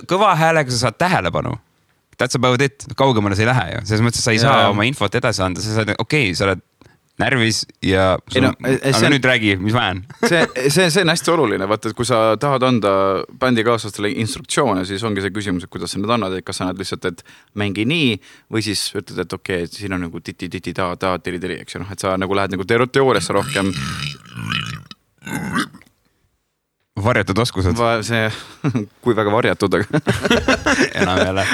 kõva häälega sa saad tähelepanu. That's about it. Kaugemale sa ei lähe ju. Selles mõttes sa ei saa oma infot edasi anda. Sa saad, sa oled närvis ja aga nüüd räägi, mis vajan. see on hästi oluline, vaata, et kui sa tahad anda bändikaaslastele instruktsioone, siis ongi see küsimus, et kuidas sa need annad, et kas sa annad lihtsalt, et mängi nii või siis ütled, et okei, siin on nagu titi, ta, tiri, eks ju, et sa nagu lähed nagu teooriasse rohkem. Varjatud oskused. Kui väga varjatud, enam jälle.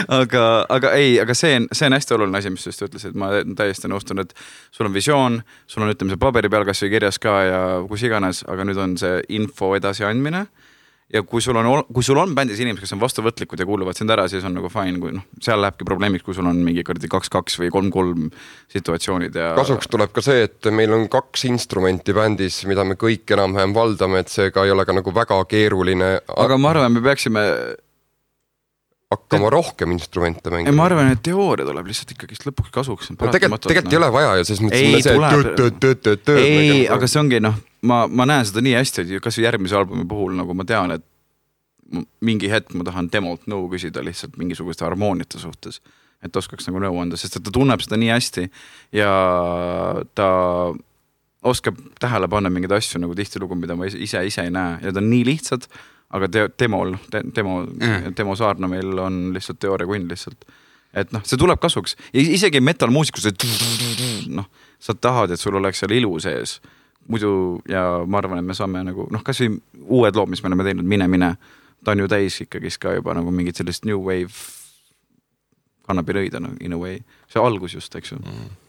aga see on hästi oluline asi, mis just ütles, et ma täiesti nõustun, et sul on visioon, sul on ütleme see paberi peal kas või kirjas ka ja kus iganes, aga nüüd on see info edasi andmine. Ja kui sul on bändis inimesed, kes on vastuvõtlikud ja kuuluvad sind ära, siis on nagu fine, kui seal lähebki probleemiks, kui sul on mingi 2-2 või 3-3 situatsioonid. Ja... Kasuks tuleb ka see, et meil on 2 instrumenti bändis, mida me kõik enam-vähem valdame, et see ka ei ole ka nagu väga keeruline. Aga ma arvan, me peaksime... hakkama rohkem instrumente mängima. Ma arvan, et teooria tuleb lihtsalt ikkagi lõpuks kasuks. Tegelikult ei ole vaja ja siis mõtlesin ei, aga see ongi, ma näen seda nii hästi, et kas järgmise albumi puhul nagu ma tean, et mingi hetk ma tahan demolt nõu küsida lihtsalt mingisuguste harmooniate suhtes, et oskaks nagu nõu anda, sest et ta tunneb seda nii hästi ja ta oskab tähele panna mingeid asju nagu tihtilugu, mida ma ise ei näe ja ta on nii lihtsad, aga demo saarna meil on lihtsalt teooria kunn lihtsalt. Et see tuleb kasuks. Ja isegi metalmuusikus, et sa tahad, et sul oleks seal ilu sees. Muidu, ja ma arvan, et me saame nagu, kas või uued lood, mis me oleme teinud, mine, ta on ju täis ikkagi ka juba nagu mingid sellist new wave kannab rõida in a way. See algus just, eks ju.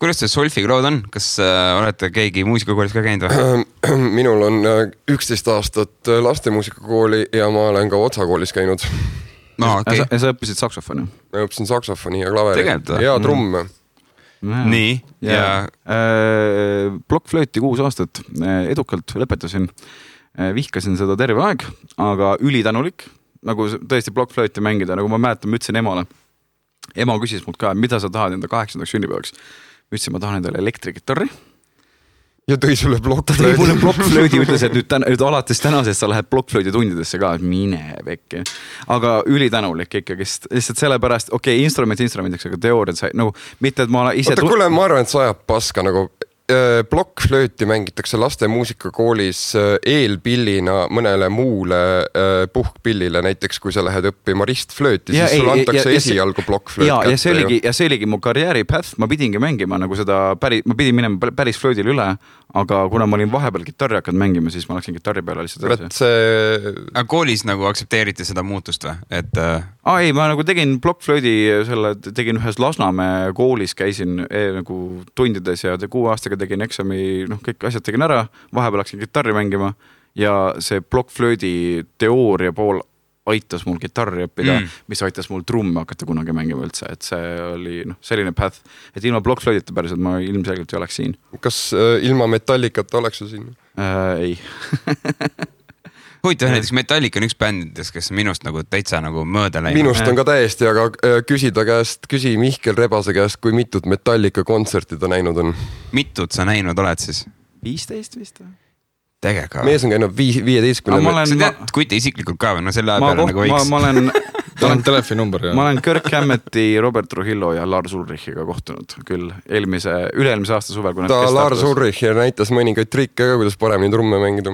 Kuidas see Solfiga lood on? Kas olete keegi muusikakoolis ka käinud või? Minul on 11 aastat lastemuusikakooli ja ma olen ka Otsakoolis käinud. Ja sa õppisid saksofoni? Ma õppisin saksofoni ja klaveri ja trumme. Nii. Blokkflööti 6 aastat edukalt lõpetasin. Vihkasin seda terve aeg, aga ülitänulik. Nagu tõesti blokkflööti mängida, nagu ma mäletan, ma ütlesin emale. ema küsis mult ka, mida sa tahad enda 8. sünnipäevaks. Ma ütlesin, ma tahan endale elektrikitarri. Ja tõi sulle blokkflöödi. Mulle blokkflöödi ütles, et nüüd alates tänasest sa lähed blokkflöödi tundidesse ka, mine vekki. Aga ülitänulik ikkagi, lihtsalt sellepärast, instrumendiks, aga teooriad sai, nagu mitte, et ma ise... Kuule, ma arvan, et sa ajab paska nagu blokkflööti mängitakse laste muusikakoolis eelpillina mõnele muule puhkpillile, näiteks kui sa lähed õppima ristflööti, siis sulle antakse esialgu blokkflööt kätte. Ja see oligi mu karjääri path, ma pidingi mängima nagu seda ma pidin minema päris flöödile üle, aga kuna ma olin vahepeal gitarri hakanud mängima, siis ma läksin gitarri peale lihtsalt edasi. Aga koolis nagu aktsepteeriti seda muutust või? Ei, ma nagu tegin blokkflöödi, tegin ühes Lasnamäe koolis, käisin nagu tundides ja 6 aastaga tegin eksami, kõik asjad tegin ära, vahepeal läksin gitarri mängima ja see blokkflöödi teooria pool aitas mul gitarri õppida, mis aitas mul trumme hakata kunagi mängima üldse, et see oli selline path, et ilma blokkflöödita päriselt ma ilmselgelt ei oleks siin. Kas ilma Metallicata oleks su siin? Ei. Huvitav, näiteks Metallica on üks bändides, kes minust nagu täitsa nagu mööda läinud. Minust on ka täiesti, aga küsi Mihkel Rebase käest, kui mitut Metallica kontserti ta näinud on. Mitut sa näinud oled siis? 15 vist? Tegega. Mees on käinud 15. Sa tead Kuti isiklikult ka või? Selle peale nagu võiks. Ta on telefoninumber. Ma olen Kirk Hammeti, Robert Trujillo ja Lars Ulrichiga kohtunud küll üle-eelmise aasta suvel. Ta Lars Ulrich näitas mõningaid trikke ka, kuidas paremini trumme mängida.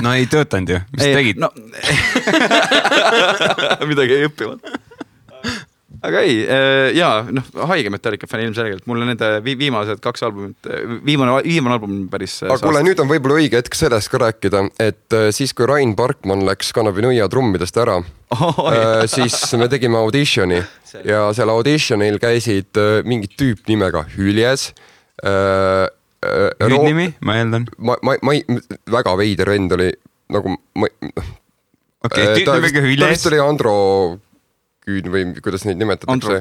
No ei töötanud ju. Mis tegid? Midagi ei õppinud. Aga ei, haige Metallica fänn ilmselgelt. Mul on nende viimased 2 albumit, viimane album päris... Aga kuule, nüüd on võib-olla õige hetk sellest ka rääkida, et siis kui Rain Parkman läks Kanapinuia trummidest ära, siis me tegime auditioni ja seal auditionil käisid mingid tüüp nimega Hüljes. Hüüdnimi, ma eeldan. Väga veider vend oli nagu... Tüüp nimega Hüljes. Ta vist oli Andro... või kuidas neid nimetatakse?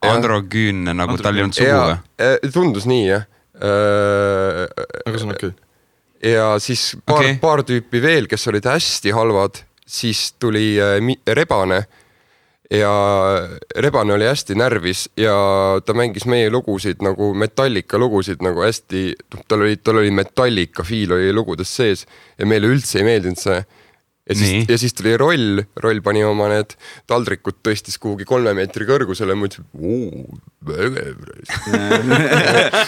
Androgeen, nagu tal ei olnud sugu või? Tundus nii, jah. Aga see on okei. Ja siis paar tüüpi veel, kes olid hästi halvad, siis tuli Rebane ja Rebane oli hästi närvis ja ta mängis meie lugusid nagu Metallica lugusid nagu hästi, tal oli Metallica fiil oli lugudes sees ja meile üldse ei meeldinud see. Ja siis tuli roll pani oma need taldrikud tõstis kuhugi 3 meetri kõrgusele ja ma ütlesin,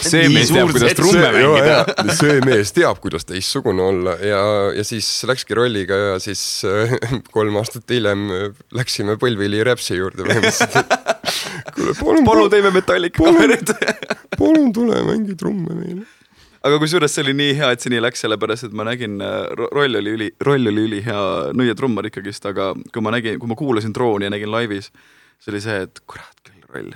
see mees teab, kuidas trumme mängida. See mees teab, kuidas teistsugune olla ja siis läkski rolliga ja siis 3 aastat hiljem läksime Põlvili Räpsi juurde. Palun teeme Metallica kamerid. Palun tule mängi trumme meile. Aga kui suures see oli nii hea, et see nii läks, sellepärast, et ma nägin, roll oli üli hea nõiatrummar ikkagist, aga kui ma kuulasin Drooni ja nägin laivis, see oli see, et kurat küll roll.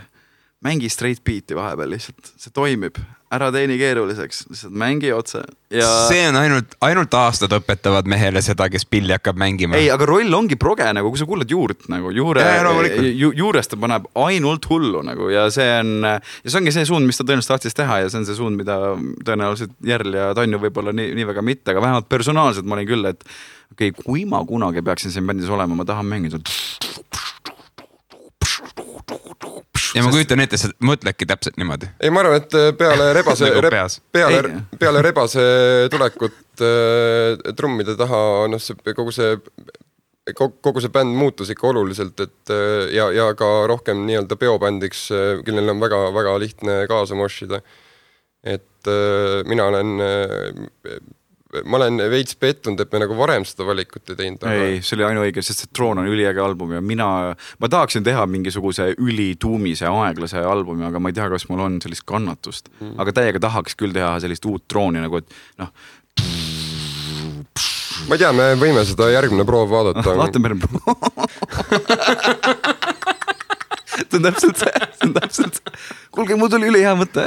Mängi straight beat'i vahepeal lihtsalt, see toimib. Ära teeni keeruliseks, lihtsalt mängi otse. Ja... See on ainult aastad õpetavad mehele seda, kes pilli hakkab mängima. Ei, aga roll ongi proge, nagu, kui sa kuulad juurt, nagu, juurest ta paneb ainult hullu nagu, ja see ongi see suund, mis ta tõenäoliselt tahtis teha ja see on see suund, mida tõenäoliselt Järl ja Tanju võib-olla nii väga mitte, aga vähemalt personaalselt ma olin küll, et kui ma kunagi peaksin siin bändis olema, ma tahan mängida ja ma kujutan ette, sa mõtledki täpselt niimoodi. Ei, ma arvan, et peale Rebase tulekut trummide taha, kogu see bänd muutus ikka oluliselt, et ja ka rohkem nii-öelda peobändiks, kellel on väga, väga lihtne kaasa moshida. Et ma olen veits pettunud, et me nagu varem seda valikut ei teinud. Ei, see oli ainuõige, sest see Troon on üliäge album ja ma tahaksin teha mingisuguse ülituumise aeglase albumi, aga ma ei tea, kas mul on sellist kannatust. Aga täiega tahaks küll teha sellist uut Trooni nagu, et ma ei tea, me võime seda järgmine proov vaadata. Vaatame see on täpselt. Kuulge, mul tuli üli hea mõte.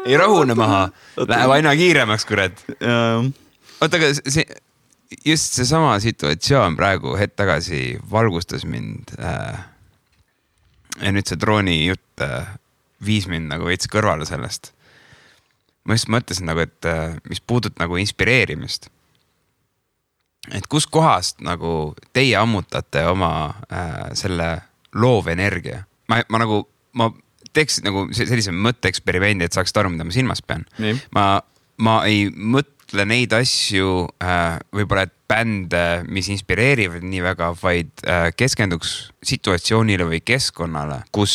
Ei rahune maha, läheb aina kiiremaks, kurat. Oota, aga just see sama situatsioon praegu hetk tagasi valgustas mind ja nüüd see Drooni jutt viis mind nagu veits kõrvale sellest. Ma just mõtlesin nagu, et mis puudut nagu inspireerimist. Et kus kohast nagu teie ammutate oma selle loovenergia ma nagu, ma teeks nagu sellise mõtteeksperimendi, et saaksid aru, mida ma silmas pean. Ma ei mõtle neid asju võib-olla, et bände, mis inspireerivad nii väga, vaid keskenduks situatsioonile või keskkonnale, kus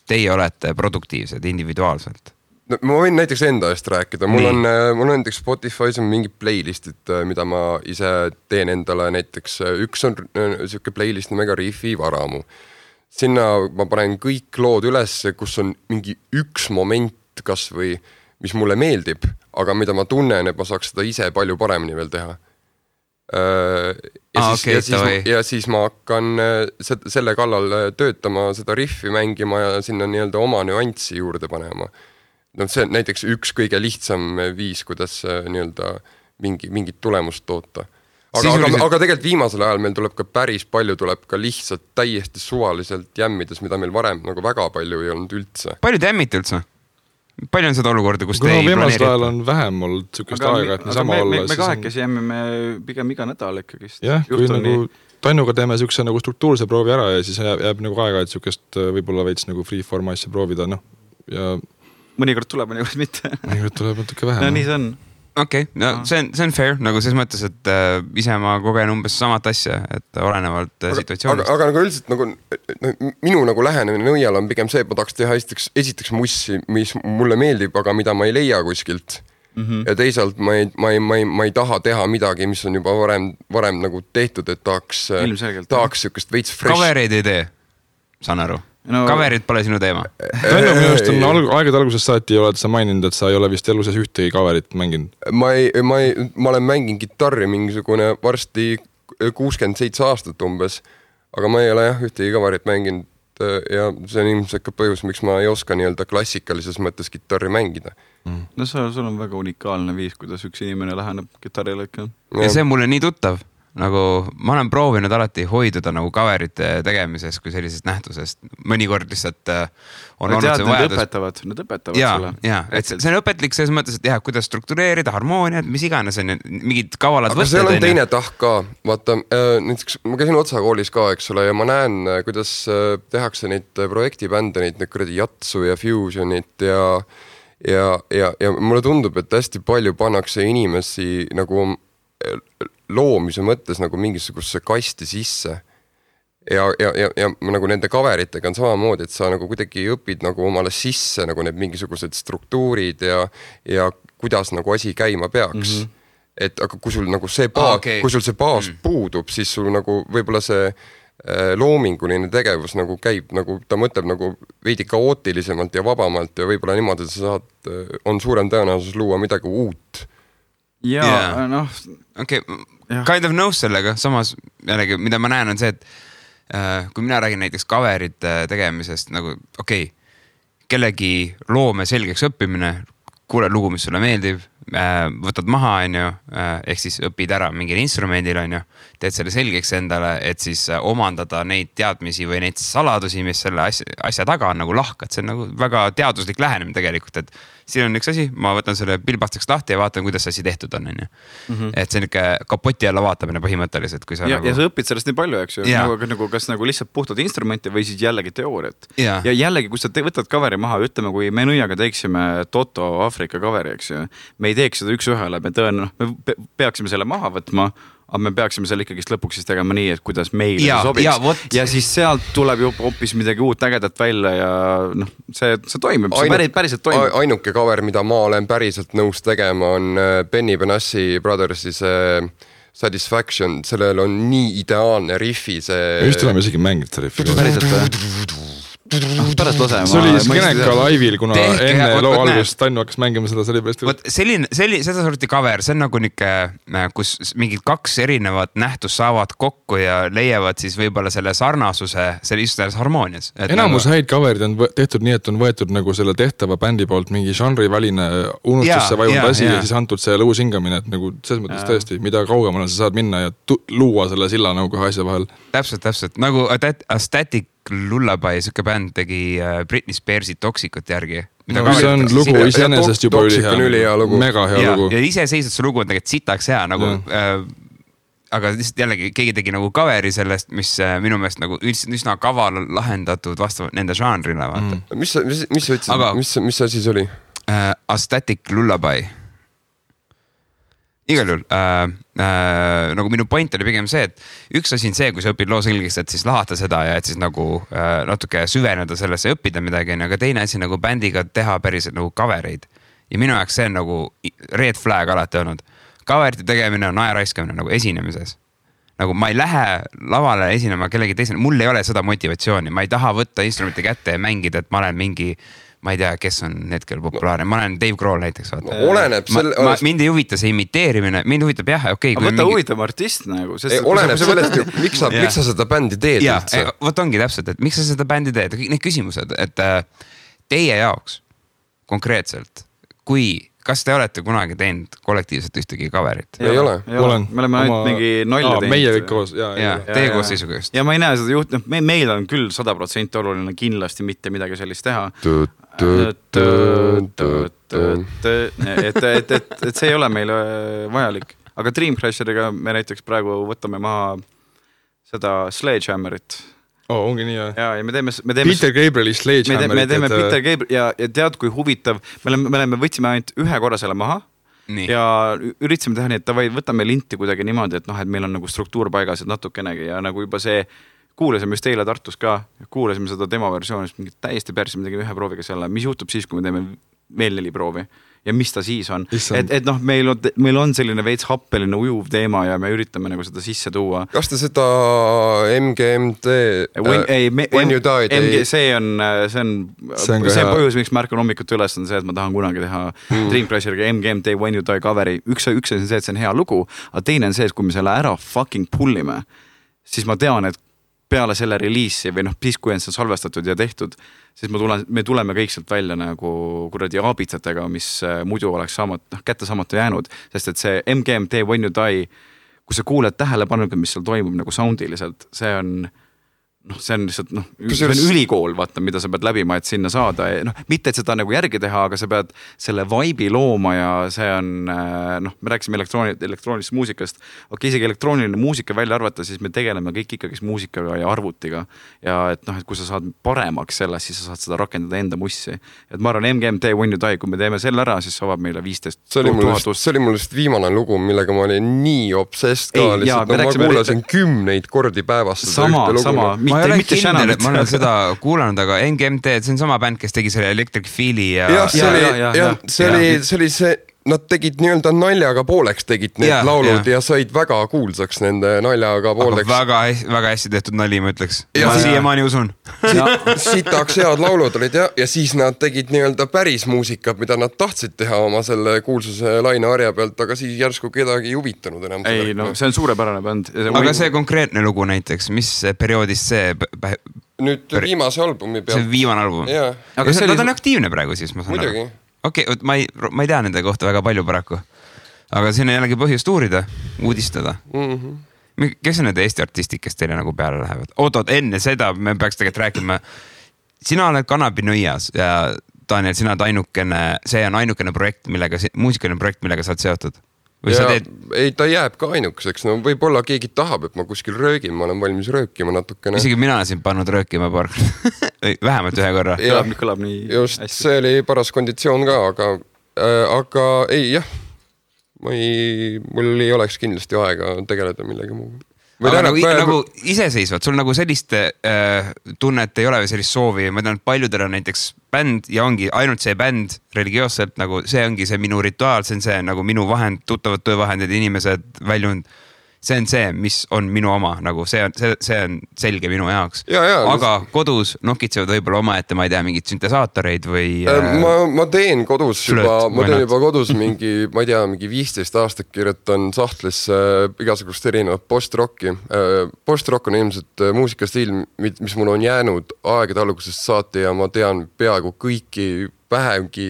teie olete produktiivsed individuaalselt. No, ma võin näiteks enda eest rääkida, mul on näiteks Spotify's on mingid playlistid, mida ma ise teen endale, näiteks üks on siuke playlist nimega Riffi Varamu. Sinna ma panen kõik lood üles, kus on mingi üks moment kas või, mis mulle meeldib, aga mida ma tunnen, et ma saaks seda ise palju paremini veel teha. Ja siis ma hakkan selle kallal töötama, seda riffi mängima ja sinna nii-öelda oma nüanssi juurde panema. No see on näiteks üks kõige lihtsam viis, kuidas nii-öelda mingit tulemust toota. Aga tegelikult viimasel ajal meil tuleb ka päris palju, tuleb ka lihtsalt täiesti suvaliselt jämmides, mida meil varem nagu väga palju ei olnud üldse. Palju te jämmite üldse? Palju on seda olukorda, kus te ei planeeri? Viimasel ajal on vähem olnud sükest aega, et me sama olla. Me kahekesi jämmime pigem iga nädal ikkagi. Jah, kui nagu Tannuga teeme sükse nagu struktuurse proovi ära ja siis jääb nagu aega, et sükest võib-olla veits nagu freeform asja proovida, noh. Ja mõnikord tuleb, mõnikord mitte. Mõnikord tuleb natuke vähem. No nii see on. Okei, no see on fair, nagu selles mõttes, et ise ma kogen umbes samat asja, et olenevalt situatsioonist. Aga nagu üldiselt nagu, minu nagu lähenemine nõial on pigem see, et ma tahaks teha esiteks mussi, mis mulle meeldib, aga mida ma ei leia kuskilt. Ja teisalt ma ei taha teha midagi, mis on juba varem nagu tehtud, et tahaks sükest veits fresh. Coverid ei tee, saan aru. Coverid pole sinu teema. Tõennu minust on aegade algusest saati oled sa maininud, et sa ei ole vist elu sees ühtegi coverit mänginud. Ma olen mänginud gitarri mingisugune varsti 67 aastat umbes, aga ma ei ole ühtegi coverit mänginud ja see on ilmselt ka põhjus, miks ma ei oska nii-öelda klassikalises mõttes gitarri mängida. No sul on väga unikaalne viis, kuidas üks inimene läheneb gitarrile ikka. Ja see on mulle nii tuttav. Nagu ma olen proovinud alati hoiduda nagu coverite tegemises kui sellisest nähtusest. Mõnikord lihtsalt on olnud see vajadus. Need õpetavad sulle. Jaa, et see on õpetlik selles mõttes, et kuidas struktureerida harmooniat, mis iganes on mingid kavalad võtted. Aga seal on teine tahk ka. Vaata, näiteks ma käisin Otsa koolis ka, eks ole, ja ma näen, kuidas tehakse neid projektibände, neid kuradi Jatsu ja Fusionit ja mulle tundub, et hästi palju pannakse inimesi nagu loomise mõttes nagu mingisuguse kasti sisse ja nagu nende coveritega on samamoodi, et sa nagu kuidagi õpid nagu omale sisse nagu need mingisugused struktuurid ja kuidas nagu asi käima peaks. Et aga kui sul nagu see kui sul see baas puudub, siis sul nagu võib-olla see loominguline tegevus nagu käib, nagu ta mõtleb nagu veidi kaootilisemalt ja vabamalt ja võib-olla niimoodi, et sa on suurem tõenäosus luua midagi uut. Ja noh. Okay. Kind of nõus sellega, samas jällegi, mida ma näen on see, et kui mina räägin näiteks coverite tegemisest, nagu kellegi loome selgeks õppimine, kuule lugu, mis sulle meeldib, võtad maha, ehk siis õpid ära mingil instrumendil, teed selle selgeks endale, et siis omandada neid teadmisi või neid saladusi, mis selle asja taga on nagu lahkad. See on nagu väga teaduslik lähenemine tegelikult, et siin on üks asi, ma võtan selle pilbastaks lahti ja vaatan, kuidas asi tehtud on. Et see on ikka kapoti alla vaatamine põhimõtteliselt. Kui sa ja sa õpid sellest nii palju, eks ju, nagu, kas nagu lihtsalt puhtad instrumenti või siis jällegi teooriat. Ja jällegi, kui sa võtad coveri maha, ütleme, kui me nõiaga teeksime Toto Afrika coveri, eks ju, me ei teeks seda üks ühele, me peaksime selle maha võtma, aga me peaksime selle ikkagi lõpuks siis tegema nii, et kuidas meile sobiks. Ja siis sealt tuleb ju hoopis midagi uut ägedat välja ja noh, see toimib, see päriselt toimib. Ainuke cover, mida ma olen päriselt nõus tegema, on Benny Benassi Brothersi see Satisfaction, sellel on nii ideaalne riffi see... Just oleme isegi mängid see riffi. Päriselt pärast lase. See oli Skeneka laivil, kuna enne loo algusest Tannu hakkas mängima seda, see oli pärast. Seda sorti cover, see on nagu kus mingid kaks erinevat nähtust saavad kokku ja leiavad siis võib-olla selle sarnasuse just selles harmoonias. Enamus häid coverid on tehtud nii, et on võetud nagu selle tehtava bändi poolt mingi žanriväline unustusse vajunud asi ja siis antud see lõus hingamine, et nagu selles mõttes tõesti, mida kaugemale sa saad minna ja luua selle silla nagu kohe asja vahel. Täpselt, nagu Static Lullaby, suke bänd tegi Britney Spearsi Toxicut järgi. See on lugu iseenesest juba üli hea. Mega hea lugu. Ja iseseisvalt see lugu on tegelikult sitaks hea, nagu aga lihtsalt jällegi keegi tegi nagu coveri sellest, mis minu meelest nagu üsna kaval lahendatud vastavalt nende žanrile, vaata. Mis sa ütlesid, aga... mis asi see oli? Aesthetic Lullaby. Igal juhul, nagu minu point oli pigem see, et üks asi on see, kui sa õpid loo selgeks, et siis lahata seda ja et siis nagu natuke süveneda sellesse ja õppida midagi, aga teine asi nagu bändiga teha päriselt nagu covereid. Ja minu jaoks see on nagu red flag alati olnud. Coverite tegemine on ajaraiskamine nagu esinemises. Nagu ma ei lähe lavale esinema kellegi teisele, mul ei ole seda motivatsiooni, ma ei taha võtta instrumenti kätte ja mängida, et ma olen mingi ma ei tea, kes on hetkel populaarne, ma olen Dave Grohl näiteks. No, oleneb mind ei huvita see imiteerimine, mind huvitab jah, okei. Aga võtta huvitab artist nagu. Oleneb sellest, miks sa seda bändi teed üldse. Võt ongi täpselt, et miks sa seda bändi teed, need küsimused, et teie jaoks konkreetselt, kas te olete kunagi teinud kollektiivselt ühtegi coverit? Ei ole. Me oleme ainult mingi nalja teinud. Meie kõik koos. Teie koos seisuga just. Ja ma ei näe seda juht, meil on küll 100% oluline kindlasti mitte midagi sellist teha. Et see ei ole meile vajalik. Aga Dream Crasheriga me näiteks praegu võtame maha seda Sledgehammerit. Ongi nii, ja me teeme Peter Gabrieli Sledgehammerit. Me teeme Peter Gabriel ja tead, kui huvitav, me võtsime ainult ühe korra selle maha nii. Ja üritasime teha nii, et võtame linti kuidagi niimoodi, et meil on nagu struktuur paigas, et natukenegi ja nagu juba see kuulasime just eile Tartus ka, kuulasime seda demo versioonist, mingit täiesti persi, me tegime ühe prooviga selle, mis juhtub siis, kui me teeme veel 4 proovi ja mis ta siis on. Et meil on selline veits happeline ujuv teema ja me üritame nagu seda sisse tuua. Kas te seda MGMT When You Die see on põhjus, miks ma ärkan hommikut üles on see, et ma tahan kunagi teha Dream Crasheriga MGMT When You Die coveri. Üks on see, et see on hea lugu, aga teine on see, et kui me selle ära fucking pullime, siis ma tean, et peale selle reliisi või siis kui on see salvestatud ja tehtud, siis me tuleme kõik sealt välja nagu kuradi aabitsatega, mis muidu oleks kätte saamata jäänud, sest et see MGMT When You Die, kui sa kuuled tähelepanuga, mis seal toimub nagu soundiliselt, see on lihtsalt, see on ülikool, vaata, mida sa pead läbima, et sinna saada. Mitte, et seda nagu järgi teha, aga sa pead selle vibe'i looma ja see on, me rääkisime elektroonilisest muusikast. Isegi elektrooniline muusika välja arvata, siis me tegeleme kõik ikkagi muusikaga ja arvutiga. Ja et kui sa saad paremaks sellest, siis sa saad seda rakendada enda mussi. Et ma arvan, MGMT When You Die, kui me teeme selle ära, siis avab meile 15 000. See oli mul just viimane lugu, millega ma olin nii obsessed ka. Ma kuulasin 10 kordi päevast. Sama. Ma ei ole kindel, et ma olen seda kuulanud, aga MGMT, see on sama bänd, kes tegi selle Electric Feel'i ja... see oli see, nad tegid nii-öelda naljaga pooleks tegid need laulud ja said väga kuulsaks nende naljaga pooleks. Aga väga hästi tehtud nali, ma ütleks. Ma siiamaani usun. Sitaks head laulud olid ja siis nad tegid nii-öelda päris muusikat, mida nad tahtsid teha oma selle kuulsuse laine harja pealt, aga siis järsku kedagi ei huvitanud enam. Ei, see on suurepärane bänd. Aga see konkreetne lugu näiteks, mis perioodist see... Nüüd viimase albumi pealt. See viimane album. Aga nad on aktiivne praegu siis, ma saan aru. Okei, ma ei tea nende kohta väga palju paraku, aga siin on jällegi põhjust uurida, uudistada. Kes on need Eesti artistid, kes teile nagu peale lähevad? Oot, enne seda me peaks tegelikult rääkima. Sina oled Kanapinõias ja Daniel, sina oled see on ainukene projekt, muusikaline projekt, millega sa oled seotud. Ei, ta jääb ka ainukeseks. No võib-olla keegi tahab, et ma kuskil röögin, ma olen valmis röökima natukene. Isegi mina olen siin pannud röökima vähemalt ühe korra. Kõlab nii just, hästi. See oli paras konditsioon ka, aga ei, jah. Mul ei oleks kindlasti aega tegeleda millegi muu. Aga nagu iseseisvad, sul nagu sellist tunnet ei ole või sellist soovi, ma tean, et paljudel on näiteks bänd ja ongi ainult see bänd religioosselt, nagu see ongi see minu rituaal, see on see nagu minu vahend, tuttavad töövahendid, inimesed väljund. See on see, mis on minu oma, nagu see on selge minu jaoks. Aga kodus nokitsevad võib-olla omaette, ma ei tea, mingid syntesaatoreid või... Ma teen kodus juba kodus mingi, ma ei tea, mingi 15 aastat kirjutan sahtlisse igasugust erinevat post-rocki. Post-rock on ilmselt muusikastiil, mis mul on jäänud aegade algusest saati ja ma tean peaaegu kõiki vähemgi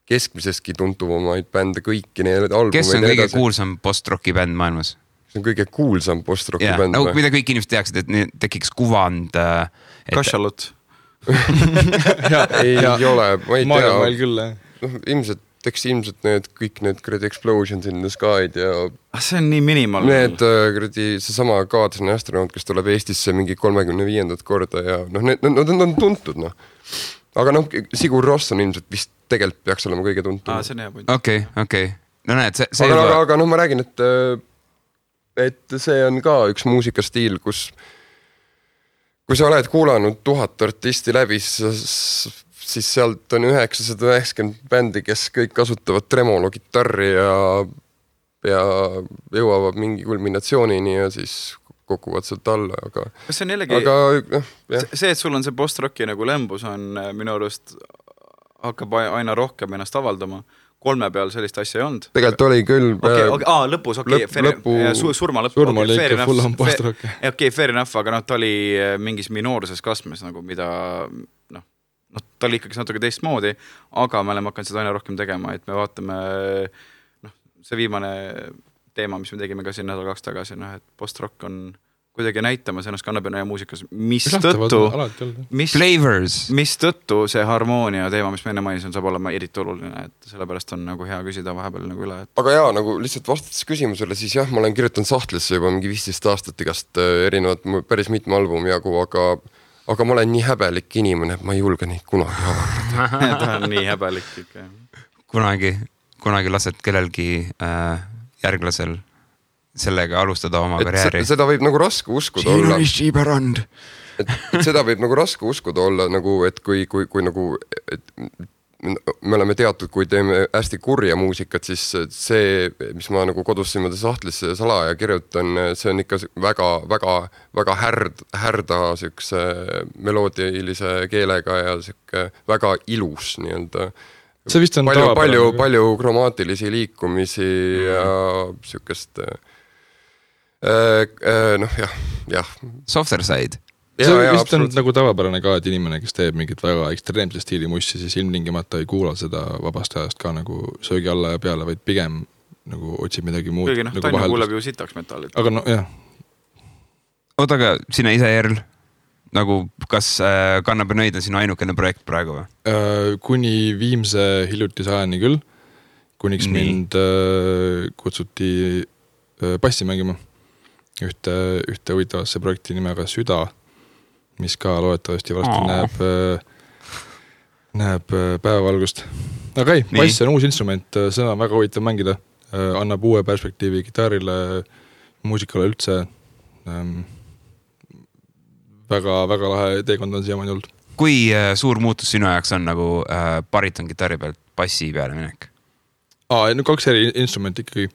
keskmiseski tuntuvamaid bände, kõiki need albumeid. Kes on kõige kuulsam post-rocki bänd maailmas? See on kõige kuulsam post-rocki bänd. Nagu mida kõik inimesed teaksid, et tekiks kuvand. Kašalut. Ei ole, ma ei tea. Maarjamail küll, ilmselt eks ilmselt kõik need kuradi Explosions in the Sky'd ja see on nii minimal. Need kuradi seesama Kaadlane astronaut, kes tuleb Eestisse mingi 35. korda ja need on tuntud, noh. Aga noh, Sigur Ross on ilmselt vist tegelikult peaks olema kõige tuntud. See on hea point. Okei. No näed, see aga noh, ma räägin, et see on ka üks muusikastiil, kus kui sa oled kuulanud 1000 artisti läbi, siis sealt on 990 bändi, kes kõik kasutavad tremolo gitarri ja jõuavad mingi kulminatsioonini ja siis kokuvad sealt alla, aga see on jällegi, see, et sul on see post-rocki nagu lembus on minu arust hakkab aina rohkem ennast avaldama. 3 peal sellist asja ei olnud. Tegelikult oli küll. Lõpus, surma lõppu. Surma oli ikka full on post-rock. Fair enough, aga ta oli mingis minoorses kasmes, nagu mida, ta oli ikkagi natuke teistmoodi, aga me oleme hakanud seda aina rohkem tegema, et me vaatame, see viimane teema, mis me tegime ka siin nädal 2 tagasi, et post-rock on kuidagi näitamas ennast kannapina ja muusikas, mistõttu see harmoonia teema, mis me enne mainisin, saab olema eriti oluline, et sellepärast on nagu hea küsida vahepeal nagu üle. Aga jaa, nagu lihtsalt vastates küsimusele, siis jah, ma olen kirjutanud sahtlisse juba mingi 15 aastat igast erinevat päris mitme albumi jagu, aga ma olen nii häbelik inimene, et ma ei julge neid kunagi avaldada. Ta on nii häbelik ikka. Kunagi lased kellelgi järglasel sellega alustada oma karjääri. Seda võib nagu raske uskuda olla. Et seda võib nagu raske uskuda olla, nagu, et kui nagu, et me oleme teatud, kui teeme hästi kurja muusikat, siis see, mis ma nagu kodus siimade sahtlisse salaja kirjutan, see on ikka väga härda siukse meloodilise keelega ja siuke väga ilus nii-öelda. See vist on palju kromaatilisi liikumisi ja siukest jah. Softer side. See vist on nagu tavapärane ka, et inimene, kes teeb mingit väga ekstreemse stiili mussi, siis ilmtingimata ei kuula seda vabast ajast ka nagu söögi alla ja peale, vaid pigem nagu otsib midagi muud. Kõigi nagu Tanju kuuleb ju sitaks metallit. Aga no jah. Oota, aga sina ise Jerl, nagu kas Kannapenoid on sinu ainukene projekt praegu või? Kuni viimse hiljutise ajani küll, kuniks mind kutsuti passi mängima ühte huvitavasse projekti nimega Süda, mis ka loodetavasti varsti näeb päevavalgust. Aga ei, bass on uus instrument, seda on väga huvitav mängida, annab uue perspektiivi gitarrile, muusikale üldse. Väga lahe teekond on siiamaani olnud. Kui suur muutus sinu ajaks on nagu bariton gitarri pealt bassi peale minek? 2 eri instrumenti ikkagi.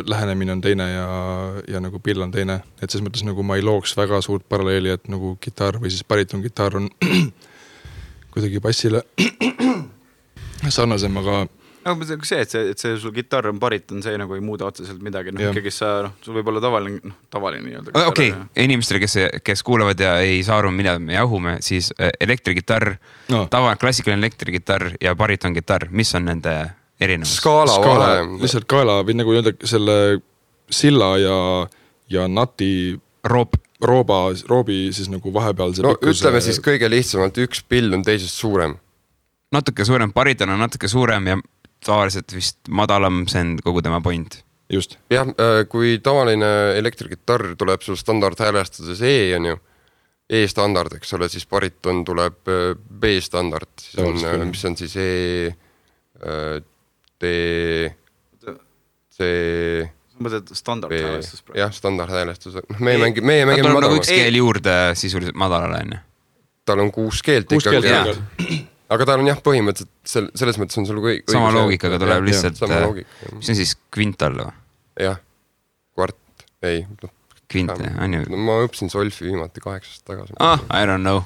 Lähenemine on teine ja nagu pill on teine, et selles mõttes nagu ma ei looks väga suurt paralleeli, et nagu gitarr või siis bariton gitarr on kuidagi bassile sarnasem, aga see, et see sul gitarr on bariton, see nagu ei muuda otseselt midagi, ikkagi sul võib olla tavaline nii-öelda. Okei, inimestele, kes kuulevad ja ei saa aru, mida me jahume, siis elektrigitarr, klassikaline elektrigitarr ja bariton gitarr, mis on nende erinevus? Skaala vahe. Lihtsalt kaela või nagu öelda selle silla ja nati roobi siis nagu vahepeal see pikkus. Ütleme siis kõige lihtsamalt, üks pill on teisest suurem. Natuke suurem, bariton on natuke suurem ja tavaliselt vist madalam, see on kogu tema point. Just. Jah, kui tavaline elektrigitarr tuleb sul standardhäälestuses E on ju, E-standard, eks ole, siis bariton tuleb B-standard, mis on siis standardhäälestus. Jah, standardhäälestus. Meie mängime madalama. Nagu üks keel juurde sisuliselt madalale, on ju? Tal on 6 keelt ikkagi. Aga tal on jah, põhimõtteliselt selles mõttes on sul õige. Sama loogikaga tuleb lihtsalt, mis on siis kvintal või? Jah, kvart, ei. Kvint, on ju? Ma õppisin solfi viimati 8 aastat tagasi. I don't know.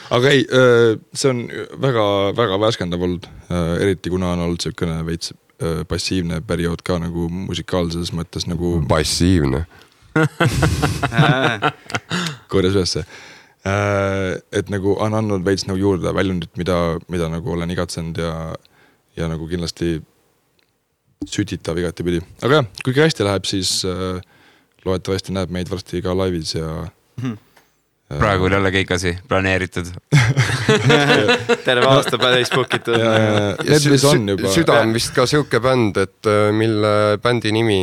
Aga ei, see on väga värskendav olnud, eriti kuna on olnud selline veits passiivne periood ka nagu musikaalses mõttes nagu... Passiivne. Korjas ülesse. Et nagu on andnud veits nagu juurde väljundit, mida nagu olen igatsenud ja nagu kindlasti sütitav igati pidi. Aga jah, kui hästi läheb, siis loodetavasti näeb meid varsti ka laivis ja praegu oli jälle keikasi planeeritud. Terve aasta täis book'itud. Need mis on juba. Süda on vist ka siuke bänd, et mille bändi nimi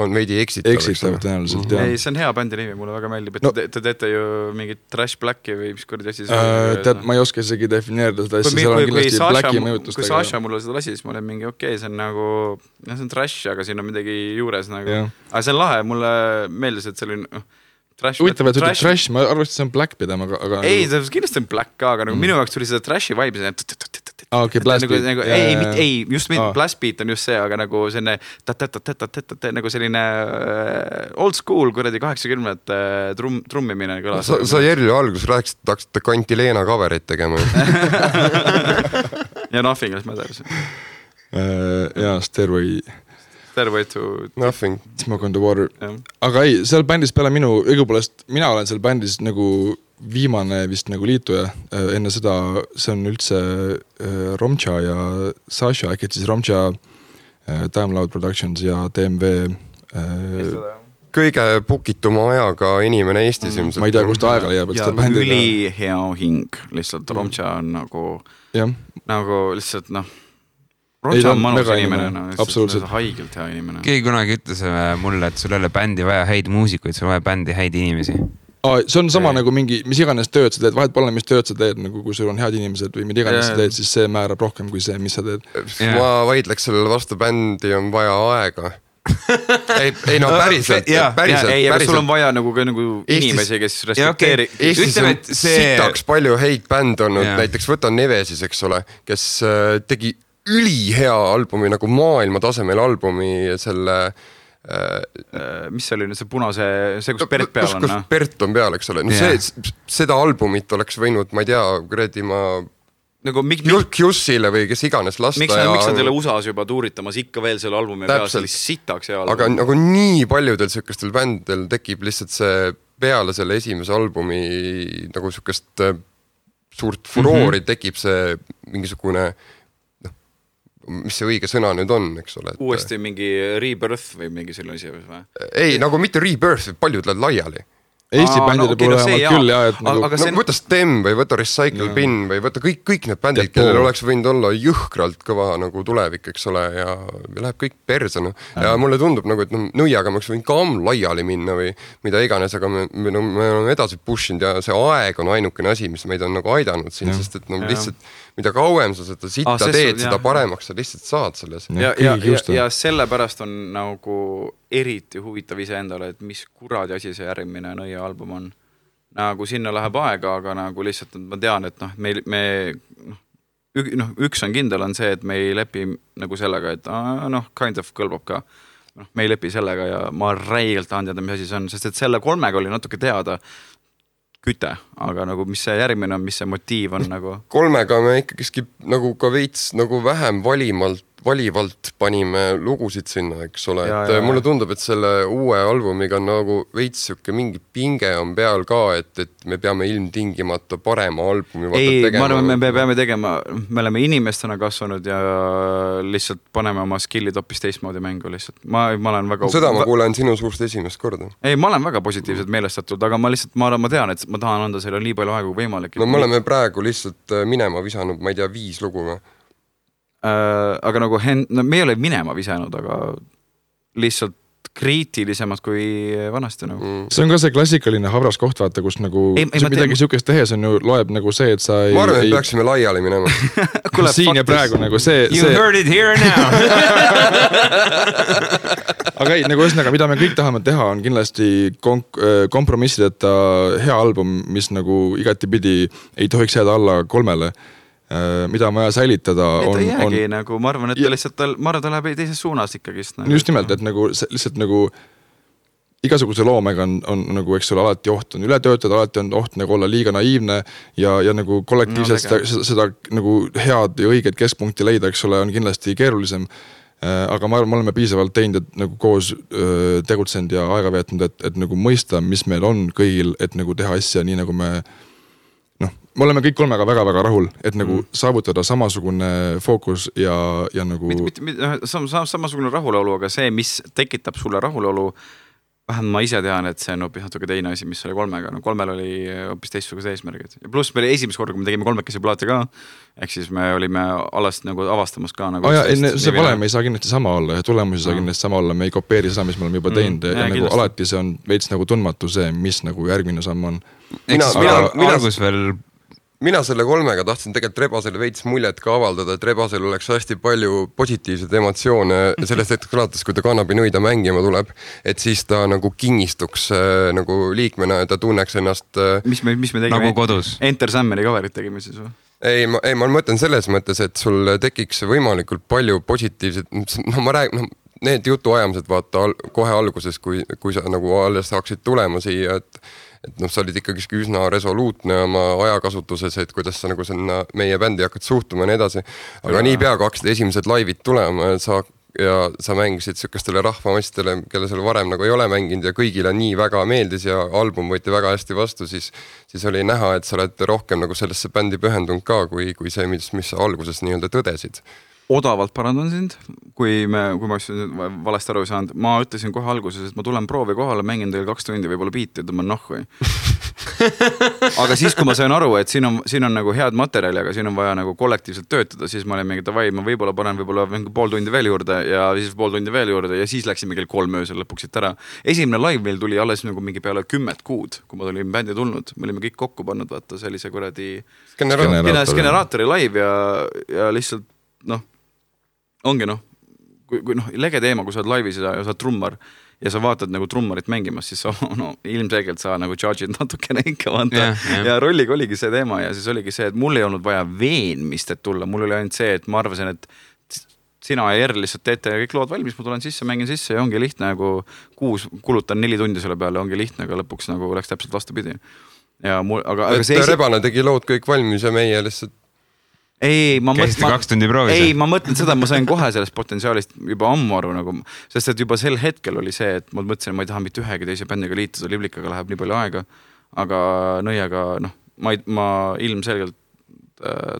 on veidi eksitav. Tõenäoliselt, jah. Ei, see on hea bändi nimi, mulle väga meeldib, et te teete ju mingit Trash Blacki või mis kurdi asi tead, ma ei oska isegi defineerida seda asja, seal on kindlasti Blacki mõjutust. Kui Sasha mulle seda lasi, siis ma olen mingi okei, see on nagu, see on trash, aga siin on midagi juures nagu. Aga see on lahe, mulle meeldis, et see oli huvitav, et ütleb trash, ma arvasin, et see on black pidama, aga ei, kindlasti on black ka, aga minu jaoks tuli seda trashi vibe okei, blast beat ei, just blast beat on just see, aga nagu selline nagu selline old school kuradi 80 trummimine kõlas. Sa Jerlu alguses rääkisid, et hakkasite Kantileena coverit tegema ja Nothing Else Matters ja Stairway to Nothing Smoke on the Water aga ei, seal bändis peale minu õigupoolest, mina olen seal bändis nagu viimane vist nagu liituja enne seda, see on üldse Romcha ja Sasha, äkki siis Romcha Time Loud Productions ja DMV kõige pukituma ajaga inimene Eestis ilmselt. Ma ei tea, kust aega leiab, ja üli hea hing, lihtsalt Romcha on nagu lihtsalt Romcha on manus inimene, absoluutselt haigelt hea inimene. Keegi kunagi ütles mulle, et sul ei ole bändi vaja häid muusikuid, sul on vaja bändi häid inimesi. See on sama nagu mingi, mis iganes tööd sa teed, vahet pole, mis tööd sa teed, nagu kui sul on head inimesed või mida iganes sa teed, siis see määrab rohkem kui see, mis sa teed. Ma vaidleks sellele vastu, bändi on vaja aega. ei no päriselt. Ei, aga sul on vaja nagu inimesi, kes respekteeri. Eestis on sitaks palju häid bänd olnud, näiteks võta Nevesis, eks ole, kes tegi ülihea albumi, nagu maailma tasemel albumi selle mis see oli nüüd see punase, see kus Bert peal on? Kus Bert on peal, eks ole. No seda albumit oleks võinud, ma ei tea, kuradi ma nagu Jussile või kes iganes lasta. Miks nad ei ole USA-s juba tuuritamas ikka veel selle albumi peal, see oli sitaks hea album. Aga nagu nii paljudel sükestel bändidel tekib lihtsalt see peale selle esimese albumi nagu sükest suurt furoori tekib see mingisugune mis see õige sõna nüüd on, eks ole. Uuesti mingi rebirth või mingi selline asi või? Ei, nagu mitte rebirth, paljud lähevad laiali. Eesti bändide puhul küll jah, et nagu... Võta Stem või võta Recycle Bin või võta kõik need bändid, kellel oleks võinud olla jõhkralt kõva nagu tulevik, eks ole, ja läheb kõik perse. Ja mulle tundub nagu, et nõiaga me oleks võinud ka laiali minna või mida iganes, aga me oleme edasi pushinud ja see aeg on ainukene asi, mis meid on nagu aidanud siin, sest et lihtsalt mida kauem sa seda sitta teed, seda paremaks sa lihtsalt saad selles. Ja sellepärast on nagu eriti huvitav ise endale, et mis kuradi asi see järgmine nõia album on. Nagu sinna läheb aega, aga nagu lihtsalt ma tean, et üks on kindel on see, et me ei lepi nagu sellega, et kind of kõlbab ka. Me ei lepi sellega ja ma räigelt tahan teada, mis asi see on, sest et selle 3 oli natuke teada küte, aga nagu mis see järgmine on, mis see motiiv on nagu? 3 me ikkagi nagu ka veits nagu vähem valivalt panime lugusid sinna, eks ole, et mulle tundub, et selle uue albumiga on nagu veits siuke mingi pinge on peal ka, et me peame ilmtingimata parema albumi tegema. Ma arvan, me peame tegema, me oleme inimestena kasvanud ja lihtsalt paneme oma skillid hoopis teistmoodi mängu lihtsalt. Ma olen väga... Seda ma kuulen sinu suust esimest korda. Ei, ma olen väga positiivselt meelestatud, aga ma lihtsalt, ma tean, et ma tahan anda selle nii palju aegu võimalik. No me oleme praegu lihtsalt minema visanud, ma ei tea, 5 lugu või? Aga nagu me ei ole minema visanud, aga lihtsalt kriitilisemad kui vanasti nagu. See on ka see klassikaline habras koht, vaata, kus nagu midagi siukest tehes on ju, loeb nagu see, et sa ei... Ma arvan, et peaksime laiali minema. Siin ja praegu nagu see... You heard it here and now. Aga ei, nagu ühesõnaga, mida me kõik tahame teha, on kindlasti kompromissideta hea album, mis nagu igatipidi ei tohiks jääda alla 3. Mida on vaja säilitada ta jäägi nagu, ma arvan, et ta lihtsalt ta läheb teises suunas ikkagist nagu. Just nimelt, et nagu lihtsalt nagu igasuguse loomega on nagu, eks ole, alati oht on üle töötada, alati on oht nagu olla liiga naiivne ja nagu kollektiivselt seda nagu head ja õiget keskpunkti leida, eks ole, on kindlasti keerulisem. Aga ma arvan, me oleme piisavalt teinud, et nagu koos tegutsenud ja aega veetnud, et nagu mõista, mis meil on kõigil, et nagu teha asja nii, nagu me oleme kõik 3 väga-väga rahul, et nagu saavutada samasugune fookus ja nagu... Samasugune rahulolu, aga see, mis tekitab sulle rahulolu, vähemalt ma ise tean, et see on hoopis natuke teine asi, mis oli 3-ga. No 3-l oli hoopis teistsugused eesmärgid. Ja pluss me esimest korda, kui me tegime 3-kesi plaate ka, ehk siis me olime alles nagu avastamas ka nagu see valem ei saa kindlasti sama olla ja tulemusi saa kindlasti sama olla. Me ei kopeeri seda, mis me oleme juba teinud ja nagu alati see on veits nagu tundmatu see, mis nagu järgmine samm on. Mina selle 3-ga tahtsin tegelikult Rebasele veits muljet ka avaldada, et Rebasel oleks hästi palju positiivseid emotsioone sellest hetkest alates, kui ta kannabinõida mängima tuleb, et siis ta nagu kingistuks nagu liikmena ja ta tunneks ennast mis me tegime? Nagu kodus. Enter Sammeri coverit tegime siis või? Ei, ma mõtlen selles mõttes, et sul tekiks võimalikult palju positiivset, no ma räägin, need jutuajamised vaata kohe alguses, kui sa nagu alles saaksid tulema siia, et sa olid ikkagi üsna resoluutne oma ajakasutuses, et kuidas sa nagu sinna meie bändi hakkad suhtuma ja nii edasi. Aga nii pea hakkasid esimesed laivid tulema ja sa mängisid sükestele rahvamastele, kelle seal varem nagu ei ole mänginud ja kõigile nii väga meeldis ja album võeti väga hästi vastu, siis oli näha, et sa oled rohkem nagu sellesse bändi pühendunud ka, kui see, mis sa alguses nii-öelda tõdesid. Odavalt parandan sind, kui ma valesti aru ei saanud. Ma ütlesin kohe alguses, et ma tulen proovi kohale, mängin teil 2 tundi, võib-olla biiti, tõmban nahku. Aga siis, kui ma sain aru, et siin on nagu head materjali, aga siin on vaja nagu kollektiivselt töötada, siis ma olin mingi davai, ma võib-olla panen pool tundi veel juurde ja siis pool tundi veel juurde ja siis läksime kell 3 öösel lõpuks siit ära. Esimene live meil tuli alles nagu mingi peale 10 kuud, kui ma tulin bändi tulnud. Me olime kõik kokku pannud, vaata sellise kuradi generaatori live ja lihtsalt ongi kui lege teema, kui sa oled laivis ja sa oled trummar ja sa vaatad nagu trummarit mängimas, siis ilmselgelt sa nagu charge'id natukene ikka vaata. Ja rolliga oligi see teema ja siis oligi see, et mul ei olnud vaja veenmist, et tulla. Mul oli ainult see, et ma arvasin, et sina ja Erl lihtsalt teete kõik lood valmis, ma tulen sisse, mängin sisse ja ongi lihtne nagu 6 kulutan 4 tundi selle peale, ongi lihtne, aga lõpuks nagu läks täpselt vastupidi. Aga see Rebane tegi lood kõik valmis ja meie lihtsalt ma mõtlen seda, ma sain kohe sellest potentsiaalist juba ammu aru nagu, sest et juba sel hetkel oli see, et ma mõtlesin, ma ei taha mitte ühegi teise bändiga liituda, Liblikaga läheb nii palju aega, aga Nõiaga, ma ilmselgelt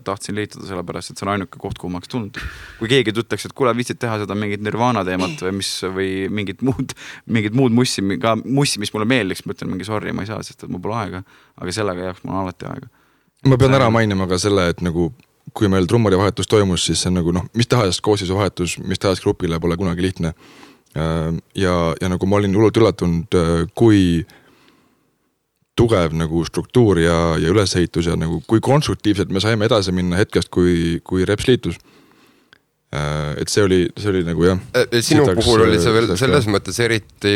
tahtsin liituda sellepärast, et see on ainuke koht, kuhu ma oleks tulnud. Kui keegi ütleks, et kuule, viitsid teha seda mingit Nirvana teemat või mingit muud mussi, mis mulle meeldiks, ma ütlen mingi sorry, ma ei saa, sest et mul pole aega, aga sellega jaoks mul on alati aega. Ma pean ära mainima ka selle, et nagu kui meil trummari vahetus toimus, siis see on nagu mis tahes koosseisu vahetus, mis tahes grupile pole kunagi lihtne. Ja nagu ma olin hullult üllatunud, kui tugev nagu struktuur ja ülesehitus ja nagu kui konstruktiivselt me saime edasi minna hetkest, kui Reps liitus. Et see oli nagu jah. Sinu puhul oli see veel selles mõttes eriti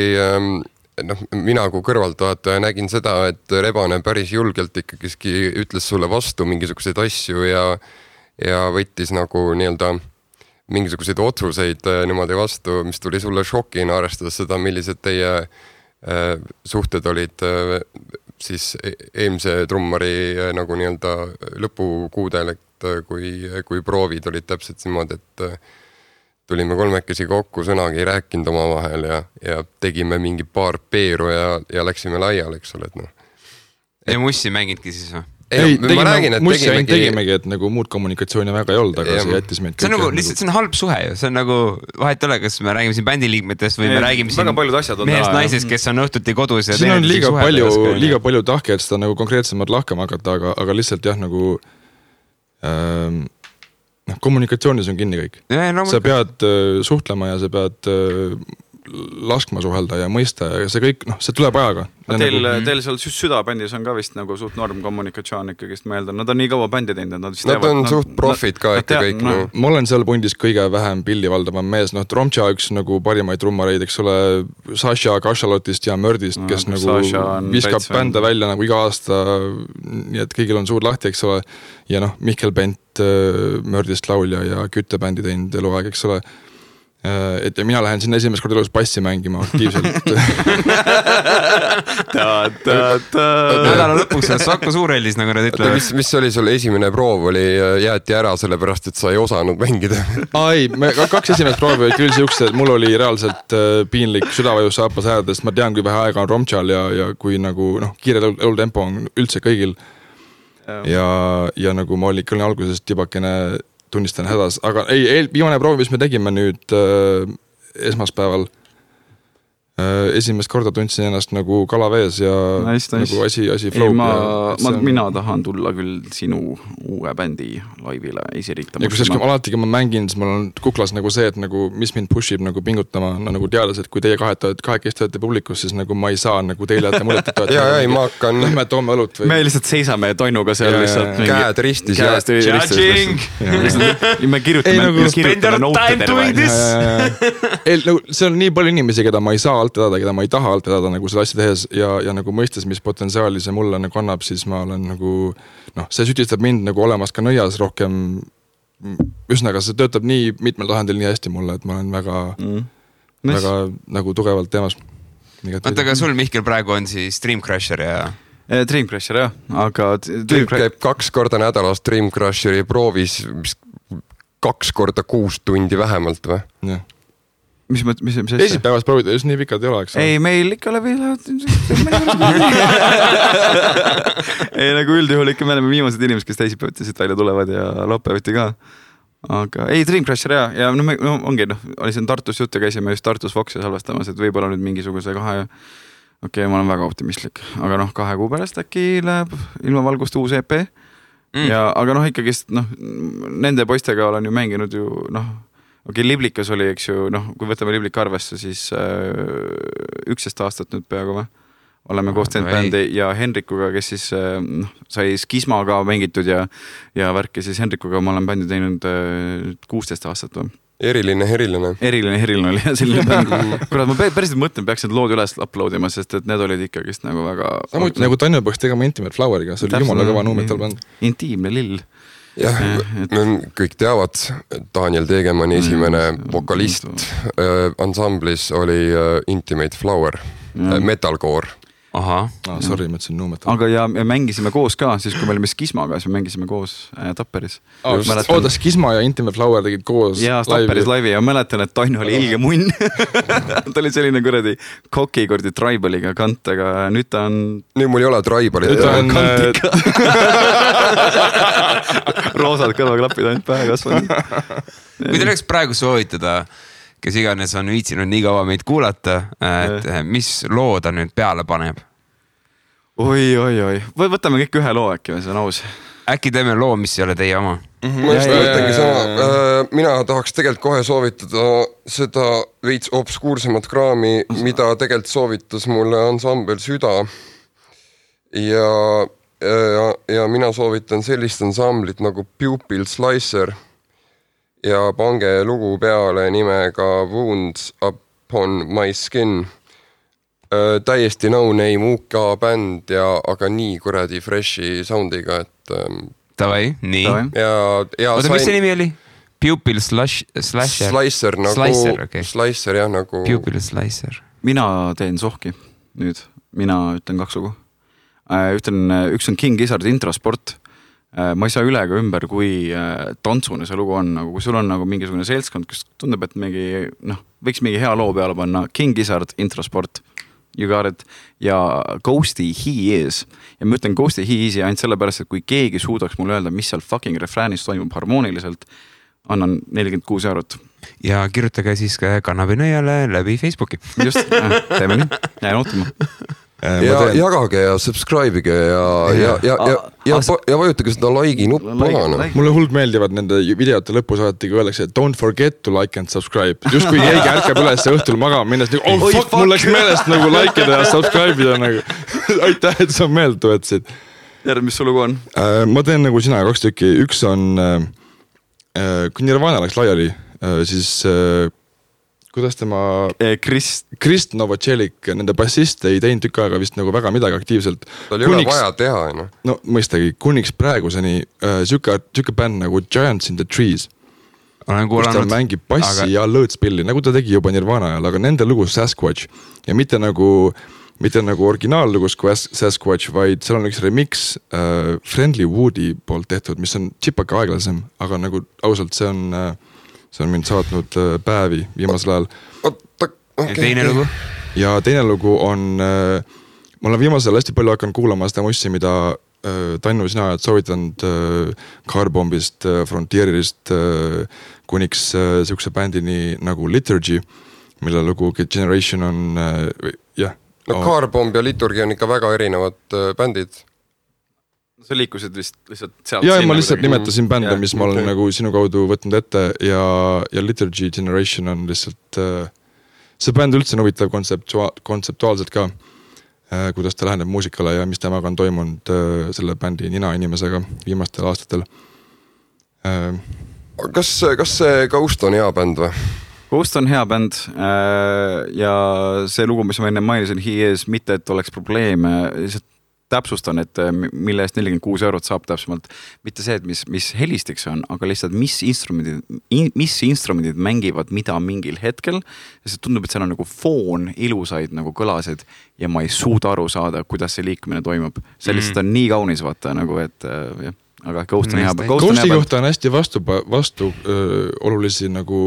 mina kui kõrvaltvaataja nägin seda, et Rebane päris julgelt ikkagi ütles sulle vastu mingisuguseid asju ja võttis nagu nii-öelda mingisuguseid otsuseid niimoodi vastu, mis tuli sulle šokina, arvestades seda, millised teie suhted olid siis eelmise trummari nagu nii-öelda lõpukuudel, et kui proovid olid täpselt niimoodi, et tulime 3 kokku, sõnagi ei rääkinud oma vahel ja tegime mingi paar peeru ja läksime laiali, eks ole, et Ei mussi mängidki siis või? Ei, tegimegi, et nagu muud kommunikatsiooni väga ei olnud, aga see jättis meid see on nagu lihtsalt, see on halb suhe ju, see on nagu vahet ole, kas me räägime siin bändiliikmetest või me räägime siin mehest naisest, kes on õhtuti kodus ja siin on liiga palju tahki, et seda nagu konkreetsemalt lahkama hakata, aga lihtsalt jah, nagu kommunikatsioonis on kinni kõik. Sa pead suhtlema ja sa pead laskma suhelda ja mõista ja see kõik, see tuleb ajaga. Teil seal südabändis on ka vist nagu suht norm kommunikatsioon ikkagist, ma eeldan. Nad on nii kaua bändi teinud, nad on suht profid ka ikka kõik. Ma olen seal pundis kõige vähem pilli valdavam mees. Romtša üks nagu parimaid trummareid, eks ole, Saša Kašalotist ja Mördist, kes nagu viskab bände välja nagu iga aasta, nii et kõigil on suur lahti, eks ole. Ja Mihkel Bent, Mördist laulja ja küttebändi teinud eluaeg, eks ole. Et ja mina lähen sinna esimest korda elus bassi mängima aktiivselt. Nädala lõpuks Saku Suureldis, nagu nad ütlevad. Mis oli sul esimene proov, oli jäeti ära sellepärast, et sa ei osanud mängida? Ei, 2 esimest proovi oli küll siukse, et mul oli reaalselt piinlik südavajus saapas häädest. Ma tean, kui vähe aega on Romtšal ja kui nagu kiire elutempo on üldse kõigil. Ja nagu ma olin küll alguses tibakene tunnistan hädas, aga viimane proov, mis me tegime nüüd esmaspäeval, esimest korda tundsin ennast nagu kalavees ja nice. Nagu asi flow. Mina tahan tulla küll sinu uue bändi laivile esiriitama. Ja kus alati, kui ma mängin, siis mul on kuklas nagu see, et nagu, mis mind pushib nagu pingutama, nagu teades, et kui teie kahekesti olete publikus, siis nagu ma ei saa nagu teile jätta muljet, et ei, ma hakkan... Lähme toome õlut või... Me lihtsalt seisame Tonnuga seal lihtsalt. Käed ristis. Judging! Me kirjutame nootedele. See on nii palju inimesi, keda ma ei saa alt edada, keda ma ei taha alt edada nagu selle asja tehes ja nagu mõistes, mis potentsiaali see mulle nagu annab, siis ma olen nagu, see sütistab mind nagu olemas ka nõias rohkem, üsnaga see töötab nii mitmel tahandil nii hästi mulle, et ma olen väga nagu tugevalt teemas. Oota, aga sul, Mihkel, praegu on siis Dream Crusher ja... Dream Crusher, jah, aga... Tüüp käib 2 korda nädalas Dream Crusheri proovis 2 korda 6 tundi vähemalt või? Jah. Mis Esipäevast proovida, just nii pikalt ei ole, eks? Ei, meil ikka läbi ei, nagu üldjuhul ikka me oleme viimased inimesed, kes teisipäeviti siit välja tulevad ja laupäeviti ka. Aga ei, Dream Crusher ja ongi, oli siin Tartus juttu, käisime just Tartus Foxi salvestamas, et võib-olla nüüd mingisuguse ma olen väga optimistlik, aga 2 kuu pärast äkki läheb ilma valgust uus EP ja aga ikkagist nende poistega olen ju mänginud ju Liblikas oli, eks ju, kui võtame Liblika arvesse, siis 11 aastat nüüd peaaegu või? Oleme koos teinud bändi ja Henrikuga, kes siis sai Skismaga mängitud ja värki, siis Henrikuga ma olen bändi teinud 16 aastat või? Eriline oli selline bänd. Kurat, ma päriselt mõtlen, peaks need lood üles uploadima, sest et need olid ikkagist nagu väga... Samuti nagu Tanju peaks tegema Intimate Floweriga, see oli jumala kõva nuumetal bänd. Intiimne lill. Jah, kõik teavad, Daniel Tegemanni esimene vokalist ansamblis oli Intimate Flower, metalcore. Aha. Sorry, ma ütlesin nuumetal. Aga ja mängisime koos ka, siis kui me olime Skismaga, siis me mängisime koos Tapperis. Oota, Skisma ja Intimate Flower tegid koos ja Tapperis laivi ja mäletan, et Tanju oli ilge munn. Ta oli selline kuradi kokikordi Tribaliga kant, aga nüüd ta on... Nüüd mul ei ole Tribali. Nüüd ta on kantika. Roosad kõrvaklapid ainult pähe kasvanud. Kui te oleks praegu soovitada, kes iganes on viitsinud nii kaua meid kuulata, et mis loo ta nüüd peale paneb? Oi. Võtame kõik ühe loo äkki, see on aus. Äkki teeme loo, mis ei ole teie oma? Ma just mõtlengi sama. Mina tahaks tegelikult kohe soovitada seda veits obskuursemat kraami, mida tegelikult soovitas mulle ansambel Süda. Ja mina soovitan sellist ansamblit nagu Pupil Slicer ja pange lugu peale nimega Wounds Upon My Skin. Täiesti no-name UK bänd aga nii kuradi freshi soundiga, et... Tavai, nii. Oota, mis see nimi oli? Pupil Slicer? Slicer, Slicer, jah, nagu... Pupil Slicer. Mina teen sohki nüüd. Mina ütlen 2 lugu. Üks on King Gizzard Introsport. Ma ei saa üle ega ümber, kui tantsune see lugu on, nagu kui sul on nagu mingisugune seltskond, kes tundub, et võiks mingi hea loo peale panna. King Gizzard Introsport, you got it, ja Ghosty He Is. Ja ma ütlen Ghosty He Is ainult sellepärast, et kui keegi suudaks mulle öelda, mis seal fucking refräänis toimub harmooniliselt, annan 46 €. Ja kirjutage siis Kannabinõiale läbi Facebooki. Just, teeme nii, jään ootama. Ja jagage ja subscribe'ige ja vajutage seda like'i nuppu maha. Mulle huld meeldivad nende videote lõpus alati, kui öeldakse, et don't forget to like and subscribe. Just kui keegi ärkab üles õhtul magama minnes, nagu, fuck, mul läks meelest nagu likeida ja subscribe'ida nagu. Aitäh, et sa meelde tuetasid. Järg, mis su lugu on? Ma teen nagu sina 2 tükki. Üks on, kui Nirvana läks laiali, siis... Kuidas tema... Krist Novotšelik, nende bassist ei teinud tükk aega vist nagu väga midagi aktiivselt. Ta oli vaja teha, no? No mõistagi, kuniks praeguseni süke bänd nagu Giants in the Trees. Olen kus ta mängib bassi ja lõõtspilli, nagu ta tegi juba Nirvana ajal, aga nende lugu Sasquatch. Ja mitte nagu originaallugus kui Sasquatch, vaid seal on üks remix Friendly Woodi poolt tehtud, mis on chipaka aeglasem, aga nagu ausalt see on mind saatnud päevi viimasel ajal. Ja teine lugu? Ja teine lugu on, ma olen viimasel hästi palju hakanud kuulama seda mussi, mida Tannu sina oled soovitanud Carbombist, Frontierist, kuniks siukse bändini nagu Liturgy. mille lugu Generation on jah. No Carbomb ja Liturgi on ikka väga erinevad bändid. Sa liikusid lihtsalt sealt. Ja ma lihtsalt nimetasin bände, mis ma olen nagu sinu kaudu võtnud ette ja Liturgy Generation on lihtsalt see bänd üldse on huvitav kontseptuaalselt ka, kuidas ta läheneb muusikale ja mis temaga on toimunud selle bändi nina inimesega viimastel aastatel. Kas see Ghost on hea bänd või? Ghost on hea bänd ja see lugu, mis ma enne mainisin, He Is, mitte et oleks probleeme, lihtsalt täpsustan, et mille eest 46 eurot saab täpsemalt. Mitte see, et mis helistiks on, aga lihtsalt mis instrumendid mängivad mida mingil hetkel. Ja see tundub, et seal on nagu foon, ilusaid nagu kõlasid ja ma ei suuda aru saada, kuidas see liikumine toimub. See lihtsalt on nii kaunis vaata nagu, et jah. Aga Ghost on hea bänd. Ghosti kohta on hästi vastu olulisi nagu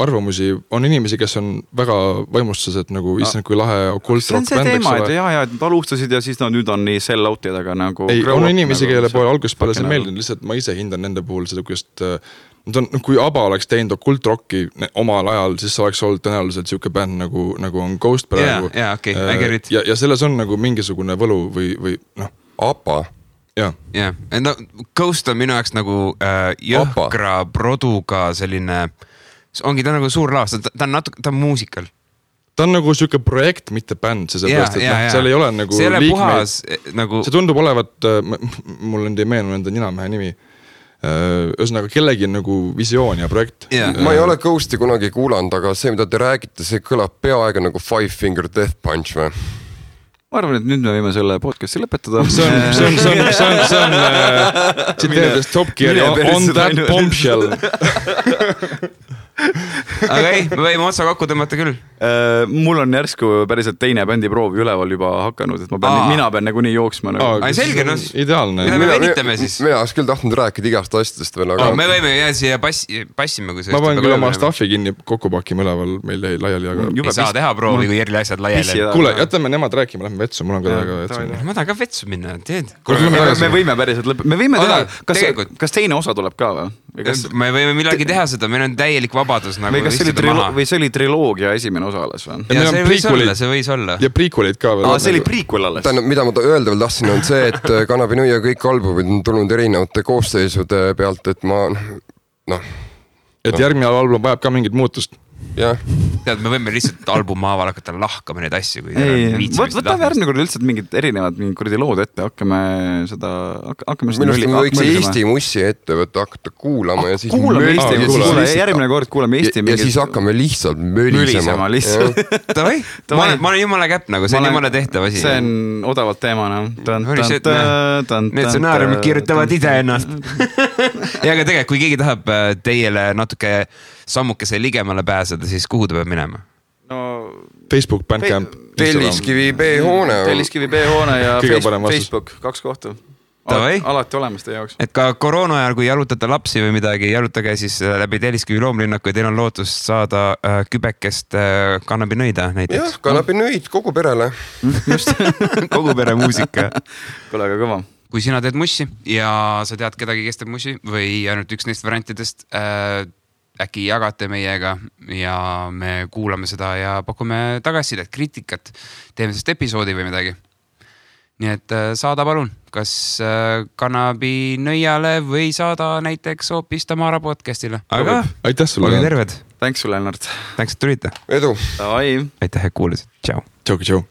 arvamusi. On inimesi, kes on väga vaimustused nagu issand kui lahe okult rock bänd. See on see teema, et jah, et alustasid ja siis nüüd on nii sell out'id, aga nagu... Ei, on inimesi, kelle poole algusest peale see meeldib, lihtsalt ma ise hindan nende puhul seda, kui ABBA oleks teinud okult rocki omal ajal, siis oleks olnud tõenäoliselt siuke bänd nagu on Ghost praegu. Ja selles on nagu mingisugune võlu või noh. ABBA? Jah, no Ghost on minu jaoks nagu jõhkra produga selline, ongi ta nagu suur laas, ta on muusikal. Ta on nagu siuke projekt, mitte bänd, sellepärast, et seal ei ole nagu see puhas, nagu... See tundub olevat, mul on ei meenu enda ninamehe nimi, ühesõnaga kellegi nagu visioon ja projekt. Ma ei ole Ghosti kunagi kuulanud, aga see, mida te räägite, see kõlab peaaegu nagu Five Finger Death Punch või? Ma arvan, et nüüd me võime selle podcasti lõpetada. See on tsiteerides Top Gear on that bombshell. Aga ei, me võime otsa kokku tõmmata küll. Mul on järsku päriselt teine bändi proov üleval juba hakanud, et mina pean nagu nii jooksma. Selge, no ideaalne. Me venitame siis. Mina oleks küll tahtnud rääkida igast asjadest veel, aga... Me võime jää siia passima, kui ma panen küll oma staffi kinni kokku pakima üleval, meil jäi laiali, aga... Ei saa teha proovi, kui Jerli asjad laiali. Kuule, jätame nemad rääkima, lähme vetsu, mul on ka väga vetsu. Ma tahan ka vetsu minna, teed. Me võime päriselt me võime teha, kas teine osa tuleb ka või? Me võime millagi teha seda, meil on täielik vabadus nagu istuda maha. Või see oli triloogia esimene osa alles või? Ja see võis olla. Ja prequelid ka veel. See oli prequel alles. Mida ma öelda veel tahtsin on see, et Cannabis ja kõik albumid on tulnud erinevate koosseisude pealt, et ma Et järgmine album vajab ka mingit muutust. Jah. Tead, me võime lihtsalt albumaaval hakata lahkama neid asju, kui võtame järgmine kord lihtsalt mingid erinevad kuradi lood ette, hakkame seda Minust me võiks Eesti mussi ette võtta, hakata kuulama ja siis järgmine kord kuulame Eesti ja siis hakkame lihtsalt mölisema ma olen jumala käpp nagu, see on jumala tehtav asi. See on odavalt teema need stsenaariumid kirjutavad ise ennast. Ja aga tegelikult, kui keegi tahab teile natuke sammukese ligemale pääseda, siis kuhu ta peab minema? Facebook, Bandcamp. Telliskivi B-hoone. Telliskivi B-hoone ja Facebook, 2 kohta. Alati olemas teie jaoks. Et ka koroona ajal, kui jalutate lapsi või midagi, jalutage siis läbi Telliskivi loomlinnaku ja teil on lootust saada kübekest kannabinõida näiteks. Jah, kannabinõid kogu perele. Just, kogu pere muusika. Kole aga kõva. Kui sina teed mussi ja sa tead kedagi, kes teeb mussi või ainult üks neist variantidest, äkki jagate meiega ja me kuulame seda ja pakume tagasisidet, kriitikat, teeme sellest episoodi või midagi. Nii et saada palun, kas Cannabis nõiale või saada näiteks hoopis Tamara podcastile. Aga aitäh sulle. Olge terved. Thanks sulle, Lennart. Thanks, et tulite. Edu. Aitäh, et kuulasid. Tšau. Tšau.